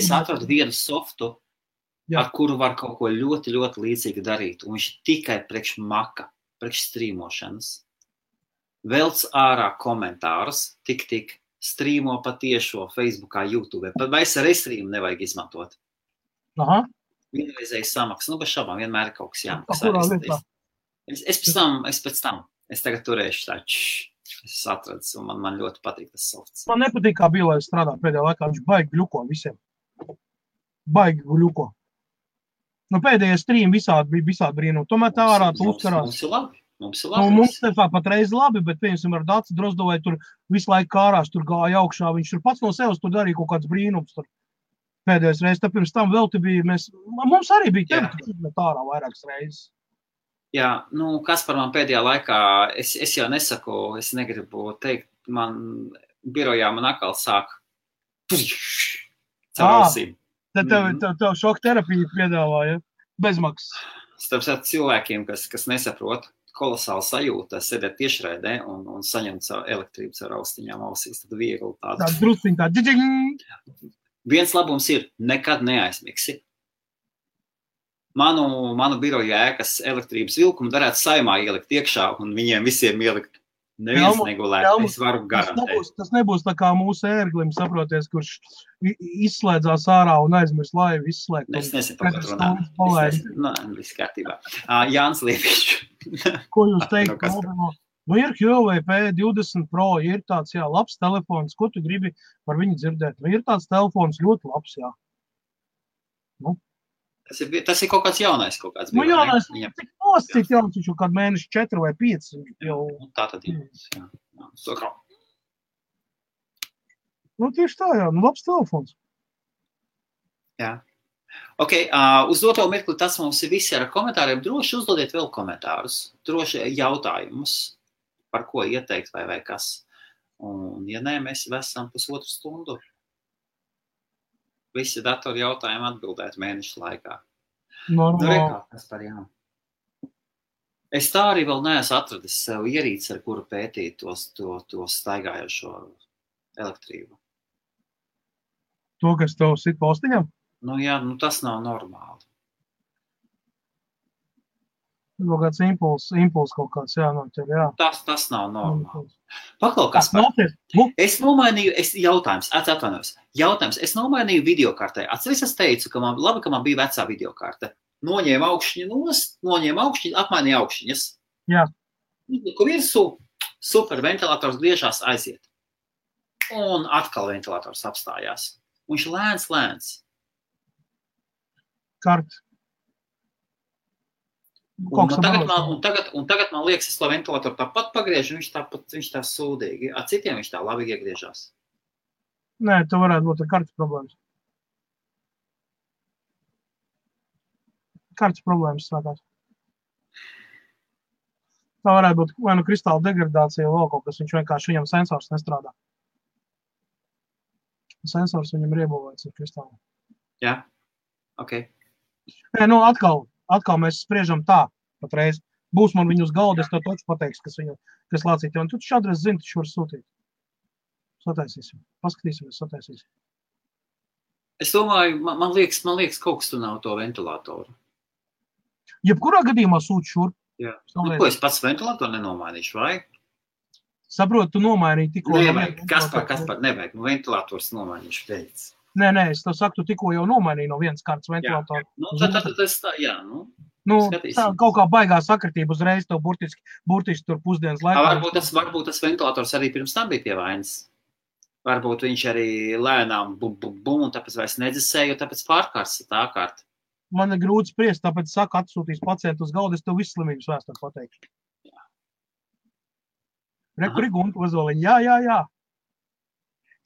Speaker 2: atradu vienu softu, ar kuru var kaut ko ļoti, ļoti līdzīgi darīt. Un viņš tikai priekš maka, priekš strīmošanas. Velc ārā komentārus, tik, strīmo patiešo Facebookā, YouTube. Vai es ar e-streamu nevajag izmantot.
Speaker 1: Aha.
Speaker 2: vienreizēji samaksa. Nu, bez šaubām vienmēr ir kaut kas
Speaker 1: jāmaksā.
Speaker 2: Es tagad turēšu tā, es atradu, un man ļoti patīk tas softs.
Speaker 1: Man nepatīk, kā bija, lai strādā pēdējā laikā. Viņš baigi gļuko visiem. Baigi gļuko. Nu, pēdējie stream visādi bija visādi brīnumi. Tomēr tā ārā tu uzkarās.
Speaker 2: Mums ir labi.
Speaker 1: Mums tā patreiz labi, bet piemēram ar Dāci Drozdovai tur visu laiku kārās, tur gāja augšā. Viņš tur pats no sevis tur darīja kaut kāds brīnums. Tur. Pēdējais reizes, tad pirms tam vēl te bija, mums arī bija tevi ārā vairākas reizes.
Speaker 2: Jā, nu, kas par man pēdējā laikā, es jau nesaku, es negribu teikt, man birojā man atkal sāk caur ausīm.
Speaker 1: Tad tev šoka terapiju piedāvāja, bezmaksas.
Speaker 2: Starp cilvēkiem, kas nesaprot, kolosāli sajūta, sēdēt tiešraidē un saņemt savu elektrību caur austiņām ausīs, tad viegli tādu.
Speaker 1: Tā drusciņ tā, džiģiņ!
Speaker 2: Viens labums ir, nekad neaizmigsi. Manu biroju ēkas elektrības vilkumu varētu Saeimā ielikt iekšā un viņiem visiem ielikt. Neviens negulēt, es varu garantēt.
Speaker 1: Tas nebūs tā kā mūsu ērglim, saproties, kurš izslēdzās ārā un aizmirs laivu izslēgt.
Speaker 2: Es nezinu, par ko runā. Viss kārtībā. Jānis Liepiņš.
Speaker 1: Ko jūs teikt? Nu, ir Huawei P20 Pro, ir tāds, jā, labs telefons. Ko tu gribi par viņu dzirdēt? Nu, ir tāds telefons ļoti labs, jā. Nu.
Speaker 2: Tas ir kaut kāds jaunais, kaut kāds.
Speaker 1: Nu, jaunais, cik noscīt jauns, viņš jau kādu mēneši 4 vai 5. Jau...
Speaker 2: Tā tad ir. Jā.
Speaker 1: Nu, tieši tā, jā. Nu, labs telefons.
Speaker 2: Jā. Ok, uz doto mirkli tas mums ir visi ar komentāriem. Droši uzdodiet vēl komentārus. Droši jautājumus, par ko ieteikt vai kas. Un, ja nē, mēs esam pusotru stundu. Visi datori jautājumi atbildēt mēnešu laikā. Es tā arī vēl neesmu atradis sev ierīci, ar kuru pētīt to staigājošo elektrību.
Speaker 1: To, kas tev sit postiņam?
Speaker 2: Nu jā, tas nav normāli.
Speaker 1: Kaut kāds impuls kaut kāds, jā.
Speaker 2: Tas nav normāli. Paklau, kas par? Es nomainīju, jautājums, es nomainīju videokartē. Atceries, es teicu, ka man bija vecā videokarte. Noņēma augšņi, apmainīja augšņas.
Speaker 1: Jā.
Speaker 2: Ko virsū, super, ventilators griežās aiziet. Un atkal ventilators apstājās. Un viņš lēns.
Speaker 1: Kart.
Speaker 2: Un tagad man liekas, es to ventilatoru tāpat pagriežu, viņš tā sūdīgi. Ar citiem viņš tā labi iegriežās.
Speaker 1: Nē, tu varētu būt ar kartes problēmas. Kartes problēmas sākās. Tā varētu būt vai nu kristāla degradācija vai kaut kas, viņš vienkārši viņam sensors nestrādā. Sensors viņam ir iebūvēts ar kristālu.
Speaker 2: Jā, ok.
Speaker 1: Nē, nu atkal mēs spriežam tā, patreiz. Būs man viņu uz galda, es tev toču pateiks, kas lācīt. Un tu šādreiz zini, taču var sūtīt. Sataisīsim. Paskatīsimies, sataisīsim.
Speaker 2: Es domāju, man liekas, kaut kas tu nav to ventilatoru.
Speaker 1: Jebkurā gadījumā sūti šurp.
Speaker 2: Jā. Nu, ko es pats ventilatoru nenomainīšu, vai?
Speaker 1: Saprotu, tu nomainīji tikko.
Speaker 2: Nevajag, kas par, nevajag, ventilators nomainīšu pēc.
Speaker 1: Nē, es tev saku, tu tikko jau nomainīji no vienas kārtas ventilatoru.
Speaker 2: Tad es tā, jā,
Speaker 1: tā kaut kā baigā sakritība uzreiz tev burtiski tur pusdienas laikā.
Speaker 2: Varbūt tas ventilators arī pirms tam bija pie vainas. Varbūt viņš arī lēnām un tāpēc vairs nedzisēja, jo tāpēc pārkārs tā kārta.
Speaker 1: Man ir grūti spriest, tāpēc saka, atsūtīs pacientu uz galda, es tev visu slimības vēsturi pateikšu. Rekuri Gunta Ozoliņa, jā.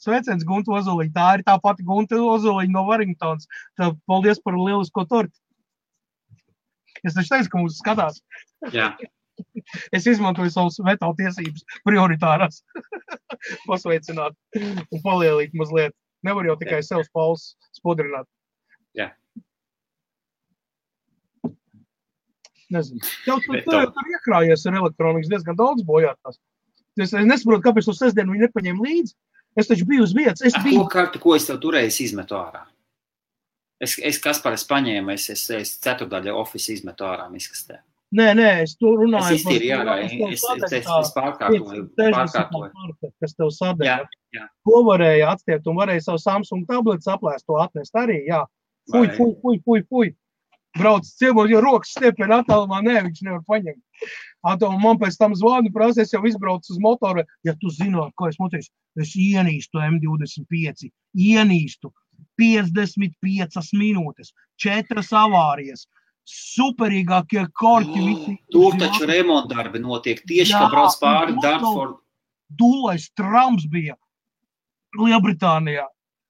Speaker 1: Sveiciens Gunta Ozoliņa, tā ir tā pati Gunta Ozoliņa no Warringtons. Tā, paldies par lielisko torti. Es taču teicu, ka mūs skatās.
Speaker 2: Jā.
Speaker 1: Es izmantoju savus veto tiesības prioritārās. Pasveicināt un palielīt mazliet. Nevar jau tikai sev spaules spodrināt.
Speaker 2: Jā.
Speaker 1: Nezinu. Tev tur iekrājies ar elektronikas diezgan daudz bojātās. Es nesaprotu, kāpēc to sestdienu viņi nepaņēma līdzi. Es taču biju uz vietas.
Speaker 2: Ko es tev turēju, izmetu ārā? Es paņēmu, es ceturdaļa office izmetu ārā miskastē.
Speaker 1: Nē, es to runāju.
Speaker 2: Es iztīri ārā, es pārkārtoju.
Speaker 1: Kas tev sadēļ.
Speaker 2: Jā.
Speaker 1: Ko varēja atstiept un varēja savu Samsung tabletu saplēst to atnest arī, jā. Fuj. brauc ciemos, jo rokas stiepien attālumā, viņš nevar paņemt. Man pēc tam zvanu prasa, es jau izbraucu uz motoru, ja tu zināt, ko es moteicu, es ienīstu M25, ienīstu 55 minūtes, 4 avārijas, superīgākie korķi visi.
Speaker 2: Tur taču remontdarbi notiek, tieši kā brauc pāri Dartford.
Speaker 1: Dūlais trams bija Lielbritānijā.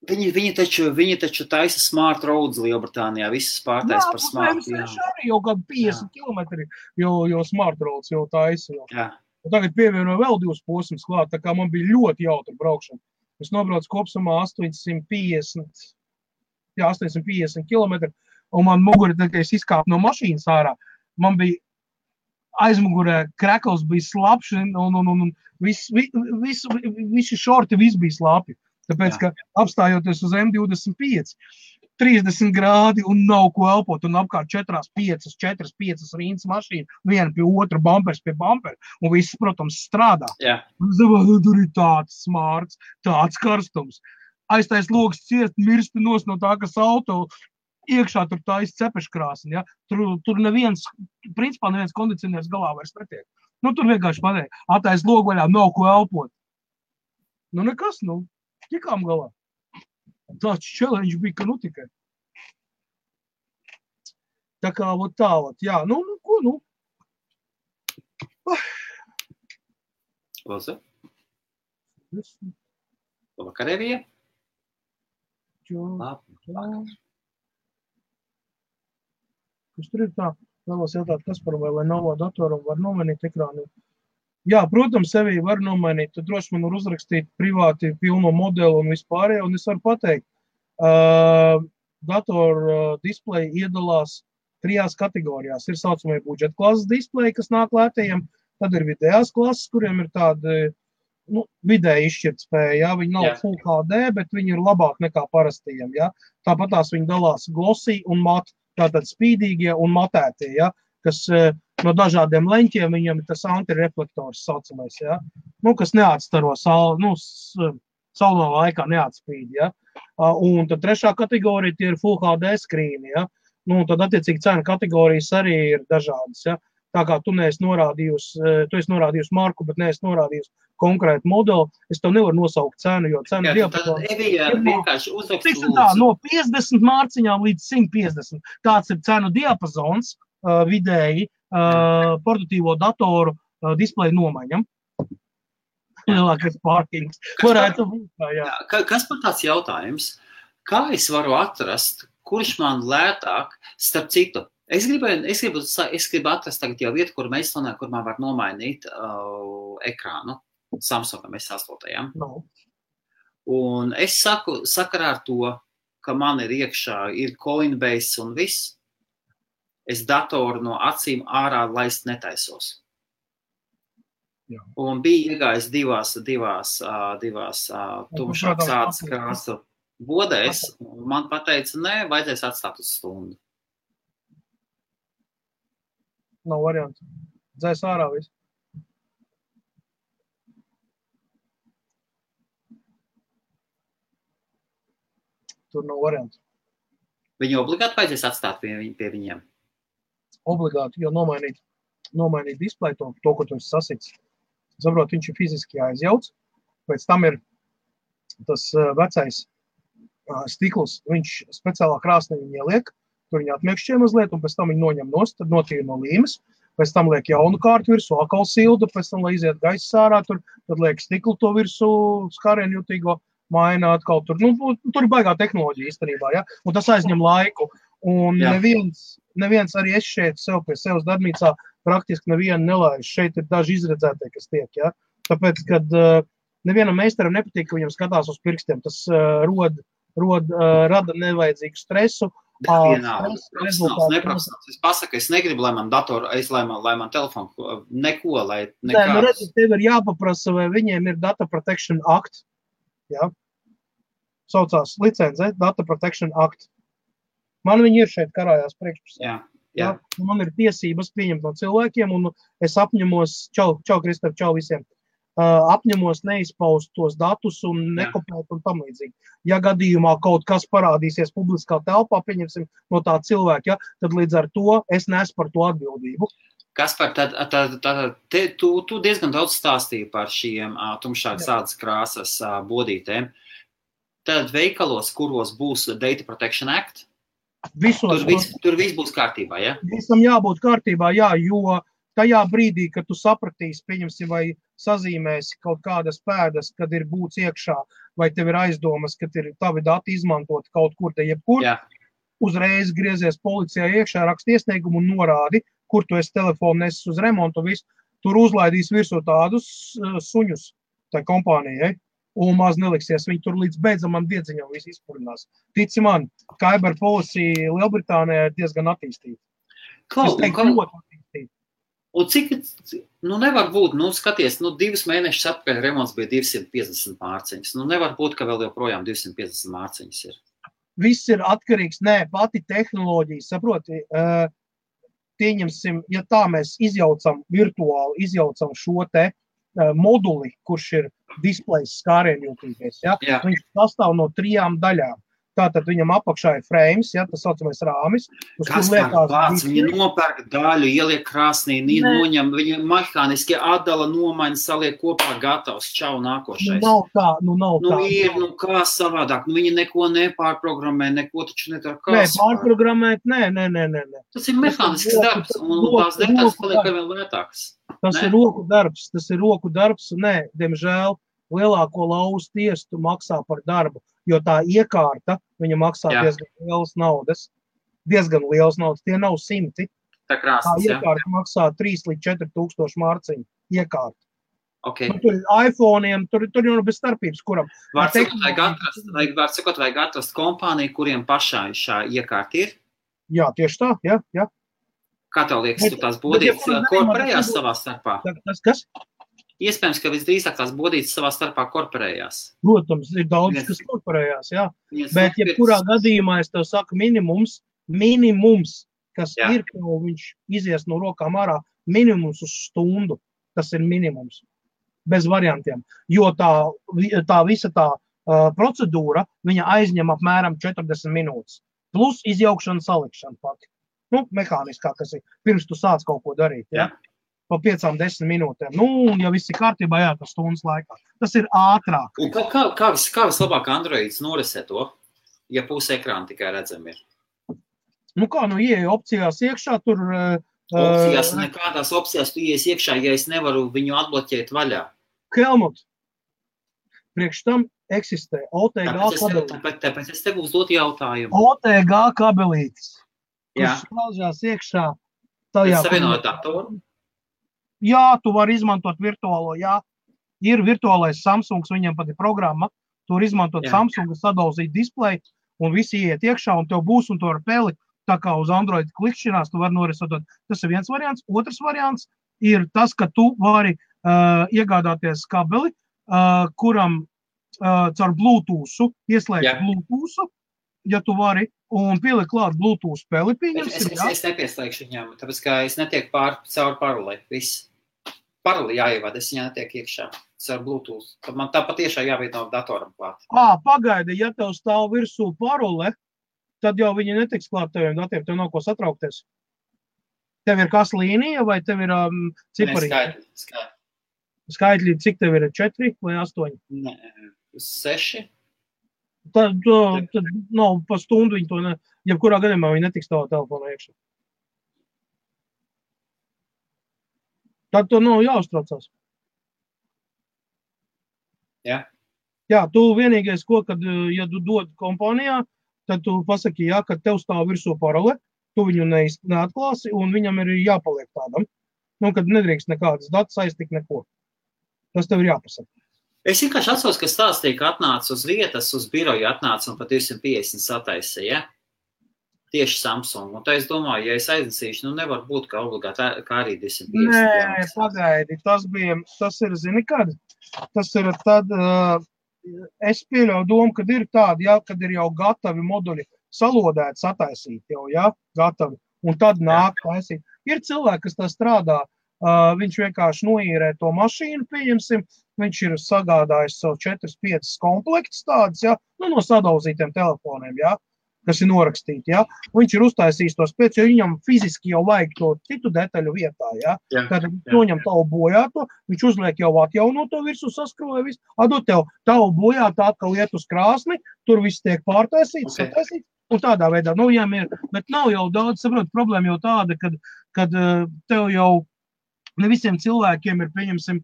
Speaker 2: Viņi taču taisa smart roads Lielbritānijā, visas pārtais par smart.
Speaker 1: Jā, arī jau kādu 50 kilometri, jo smart roads jau taisa.
Speaker 2: Jā.
Speaker 1: Un tagad pievienoju vēl 2 posmus klāt, tā kā man bija ļoti jautra braukšana. Es nobraucu kopsumā 850 kilometri, un man muguri, kad es izkāpu no mašīnas ārā, man bija aizmugurē krekls bija slapš, un visi šorti viss bija slapi. Tāpēc, ka apstājoties uz M25, 30 grādi un nav ko elpot, un apkārt 4-5 rīnas mašīna, viena pie otra, bumpers pie bumpera, un viss, protams, strādā. Tur ir tāds smārts, tāds karstums. Aiztais logs ciest, mirsti no tā, kas auto iekšā tur taisa cepeškrāsni, ja? Tur principā neviens kondicionieris galā vairs netiek. Tur vienkārši pateikt, atais logu vaļā, nav ko elpot. Nekas, tikām galā. Tāds challenge bija, ka tikai. Tā kā, jā, ko.
Speaker 2: Lūdzu. Vakarēvija?
Speaker 1: Kas tur ir tā? Vēlos jautāt, kas par vai Lenovo datoram var nomainīt ekrānu? Jā, protams, sevī var nomainīt. Tad droši man var uzrakstīt privāti pilno modeli un vispārējo, un es varu pateikt. Datoru displeji iedalās 3 kategorijās. Ir saucamie budžeta klases displeji, kas nāk lētajiem, tad ir vidējās klases, kuriem ir tāda vidēji izšķirtspēja. Ja? Viņi nav Full HD, bet viņi ir labāk nekā parastījiem. Ja? Tāpat tās viņi dalās glossy un mat, tātad spīdīgie un matētie, ja? Kas no dažādiem leņķiem viņam ir tas antireflektors saucamais, ja? Kas neatstaro saulē laikā neatspīd, ja? Un tad 3. kategorija tie ir Full HD skrīni, ja? Tad attiecīgi cena kategorijas arī ir dažādas, ja? Tā kā tu esi norādījusi marku, bet neesi norādījusi konkrētu modeli, es tev nevaru nosaukt cenu, jo cenu diapazons no 50 mārciņām līdz 150. Tāds ir cenu diapazons vidēji portatīvo datoru displeju nomaiņam. Lielākais pārkings. Varētu būt, jā.
Speaker 2: Kas par tāds jautājums? Kā es varu atrast, kurš man lētāk, starp citu, es gribu atrast tagad jau vietu, kur man var nomainīt ekrānu Samsungam S8.
Speaker 1: No.
Speaker 2: Un es saku, sakarā ar to, ka man ir iekšā, ir Coinbase un viss, es datoru no acīm ārā laist netaisos.
Speaker 1: Jā.
Speaker 2: Un bija iegājis divās tumšākas ādas krāsu bodēs, un man pateica, nē, vajadzēs atstāt uz stundu.
Speaker 1: Nav variantu. Dzēs ārā visu. Tur nav variantu.
Speaker 2: Viņu obligāti vajadzēs atstāt pie viņiem?
Speaker 1: Obligāti, jo nomainīt displeju, to, ko tu esi sasits. Saprot, viņš ir fiziski jāizjauc. Pēc tam ir tas vecais stikls, viņš speciālā krāsnī viņu ieliek, tur viņi atmiekšķie mazliet, un pēc tam viņi noņem nost, tad notīra no līmes, pēc tam liek jaunu kārtu virsū, atkal sildu, pēc tam, lai iziet gaiss ārā, tad liek stiklu to virsū, skārienu jutīgo, maina atkal tur. Tur ir baigā tehnoloģija īstenībā, ja? Un tas aizņem laiku. Un neviens arī es šeit sev pie sevas darbnīcā praktiski nevienu nelaiž. Šeit ir daži izredzētie, kas tiek, ja? Tāpēc, kad nevienam meistaram nepatīk, ka viņam skatās uz pirkstiem, tas rada nevajadzīgu stresu.
Speaker 2: Neprofesionāls. Es pasaku, es negribu, lai man datoru, lai man telefonu, neko, lai nekāds.
Speaker 1: Nē, redzi, tev ir jāpaprasa, vai viņiem ir Data Protection Act. Ja? Saucās licence, Data Protection Act. Man viņi ir šeit karājās priekšpusē.
Speaker 2: Jā.
Speaker 1: Man ir tiesības pieņemt no cilvēkiem, un es apņemos, čau Kristap, čau visiem, apņemos neizpaust tos datus un nekopēt un tam līdzīgi. Ja gadījumā kaut kas parādīsies publiskā telpā, pieņemsim no tā cilvēka, tad līdz ar to es nesu par to atbildību.
Speaker 2: Kaspar, tu diezgan daudz stāstīji par šiem tumšākas ādas krāsas bodītēm. Tad veikalos, kuros būs Data Protection Act, tur viss būs kārtībā, ja?
Speaker 1: Visam jābūt kārtībā, jā, jo tajā brīdī, kad tu sapratīsi, pieņemsim, vai sazīmēsi kaut kādas pēdas, kad ir būts iekšā, vai tev ir aizdomas, kad ir tavi dati izmantot kaut kur te jebkur, uzreiz griezies policijā iekšā, raksti iesniegumu un norādi, kur tu esi telefonu nesis uz remontu, visu, tur uzlaidīs virsū tādus suņus tai kompānijai, un maz neliksies, viņi tur līdz beidzamam diedziņam visu izpurinās. Tici man, Cyber Policy Lielbritānijā ir diezgan attīstīta. Es teiktu, ļoti attīstīta.
Speaker 2: Un cik, nevar būt, skaties, 2 mēnešus atpakaļ remonts bija 250 mārciņas. Nevar būt, ka vēl joprojām 250 mārciņas ir.
Speaker 1: Viss ir atkarīgs, pati tehnoloģija, saproti, pieņemsim, ja tā mēs virtuāli izjaucam šo te moduli, kurš ir displejs skārienjūtīgais, viņš sastāv no 3 daļām. Tātad viņam apakšā ir frames, tas saucamais rāmis.
Speaker 2: Kas par vārds? Viņa nopērk daļu, ieliek krāsnī, noņem, viņa mehāniski atdala, nomaina, saliek kopā, gatavs, čau, nākošais.
Speaker 1: Nav tā.
Speaker 2: Ir, kā savādāk, viņi neko nepārprogrammē, neko taču nedara.
Speaker 1: Pārprogrammēt, nē.
Speaker 2: Tas ir mehānisks darbs, un tās detaļas paliek vēl lētākas.
Speaker 1: Tas ir roku darbs, un diemžēl, lielāko lauzu tiesu maksā par darbu, jo tā iekārta, viņa maksā diezgan lielas naudas, tie nav 100.
Speaker 2: Tā
Speaker 1: iekārta maksā 3 līdz 4 tūkstoši mārciņu iekārta.
Speaker 2: Okay.
Speaker 1: Tur ir iPhone'iem, tur jau bez starpības, kuram.
Speaker 2: Var sakot, vajag atrast kompāniju, kuriem pašā šā iekārta ir?
Speaker 1: Jā, tieši tā, jā.
Speaker 2: Kā tev liekas, tu tās bodītas korporējās savā starpā?
Speaker 1: Kas?
Speaker 2: Iespējams, ka visdrīzāk tās bodītas savā starpā korporējās.
Speaker 1: Protams, ir daudz, kas korporējās, jā. Bet, ja kurā gadījumā es tev saku minimums, kas ir, ko viņš izies no rokām ārā, minimums uz stundu, tas ir minimums. Bez variantiem. Jo tā visa tā procedūra, viņa aizņem apmēram 40 minūtes. Plus izjaukšana, salikšana pati. Mehāniskā, kas ir, pirms tu sāc kaut ko darīt, jā. Pa 5-10 minūtēm. Un ja viss ir kārtībā, tas stundas laikā. Tas ir ātrāk.
Speaker 2: Un kā vislabāk Androids norisē to, ja puse ekrāna tikai redzami ir?
Speaker 1: Ieeja opcijās iekšā, tur...
Speaker 2: Opcijās, nekādās opcijās tu ieies iekšā, ja es nevaru viņu atbloķēt vaļā.
Speaker 1: Helmut, priekš tam eksistē OTG kabelītis.
Speaker 2: Tāpēc es tev uzdot jautājumu.
Speaker 1: OTG kabelītis, kurš slaužās iekšā.
Speaker 2: Pēc savienot datoru?
Speaker 1: Jā, tu vari izmantot virtuālo, Ir virtuālais Samsungs, viņam pat ir programma, tu vari izmantot Samsungu, sadauzīt displeju, un visi iet iekšā, un tev būs, un tu vari pēli, tā kā uz Android klikšķinās, tu vari norisot. Tas ir viens variants. Otrs variants ir tas, ka tu vari iegādāties kabeli, kuram caur Bluetooth ieslēgt Bluetooth, ja tu vari, un pieliek klāt Bluetooth spēli, pieņemsim.
Speaker 2: Es nepieslēgšu viņam, tāpēc, ka es netiek caur parolē, viss. Paroli jāievada, es viņā netiek iekšā caur Bluetooth. Tad man tā patiešām jāveido datoram klāt.
Speaker 1: Pagaidi, ja tev stāv virsū parole, tad jau viņi netiks klāt teviem datiem, tev nav ko satraukties. Tev ir kas līnija, vai tev ir cipari? Skaitļi, cik tev ir 4 vai 8?
Speaker 2: Nē, 6.
Speaker 1: Tad nav pa stundu viņi to jebkurā gadījumā viņi netiks tavā telefonā iekšā. Tad to nav jāuztraucās.
Speaker 2: Jā.
Speaker 1: Jā, tu vienīgais, kad, ja tu dod kompānijā, tad tu pasaki, ka tev stāv virsū parole, tu viņu neatklāsi, un viņam ir jāpaliek tādam. Kad nedrīkst nekādas datus aiztikt neko. Tas tev ir jāpasaka.
Speaker 2: Es vienkārši atceros, ka stāstīja, ka atnāca uz vietas, uz biroju atnāca un pat 250 sataisīja, tieši Samsung. Un tā es domāju, ja es aiznesīšu, nevar būt, ka obligāti kā arī 250.
Speaker 1: Nē, pagaidi, tas ir, zini, kad? Tas ir tad, es pieļauju domu, kad ir tādi, kad ir jau gatavi moduļi salodēti, sataisīti jau, gatavi. Un tad nāk taisīt. Ir cilvēki, kas tā strādā, viņš vienkārši noīrē to mašīnu, pieņemsim, viņš ir sagādājis savu 4-5 komplektus tādus, ja, no sadauzītiem telefoniem, ja, kas ir norakstīti, ja, viņš ir uztaisījis tos pēc, jo viņam fiziski jau vajag to citu detaļu vietā, ja, tad noņem tavu bojāto, viņš uzliek jau atjaunoto virsū saskrūvē visu, atdod tev tavu bojāto atkal iet uz krāsni, tur viss tiek pārtaisīts, sataisīts, un tādā veidā, bet nav jau daudz, saprot, problēma jau tāda, kad tev jau ne visiem cilvēkiem ir, pieņemsim,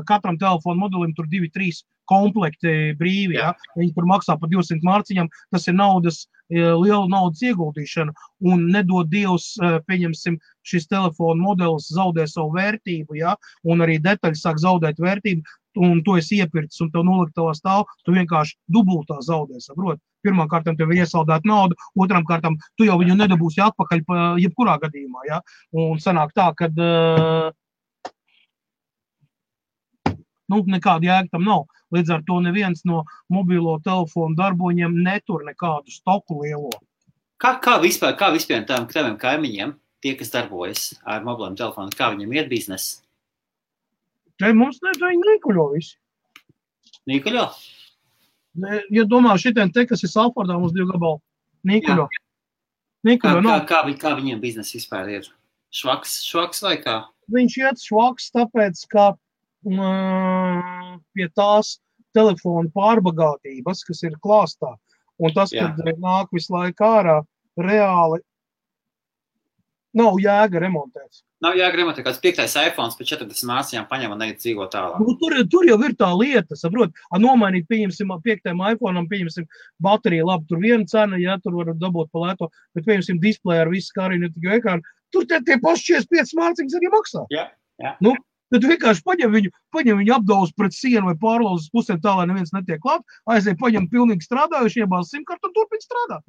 Speaker 1: katram telefonu modelim tur 2-3 komplekti brīvi, ja? Viņi tur maksā par 200 mārciņām, tas ir liela naudas ieguldīšana, un nedod Dievs, pieņemsim, šis telefonu modelis zaudē savu vērtību, ja? Un arī detaļas sāk zaudēt vērtību, un to esi iepircis, un tev noliktavā stāv, tu vienkārši dubultā zaudē, saprot? Pirmām kārtām tev ir iesaldēt naudu, otrām kārtām tu jau viņu nedabūsi atpakaļ jebkurā gadījumā, ja? Un sanāk tā, kad nekāda jēga tam nav. Līdz ar to neviens no mobilo telefonu darboņiem netur nekādu stoku lielo.
Speaker 2: Kā vispār taviem kaimiņiem, tie, kas darbojas ar mobiliem telefoniem, kā viņiem iet biznesa?
Speaker 1: Te mums viņi nīkuļo visi.
Speaker 2: Nīkuļo?
Speaker 1: Ja domā šitien te, kas ir Salfordā, mums 2 gabali. Nīkuļo.
Speaker 2: Kā viņiem biznesa vispār ir? Švaks vai kā?
Speaker 1: Viņš iet švaks, tāpēc, ka pie tās telefonu pārbagātības, kas ir klāstā, un tas, kad nāk visu laiku ārā, reāli nav jēga remontēt.
Speaker 2: Nav jēga remontēt, kāds 5. iPhones pēc 40 mārciņām paņem un neiet dzīvo tālāk.
Speaker 1: Tur jau ir tā lieta, saprot, nomainīt, pieņemsim, 5. iPhone'am, pieņemsim, baterija, labi, tur viena cena, ja, tur var dabūt pa lēto, bet pieņemsim display ar visu, kā arī ne tikai ekrānu, tur tie paši 45 mārciņas arī maksā.
Speaker 2: Jā.
Speaker 1: Tad vienkārši paņem viņu apdauz pret sienu vai pārlauz uz pusēm tā, lai neviens netiek klāt, aiziet paņem pilnīgi strādājuši, iebāz simkartu un turpin strādāt.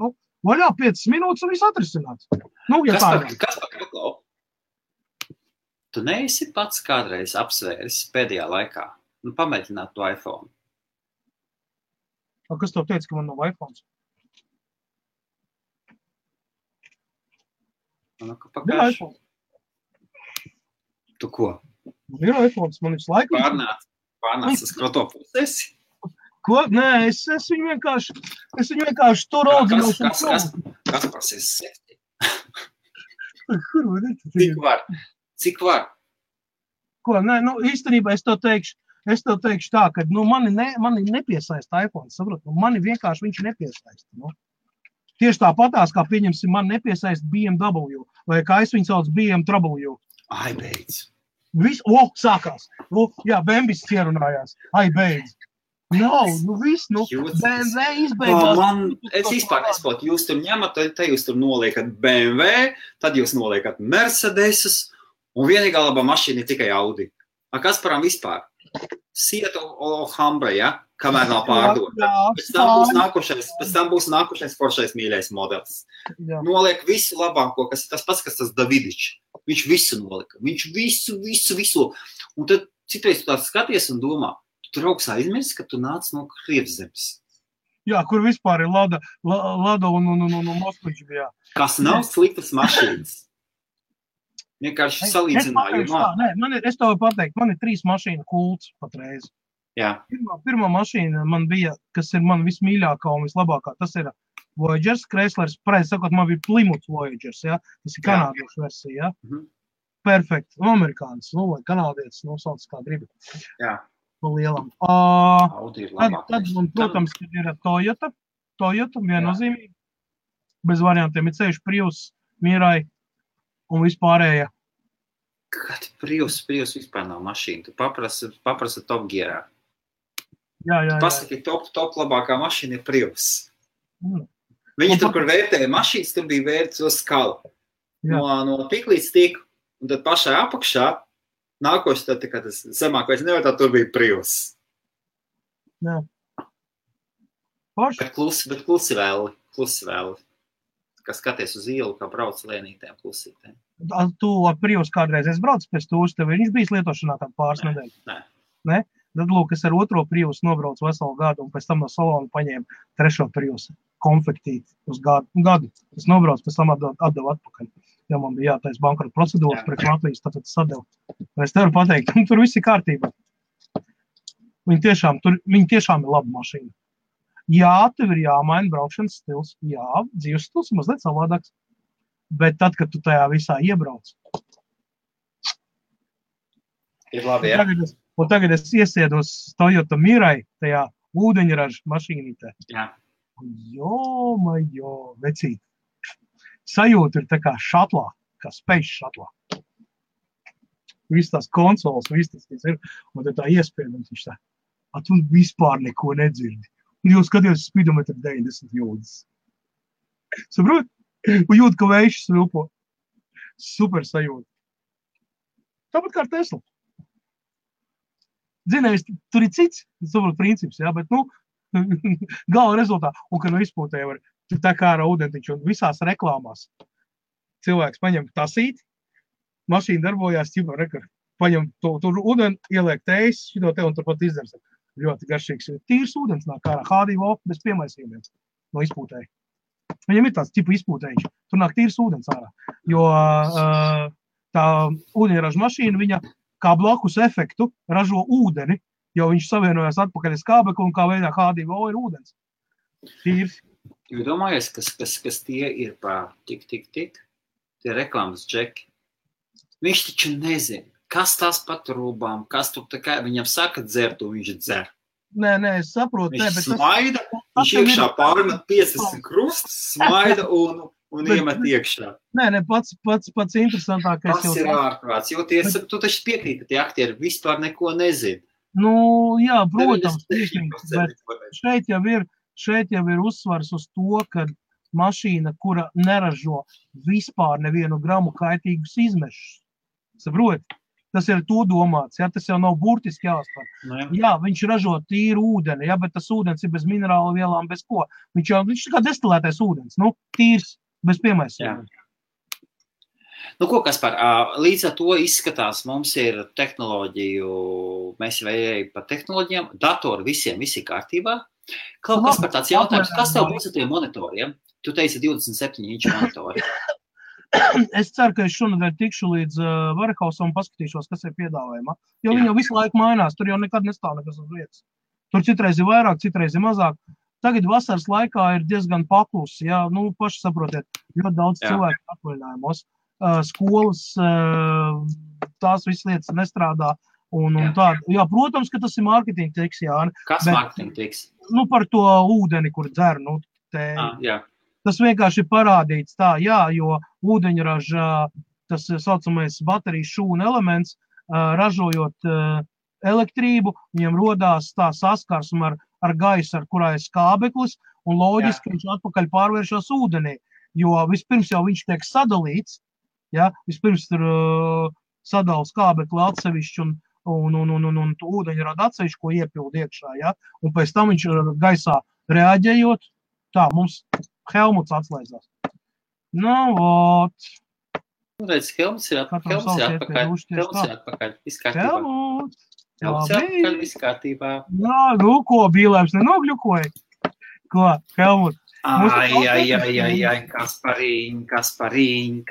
Speaker 1: Vaļā 5 minūtes un viss atrisināts.
Speaker 2: Kas par Klau? Tu neesi pats kādreiz apsvēris pēdējā laikā, pamēģināt to iPhone?
Speaker 1: Kas tev teica, ka man nav iPhones? Ir iPhone.
Speaker 2: Tu ko?
Speaker 1: Ir iPhones, man visu laiku.
Speaker 2: Pārnāc uz kroto pusesi?
Speaker 1: Ko? Nē, es viņu vienkārši tur audzināšu.
Speaker 2: Kas par septi?
Speaker 1: Kur var redzēt?
Speaker 2: Cik var?
Speaker 1: Ko? Nē, īstenībā es tev teikšu tā, ka mani nepiesaista iPhone, saprot? Mani vienkārši viņš nepiesaista. Tieši tāpatās, kā pieņemsim, man nepiesaista BMW, vai kā es viņu sauc BMW.
Speaker 2: Ai, beidz.
Speaker 1: Sākās. Jā, Bembis ierunājās. Ai, beidz. Viss, BMW izbeigās.
Speaker 2: Es vispār nesaprotu, jūs tur ņemat, te jūs tur noliekat BMW, tad jūs noliekat Mercedesus, un vienīgā labā mašīna ir tikai Audi. Kas param vispār? Sieta Alhambra, ja? Kamēr nav pārdota. Pēc tam būs nākošais foršais mīļais modelis. Noliek visu labāko, kas ir tas pats, kas tas Davidičs. Viņš visu nolika. Viņš visu. Un tad citreiz tu tāds skaties un domā, tu draugs aizmirsti, ka tu nāc no Krievzemes.
Speaker 1: Jā, kur vispār ir Lada un Moskvičs bija.
Speaker 2: Kas nav sliktas mašīnas. Vienkārši salīdzināju.
Speaker 1: Es tev pateikt, man ir 3 mašīnu kults patreiz.
Speaker 2: Jā.
Speaker 1: Pirmā mašīna man bija, kas ir man vismīļākā un vislabākā, tas ir Voyagers, Chryslers, pareizi sakot, man bija Plymouth Voyagers, ja? Tas ir kanādiešu versija, ja? Perfekt, amerikānis, vai kanādietis, sauc kā gribi.
Speaker 2: Jā.
Speaker 1: Pa lielam.
Speaker 2: Audi ir labāk.
Speaker 1: Tad, protams, ir Toyota viennozīmīgi. Bez variantiem ir ceļš Prius, Mirai un vispārējā.
Speaker 2: Kad Prius vispār nav mašīna, tu paprasa Top Gearā.
Speaker 1: Jā.
Speaker 2: Pasaki, top labākā mašīna ir Prius. Viņi tur, kur vērtēja mašīnas, tur bija vērts uz skalu. No tik līdz tik, un tad pašā apakšā, nākoši tad, kad tas zemākais nevērtā, tur bija Prius.
Speaker 1: Jā.
Speaker 2: Bet klusi vēl. Kā skaties uz ielu, kā brauc lēnītēm, klusītēm.
Speaker 1: Tu ar Prius kādreiz esi braucis pēc tūs, tev viņš bijis lietošanā kādu pāris nedēļu? Nē? Tad, lūk, es ar 2. Prius nobraucu veselu gadu un pēc tam no salona paņēmu 3. Prius konfektīti uz gadu. Es nobraucu, pēc tam atdevu atpakaļ. ja man bija jātais bankrota procedūras priekš Latvijas, tad sadevu. Es tev varu pateikt, tur viss ir kārtībā. Viņi tiešām ir laba mašīna. Jā, tev ir jāmaina braukšanas stils. Jā, dzīves stils ir mazliet savādāks. Bet tad, kad tu tajā visā iebrauc.
Speaker 2: Ir labi, jā.
Speaker 1: Un tagad es iesēdos Toyota Mirai tajā ūdeņraža mašīnītē.
Speaker 2: Jā.
Speaker 1: Jo, vecīt. Sajūta ir tā kā šatlā, kā space šatlā. Viss tās konsoles, viss tas, kas ir, un tā iespējams viņš tā, tu vispār neko nedzirdi. Un jūs skaties spidometru 90 jūdas. Saprot? Un jūt, ka vējš svilpo. Super sajūta. Tāpat kā ar Tesla. Zinājis, tur ir cits, saprot, princips, jā, bet, gala rezultātā, un ka izpūtē var, tur tā kā ar ūdentiņu, un visās reklāmās cilvēks paņem tasīti, mašīna darbojās, ķipa, rekar, paņem tur ūdeni, ieliek tējas, šito te, un turpat izdars. Ļoti garšīgs. Tīrs ūdens nāk ārā, H2O, bez piemaisījumiem no izpūtēja. Viņam ir tāds tipu izpūtējiņš, tur nāk tīrs ūdens ārā, jo tā ūdeņraža mašīna, viņa kā blakus efektu ražo ūdeni, jo viņš savienojās atpakaļ uz kābekli un kā veidā H2O ir ūdens. Tīrs.
Speaker 2: Jūs domājies, kas tie ir pa tik, tie reklāmas džeki? Viņš taču nezina, kas tās pa trūbām, kas tur tā kā viņam saka dzert, un viņš dzer.
Speaker 1: Nē, es saprotu.
Speaker 2: Viņš smaida, viņš iekšā pārmet 50 krustus, smaida un iemet iekšā.
Speaker 1: Nē, pats interesantākais.
Speaker 2: Tas ir ārprāts, jo tu taču piekrīt, ka tie aktieri vispār neko nezina.
Speaker 1: Jā, protams, bet šeit jau ir uzsvars uz to, ka mašīna, kura neražo vispār nevienu gramu kaitīgus izmešus. Saprot? Tas ir to domāts, ja? Tas jau nav burtiski jāuztver. Jā, viņš ražo tīru ūdeni, ja? Bet tas ūdens ir bez minerālu vielām, bez ko. Viņš kā destilētais ūdens, tīrs, bez piemaisījumiem.
Speaker 2: Ko, Kaspar, līdz ar to izskatās, mums ir tehnoloģiju, mēs jau ejam par tehnoloģijām, datori visiem, visi kārtībā. Kaspar, tāds jautājums, kas tev būs ar tiem monitoriem? Tu teici 27 inču monitori.
Speaker 1: Es ceru, ka es šonadēļ tikšu līdz Warehouse un paskatīšos, kas ir piedāvājumā. Jo viņi jau visu laiku mainās, tur jau nekad nestāv nekas uz vietas. Tur citreiz ir vairāk, citreiz ir mazāk. Tagad vasaras laikā ir diezgan paklusi, jā, paši saprotiet, ļoti daudz cilvēku atvaļinājumos. Skolas, tās visas lietas nestrādā un tā. Jā, protams, ka tas ir mārketinga triks, jā.
Speaker 2: Kas mārketinga triks?
Speaker 1: Par to ūdeni, kur dzer,
Speaker 2: jā.
Speaker 1: Tas vienkārši ir parādīts tā, jā, jo ūdeņraža, tas saucamais baterijas šūna elements, ražojot elektrību, viņam rodās tā saskarsme ar gaisu, ar kurā ir skābeklis, un loģiski viņš atpakaļ pārvēršas ūdenī, jo vispirms jau viņš tiek sadalīts, ja, vispirms tur sadala skābekli atsevišķi un ūdeņrada atsevišķi, ko iepild iekšā, ja, un pēc tam viņš gaisā reaģējot, tā, mums Helmuts atslēdzās.
Speaker 2: Redz, Helmuts ir atpakaļ. Viss kārtībā. Helmuts ir atpakaļ, viss kārtībā.
Speaker 1: Ko, Bīlēms nenogļukoja? Ko, Helmuts?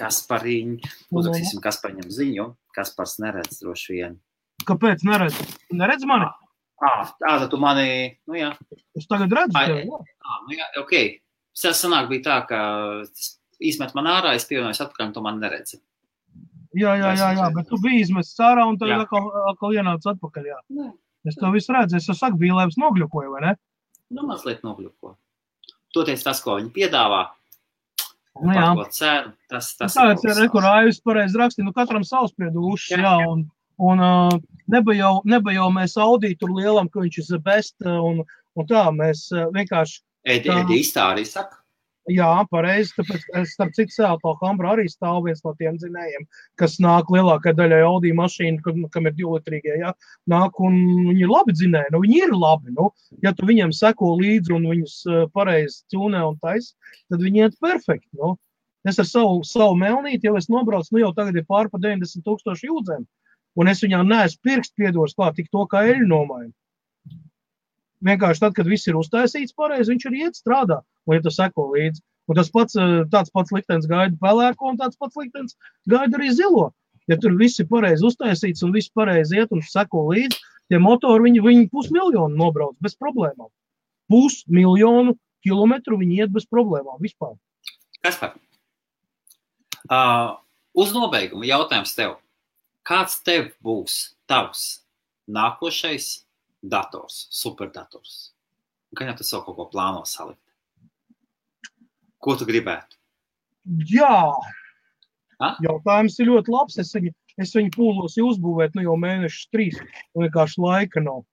Speaker 2: Kaspariņ. Uzrakstīsim Kaspariņam ziņu. Kaspars neredz droši vien.
Speaker 1: Kāpēc neredz? Neredz mani?
Speaker 2: Tad tu mani, jā.
Speaker 1: Es tagad redzu tevi,
Speaker 2: jā. Ok. Sanāk bija tā, ka izmet man ārā, es pievienojos atpakaļ, un tu mani neredzi.
Speaker 1: Jā, bet tu biji izmests ārā, un tad atkal ienāc atpakaļ, jā. Es to visu redzu, es saku, Bīlēms nogļukoja, vai ne?
Speaker 2: Mazliet nogļuko. Toties tas, ko viņi piedāvā,
Speaker 1: par
Speaker 2: ko cenu, tas
Speaker 1: ir kur Aivis pareizi raksti, katram savspriedušs, jā, un nebija jau mēs Audi tur lielam, ka viņš ir best, un tā, mēs vienkārši
Speaker 2: Edi iztārī saka?
Speaker 1: Jā, pareizi, tāpēc es starp citu Seattle Hambra arī stāv viens no tiem dzinējiem, kas nāk lielākai daļai Audi mašīnu, kam ir 2-litrīgie, jā, nāk un viņi ir labi dzinēji, viņi ir labi, ja tu viņiem seko līdzi un viņus pareizi ķūnē un tais, tad viņi iet perfekti, Es ar savu melnīti, jau es nobraucu, jau tagad ir pār pa 90,000 jūdzēm, un es viņām neesmu pirkstu piedoris klāt tik to, kā eļu nomainu. Vienkārši tad, kad viss ir uztaisīts pareizi, viņš arī iet strādā, un ja tu seko līdzi. Un tāds pats liktenis gaida pelēko, un tāds pats liktenis gaida arī zilo. Ja tur viss ir pareizi uztaisīts un viss pareizi iet un seko līdzi, tie motori, viņi 500 000 nobrauc bez problēmām. 500 000 kilometru viņi iet bez problēmām vispār.
Speaker 2: Kaspar, uz nobeigumu jautājums tev. Kāds tev būs tavs nākošais dators, superdators? Gan jau tu savu kaut ko plāno salikt? Ko tu gribētu?
Speaker 1: Jā, jautājums ir ļoti labs. Es viņu pūlos uzbūvēt jau mēnešus 3. Un vienkārši laika nav.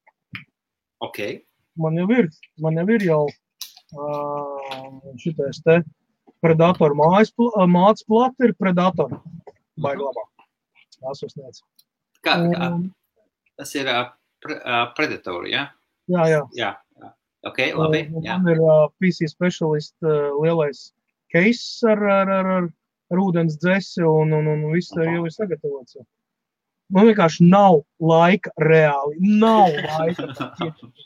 Speaker 2: Ok.
Speaker 1: Man jau ir jau šitais te Predator māc plata ir Predator. Baigi labā. Jāsasniedz.
Speaker 2: Tas ir Predator, ja?
Speaker 1: Jā.
Speaker 2: Ok, labi.
Speaker 1: Man ir PC Specialist lielais case ar ūdens dzesi un viss jau ir sagatavots. Man vienkārši nav laika reāli. Nav laika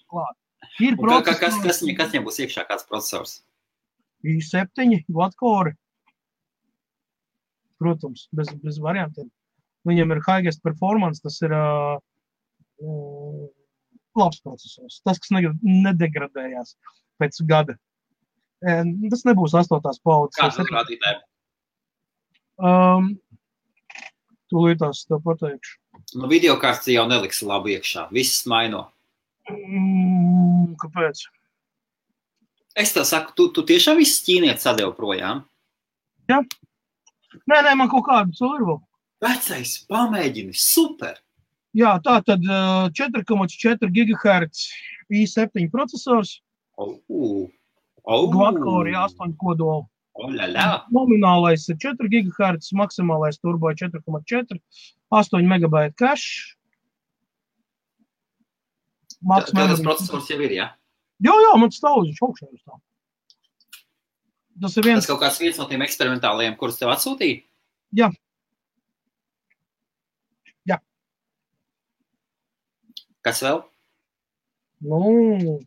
Speaker 1: klāt. Ir procesors.
Speaker 2: Kas viņam būs iekšā, kāds procesors?
Speaker 1: i7 quad-core. Protams, bez variantiem. Viņam ir highest performance, tas ir labs procesors. Tas, kas nedegradējās pēc gada. Tas nebūs 8. paudzes.
Speaker 2: Kāds rādītāji?
Speaker 1: Tūlītās tev pateikšu.
Speaker 2: Videokārts jau neliks labi iekšā. Viss maino.
Speaker 1: Kāpēc?
Speaker 2: Es tev saku, tu tiešām viss ķīnietis sadev projām?
Speaker 1: Jā. Nē, man kaut kādu ir vēl.
Speaker 2: Vecais, pamēģini, super!
Speaker 1: Jā, tā tad 4,4 GHz i7 procesors. Quad-core 8 kodolu. Nominālais ir 4 GHz, maksimālais turbo 4,4, 8 MB cache.
Speaker 2: Tas procesors jau ir, jā?
Speaker 1: Jā, man stāv uz augšā. Tas ir
Speaker 2: Tas kaut kāds viens no tiem eksperimentālajiem, kurus tev atsūtīja?
Speaker 1: Jā.
Speaker 2: Kas vēl?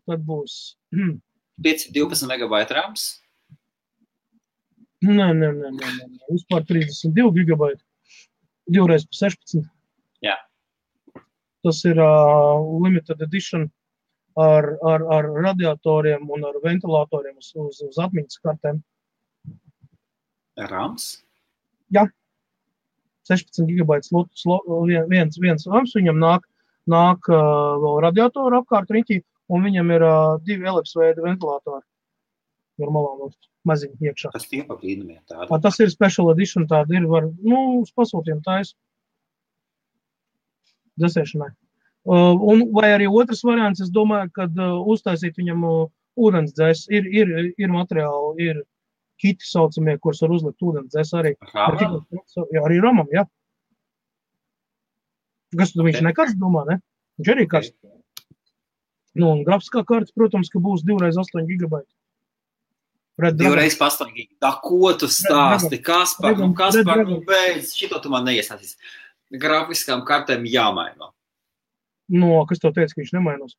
Speaker 1: Tad būs
Speaker 2: 12 MB rams?
Speaker 1: Nē. Vispār 32 GB. 2x16.
Speaker 2: Jā.
Speaker 1: Tas ir limited edition ar radiatoriem un ar ventilatoriem uz atmiņas kartēm.
Speaker 2: Rams?
Speaker 1: Jā. 16 GB viens rams, viņam nāk vēl radiatoru apkārt riņķī, un viņam ir 2 elipsveida ventilatori. Normālā maziņi iekšā.
Speaker 2: Tas tie pa brīnumiem tādi?
Speaker 1: Tas ir special edition, tādi ir, uz pasūtiem tais. Dzesēšanai. Vai arī otrs variants, es domāju, kad uztaisīt viņam ūdens dzēs. Ir materiāli, ir kiti saucamie, kurus var uzlikt ūdens dzēs arī.
Speaker 2: Ramam?
Speaker 1: Jā, arī ramam, jā. Kas tu viņš nekarsts domā, ne? Viņš arī karsts. Un grafiskā karta, protams, ka būs 2x8 GB.
Speaker 2: 2x8 GB. Tā, ko tu stāsti? Kaspar, beidz, šito tu man neiestāstīs. Grafiskām kartēm jāmaino.
Speaker 1: Kas tev teica, ka viņš nemainos?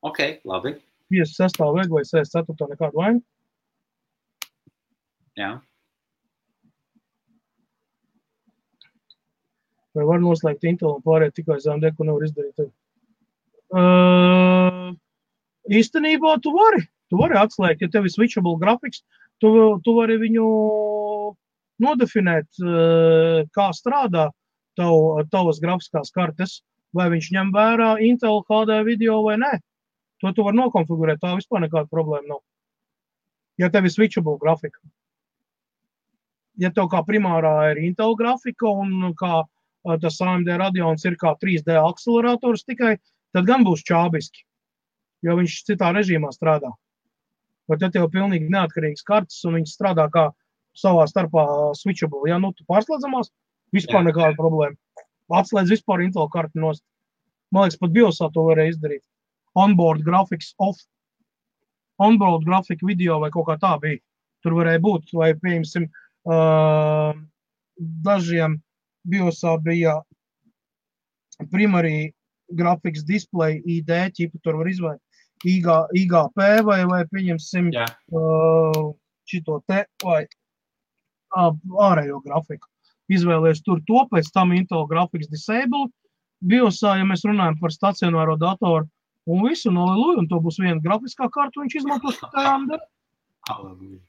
Speaker 2: Ok, labi.
Speaker 1: 56. vai 64. nekādu vainu?
Speaker 2: Jā.
Speaker 1: Vai var noslēgt Intel un pārēt tikai AMD, ko nevar izdarīt? Īstenībā tu vari atslēgt, ja tev ir switchable graphics, tu vari viņu nodefinēt, kā strādā tavas grafiskās kartes, vai viņš ņem vērā Intel HD video vai nē. To tu vari nokonfigurēt, tā vispār nekāda problēma nav. Ja tev ir switchable grafika. Ja tev kā primārā ir Intel grafika un kā tas AMD Radeons ir kā 3D akcelerators tikai, tad gan būs čābiski, jo viņš citā režīmā strādā. Bet ja tev pilnīgi neatkarīgs kartes un viņš strādā kā savā starpā switchable, ja tu pārslēdzamās, vispār nekāda problēma. Atslēdz vispār Intel karti nost. Man liekas, pat BIOSā to varēja izdarīt. Onboard graphics off. Onboard graphic video vai kaut kā tā bija. Tur varēja būt, vai pieņemsim, dažiem BIOSā bija primary graphics display ID ķipu, tur var IGP vai pieņemsim šito te vai ārējo grafiku. Izvēlies tur to, pēc tam Intel Graphics Disable, BIOSā, ja mēs runājam par stacionāro datoru, un visu noliluju, un to būs viena grafiskā karta, viņš izmantos tikai AMD.
Speaker 2: Halleluja.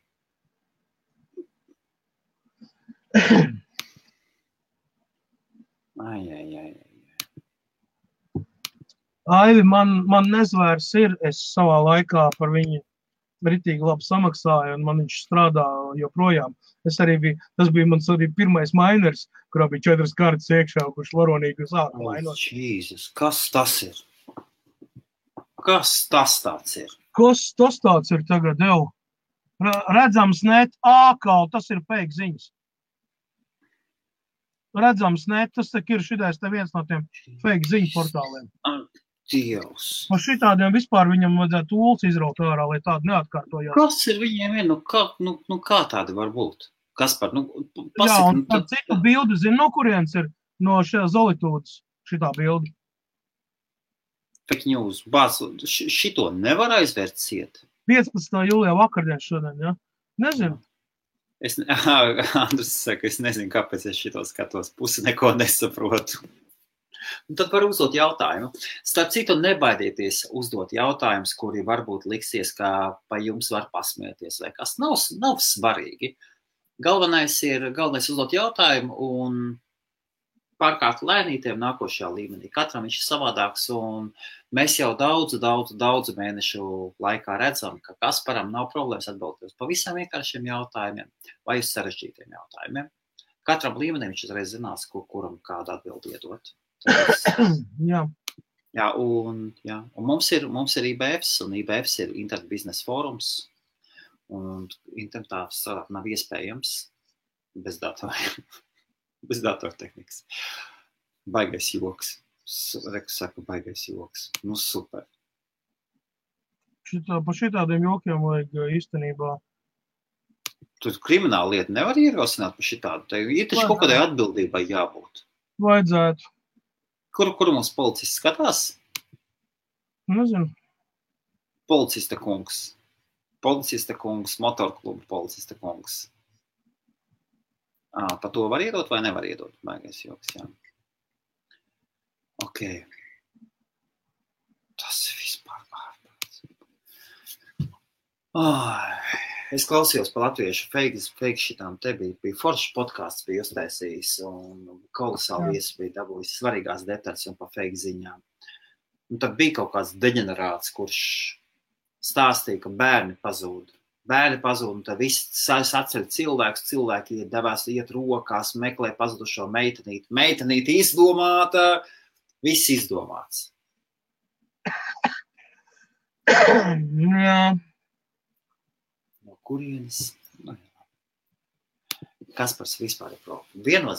Speaker 1: Aivi, man nezvērs ir, es savā laikā par viņu ritīgi labi samaksāju, un man viņš strādā joprojām. Tas bija mans arī pirmais miners, kurā bija 4 kartas iekšā, kurš varonīgi sāka mainot.
Speaker 2: Jēzus, kas tas ir? Kas tas tāds ir?
Speaker 1: Kas tas tāds ir tagad, jau? Redzams net, tas ir fake ziņas. Redzams net, tas ir šitais te viens no tiem fake ziņu portāliem.
Speaker 2: Dievs.
Speaker 1: Un šitādiem vispār viņam vajadzētu tūls izraut ārā, lai tādu neatkārtojās.
Speaker 2: Kas ir viņiem? Kā tādi var būt? Kaspar, pasaka.
Speaker 1: Jā, un par citu bildi zinu, no kurienes ir no šajā Zolitūdas šitā bildi.
Speaker 2: Fake news. Šito nevar aizvērt ciet.
Speaker 1: 15. jūlijā vakardien šodien, ja? Nezinu.
Speaker 2: Andris saka, es nezinu, kāpēc es šito skatos. Pusi neko nesaprotu. Un tad var uzdot jautājumu. Starp citu, nebaidieties uzdot jautājumus, kuri varbūt liksies, kā pa jums var pasmieties, vai kas nav svarīgi. Galvenais ir uzdot jautājumu un pārkārt lēnītiem nākošajā līmenī. Katram viņš ir savādāks, un mēs jau daudzu mēnešu laikā redzam, ka Kasparam nav problēmas atbildēt uz pavisam vienkāršiem jautājumiem vai uz sarežģītiem jautājumiem. Katram līmenim viņš uzreiz zinās, kuram kādu atbildi iedot.
Speaker 1: Jā.
Speaker 2: Jā, un mums ir IBFs, un IBFs ir Internet biznesa fórums, un internetā strādāt nav iespējams bez datoriem, bez datortehnikas. Baigais joks. Saku, baigais joks. Super.
Speaker 1: Pa šitādiem jokiem vajag īstenībā.
Speaker 2: Tu krimināla lieta nevar ierosināt pa šitādu. Tev ir taču kaut kādai atbildībai jābūt.
Speaker 1: Vajadzētu.
Speaker 2: Kur mums policists skatās?
Speaker 1: Nezinu.
Speaker 2: Policista kungs, motorklubu policista kungs. Pa to var iedot vai nevar iedot? Baigais joks, jā. Ok. Tas ir vispār ārprāts. Es klausījos pa latviešu fake šitām, te bija foršs podcasts, bija uztaisījis, un kolosāli viesis bija dabūjis svarīgās detaļas un pa fake ziņām. Un tad bija kaut kāds deģenerāts, kurš stāstīja, ka bērni pazūd, un tad viss atceļ cilvēki iet rokās, meklē pazudušo meitenīti izdomāta, viss izdomāts.
Speaker 1: Jā.
Speaker 2: Kurienes? Kaspars vispār ir problēma.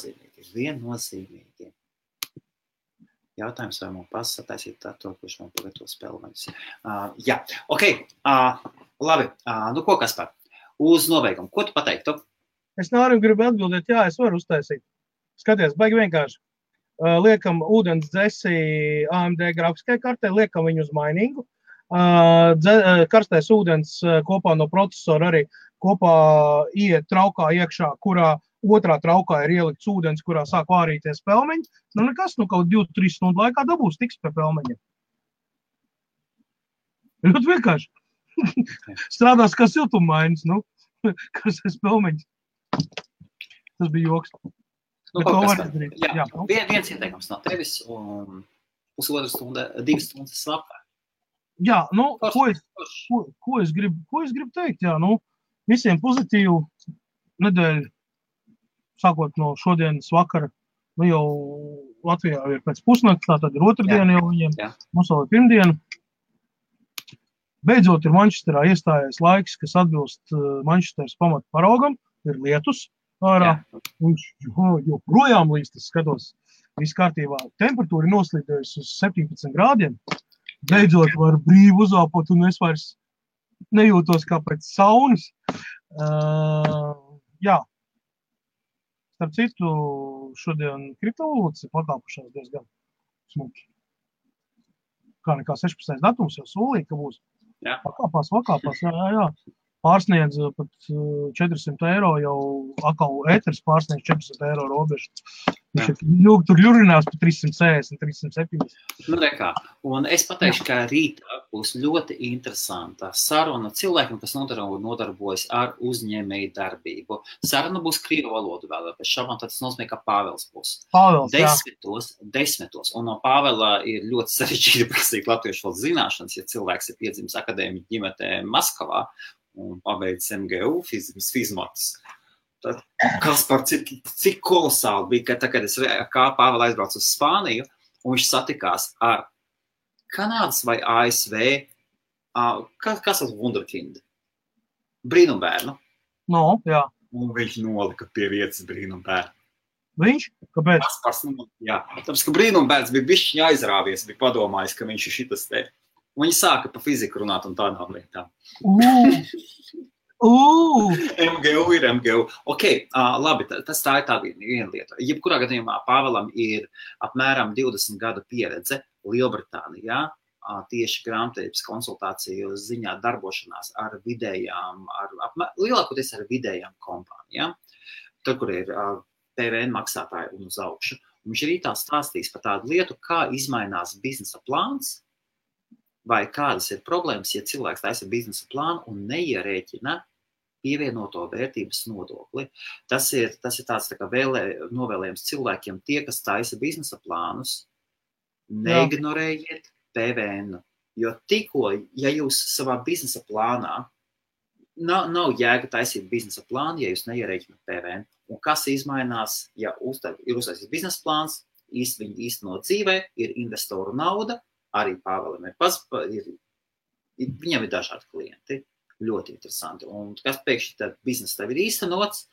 Speaker 2: Viennozīmīgi. Jautājums, vai man pasataisīt to, kurš man pagatavo spēlmaņus. Jā, ok. Labi. Ko, Kaspar? Uz nobeigumu. Ko tu pateiktu?
Speaker 1: Es gribu atbildēt, jā, es varu uztaisīt. Skaties, baigi vienkārši. Liekam ūdens dzesi AMD grafiskai kartē, liekam viņu uz mainingu. Karstais ūdens kopā no procesora arī kopā iet traukā iekšā, kurā otrā traukā ir ielikts ūdens, kurā sāk vārīties pelmeņi. Nekas, kaut 2-3 stundu laikā dabūs tiks pie pelmeņiem. Ļoti vienkārši. Strādās kā siltummainis, karstais pelmeņs. Tas bija joks.
Speaker 2: Viens ieteikums no tevis un 1,5 stunda, 2 stundas slapā.
Speaker 1: Jā, ko es gribu teikt, jā, visiem pozitīvu nedēļu, sākot no šodienas vakara, jau Latvijā ir pēc pusnakts, tātad ir otrdiena jau viņiem, mums vēl ir pirmdiena. Beidzot ir Manchesterā iestājies laiks, kas atbilst Manchesteras pamata paraugam, ir lietus ārā, viņš joprojām līst, es skatos, viss kārtībā, temperatūra ir noslīdējusi uz 17 grādiem. Beidzot var brīvi uzāpot, un es vairs nejūtos kā pēc saunas. Jā. Starp citu, šodien kriptovalūtas ir pakāpušās diezgan smuki. kā nekā 16. datums jau solīja, ka būs.
Speaker 2: Jā.
Speaker 1: Vakāpās, jā. Pārsniedz pat 400 eiro, jau atkal ēteris pārsniedz 400 eiro robežu. Tur ļurinās par 360, 370.
Speaker 2: Nu, rekā. Un es pateikšu, ka rītā būs ļoti interesanta saruna cilvēkiem, kas nodarbojas ar uzņēmēju darbību. Saruna būs krievu valodu vēl, pēc šabām tas nozīmē, ka Pāvels būs. Desmitos. Un no Pāvela ir ļoti sarežģīti prasīt latviešu valodas zināšanas, ja cilvēks ir piedzimis akadēmiķu ģimenē Maskavā un pabeidz MGU fizmatus. Tad, Kaspar, cik kolosāli bija, ka kad es kā Pāvela aizbraucu uz Spāniju, un viņš satikās ar Kanādas vai ASV, kas ir Wunderkind? Brīnumbērnu.
Speaker 1: No, jā.
Speaker 2: Un viņš nolika pie vietas brīnumbērnu.
Speaker 1: Viņš? Kāpēc?
Speaker 2: Kaspars, jā. Tāpēc, ka brīnumbērns bija bišķiņ aizrāvies, bija padomājis, ka viņš ir šitas te. Un viņi sāka pa fiziku runāt un tādām lietām. MGU ir MGU. Ok, labi, tas tā ir tā viena lieta. Jebkurā gadījumā Pāvelam ir apmēram 20 gadu pieredze Lielbritānijā, tieši grāmatvedības konsultāciju ziņā darbošanās ar vidējām, lielākoties ar vidējām kompānijām, tur, kur ir PVN maksātāji un uz augšu. Viņš arī tā stāstīs par tādu lietu, kā izmainās biznesa plāns, vai kādas ir problēmas, ja cilvēks taisa biznesa plānu un neierēķina pievienoto vērtības nodokli. Tas ir tāds tā kā novēlējums cilvēkiem, tie, kas taisa biznesa plānus, neignorējiet PVN. Jo tikko, ja jūs savā biznesa plānā, nav jēga taisīt biznesa plānu, ja jūs neierēķināt PVN. Un kas izmainās, ja ir uztaisīts biznesa plāns, viņi īstenot dzīvē, ir investoru nauda, arī Pāvelam viņam ir dažādi klienti, ļoti interesanti. Un kas pēkšņi tad bizness tev ir īstenots,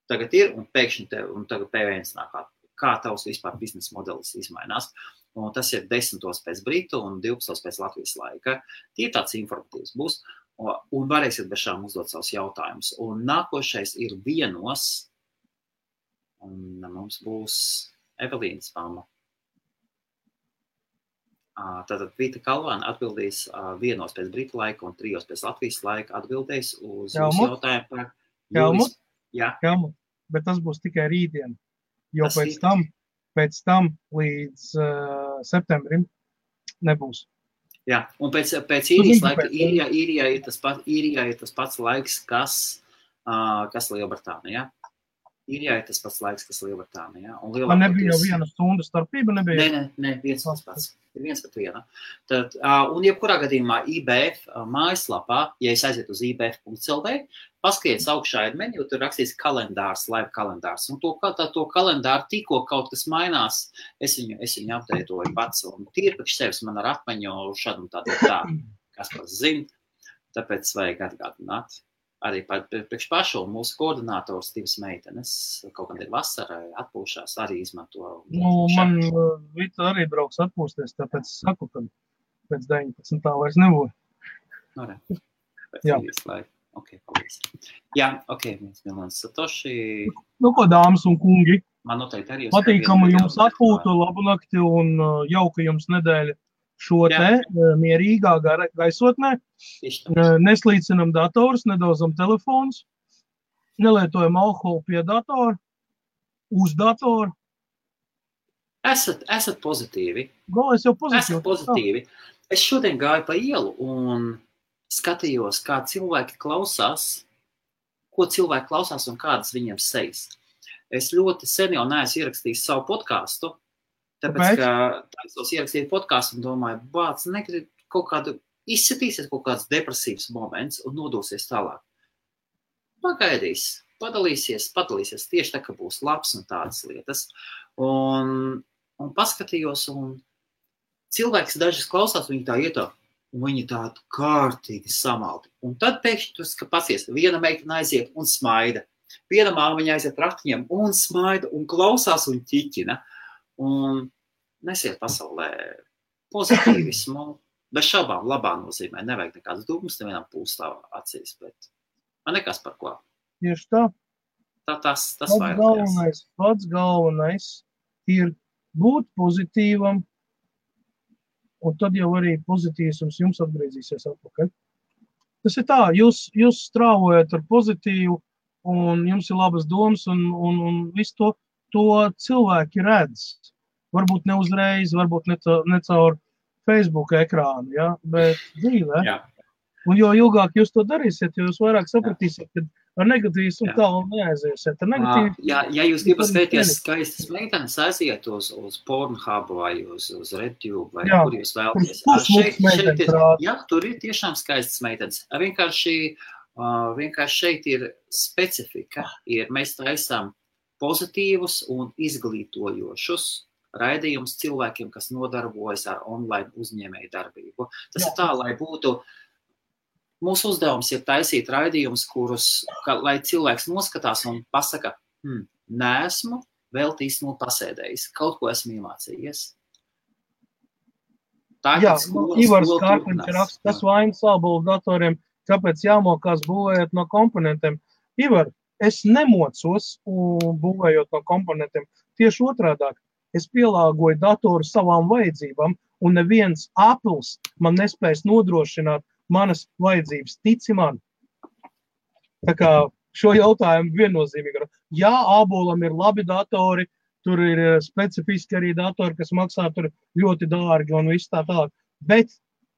Speaker 2: tagad ir, un pēkšņi tagad PVNs nāk, kā tavs vispār biznesa modelis izmainās. Un tas ir 10. pēc Britu un 12. pēc Latvijas laika. Tie tāds informatīvs būs, un varēsiet bez šām uzdot savus jautājumus. Un nākošais ir 1. Un mums būs Evelīnas mamma. Tātad Vita Kalvāna atbildīs 1. pēc Britu laika un 3. pēc Latvijas laika atbildēs uz jūsu jautājumu par
Speaker 1: Helmut?
Speaker 2: Jā.
Speaker 1: Helmut, bet tas būs tikai rītdien, jo pēc tam līdz septembrim nebūs.
Speaker 2: Jā, un pēc īrijas laika, īrijā ir tas pats laiks, kas Lielbritānijā. Īrijā ir tas pats laiks, kas Lielbritānijā.
Speaker 1: Man nebija jau 1 stundu starpība?
Speaker 2: Nē, viens pats. Ir 1 pret 1. Tad, un jebkurā gadījumā IBF mājaslapā, ja es aiziet uz ibf.lv, paskaties augšā ir menu, tur rakstīts kalendārs, live kalendārs. Un to kalendāru tikko kaut kas mainās, es viņu apdeitoju pats. Un tīri priekš sevis man ar atmiņu šādu un tādu tā, kas pats zina. Tāpēc vajag atgādināt. Arī priekš pašu mūsu koordinātors divas meitenes, kaut kad ir vasarai atpūšās, arī izmanto.
Speaker 1: Man Vita arī brauks atpūsties, tāpēc saku, ka pēc 19. vairs nebūs.
Speaker 2: Pēc īrijas laika. Ok, paldies. Jā, ok, Milons Satoši.
Speaker 1: Ko, dāmas un kungi?
Speaker 2: Man noteikti arī.
Speaker 1: Patīkamu jums atpūtu, labu nakti un jauka jums nedēļa. Šo te mierīgā gaisotnē, neslīcinam datorus, nedozam telefonus, nelietojam alkoholu pie datora, uz datoru.
Speaker 2: Esat pozitīvi.
Speaker 1: Es jau pozitīvi.
Speaker 2: Esat pozitīvi. Es šodien gāju pa ielu un skatījos, kā cilvēki klausās, ko cilvēki klausās un kādas viņiem sejas. Es ļoti sen jau neesmu ierakstījis savu podcastu, tāpēc, ka tādos ierakstīt podcastu un domāju, bāc, negrib kaut kādu, izsitīsies kaut kāds depresīvs moments un nodosies tālāk. Pagaidīs, padalīsies tieši tā, ka būs labs un tādas lietas. Un paskatījos, un cilvēks dažas klausās, viņi tā ietā, un viņi tādu kārtīgi samaldi. Un tad pēkšņi tu pasies, viena meitene aiziet un smaida. Viena māmiņa aiziet raktiņiem un smaida un klausās un ķiķina. Un nesiet pasaulē pozitīvismu, bez šaubām labā nozīmē, nevajag nekādas dūmas, nevienam pūstā acīs, bet man nekas par ko.
Speaker 1: Tieši tā.
Speaker 2: Tas vairāk.
Speaker 1: Pats galvenais ir būt pozitīvam un tad jau arī pozitīvs jums atgriezīsies atpakaļ. Tas ir tā, jūs strāvojat ar pozitīvu, un jums ir labas domas, un visu to cilvēki redz. Varbūt ne uzreiz, varbūt ne caur Facebook ekrānu, ja? Bet dzīvē.
Speaker 2: Jā.
Speaker 1: Un jo ilgāk jūs to darīsiet, jo jūs vairāk sapratīsiet, ka ar negatīvismu tālu neaiziesiet.
Speaker 2: Ja jūs gribat skatīties skaistas meitenes, aiziet uz Pornhub vai uz RedTube, vai kur jūs vēlaties. Tur ir tiešām skaistas meitenes. Vienkārši šeit ir specifika. Mēs taisām pozitīvus un izglītojošus raidījumus cilvēkiem, kas nodarbojas ar online uzņēmēju darbību. Tas ir tā, lai būtu. Mūsu uzdevums ir taisīt raidījumus, lai cilvēks noskatās un pasaka, neesmu vēl īstenībā pasēdējis, kaut ko esmu iemācījies.
Speaker 1: Ivars Kārkliņš raksta, kas vainas ābolu datoriem, kāpēc jāmokās būvējot no komponentiem. Ivar, es nemocos būvējot no komponentiem. Tieši otrādāk, es pielāgoju datoru savām vajadzībām, un neviens Apples man nespējas nodrošināt manas vajadzības, tici man. Tā kā šo jautājumu viennozīmīgi. Jā, ābolam ir labi datori, tur ir specifiski arī datori, kas maksā tur ļoti dārgi un viss tā tālāk. Bet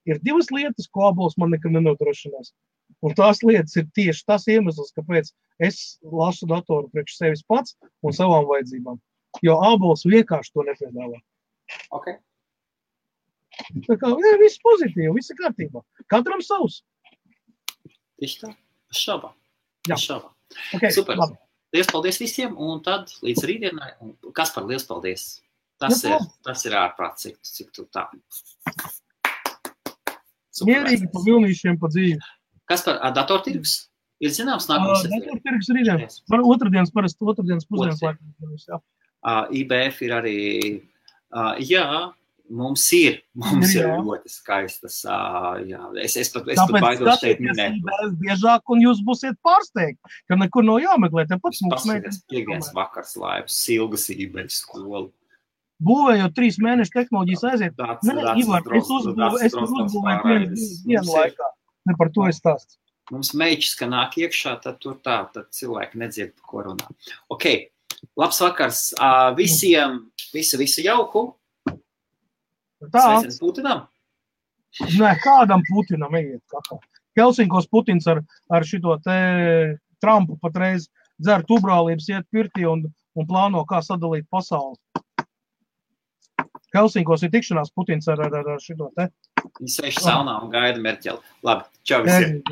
Speaker 1: ir divas lietas, ko ābols man nekad nenodrošinās. Un tās lietas ir tieši tas iemesls, kāpēc es lasu datoru priekš sevis pats un savām vajadzībām. Jo ābols vienkārši to nepiedāvā.
Speaker 2: Okay.
Speaker 1: Tā kā viss pozitīvi, viss ir kārtībā. Katram savs.
Speaker 2: Tieši tā, šaubā.
Speaker 1: Okay,
Speaker 2: super.
Speaker 1: Labi.
Speaker 2: Liels paldies visiem, un tad līdz rītdienai. Kaspar, liels paldies. Tas ir ārprāts, cik tu tā.
Speaker 1: Mierīgi pa vilnīšiem pa dzīvi.
Speaker 2: Kaspar, datortirgus? Ir zināms nākamais?
Speaker 1: Datortirgus rītdien. Otrdienas pusdienas laikam.
Speaker 2: IBF ir arī, Mums ir ļoti skaistas, es pat baidos šeit minēt.
Speaker 1: Tāpēc biežāk, un jūs būsiet pārsteigti, ka nekur nav jāmeklē.
Speaker 2: Paskatās piekdienas vakars laivas, Silgas IBF skolu.
Speaker 1: Būvējot 3 mēnešu tehnoloģijas aiziet. Ivar, es uzbūvēju vienu laikā. Ne par to es stāstu.
Speaker 2: Mums meičs, ka nāk iekšā, tad tur tā, tad cilvēki nedzird, ko runā. Ok, labs vakars visiem, visu jauku. Sveiciens Putinam?
Speaker 1: Nē, kādam Putinam ejiet kakā. Helsinkos Putins ar šito te Trumpu patreiz dzer tubrālības, iet pirtī un plāno, kā sadalīt pasauli. Helsinkos ir tikšanās Putins ar šito te.
Speaker 2: Viņi sēž saunā un gaida Merķeli. Labi, čau visiem.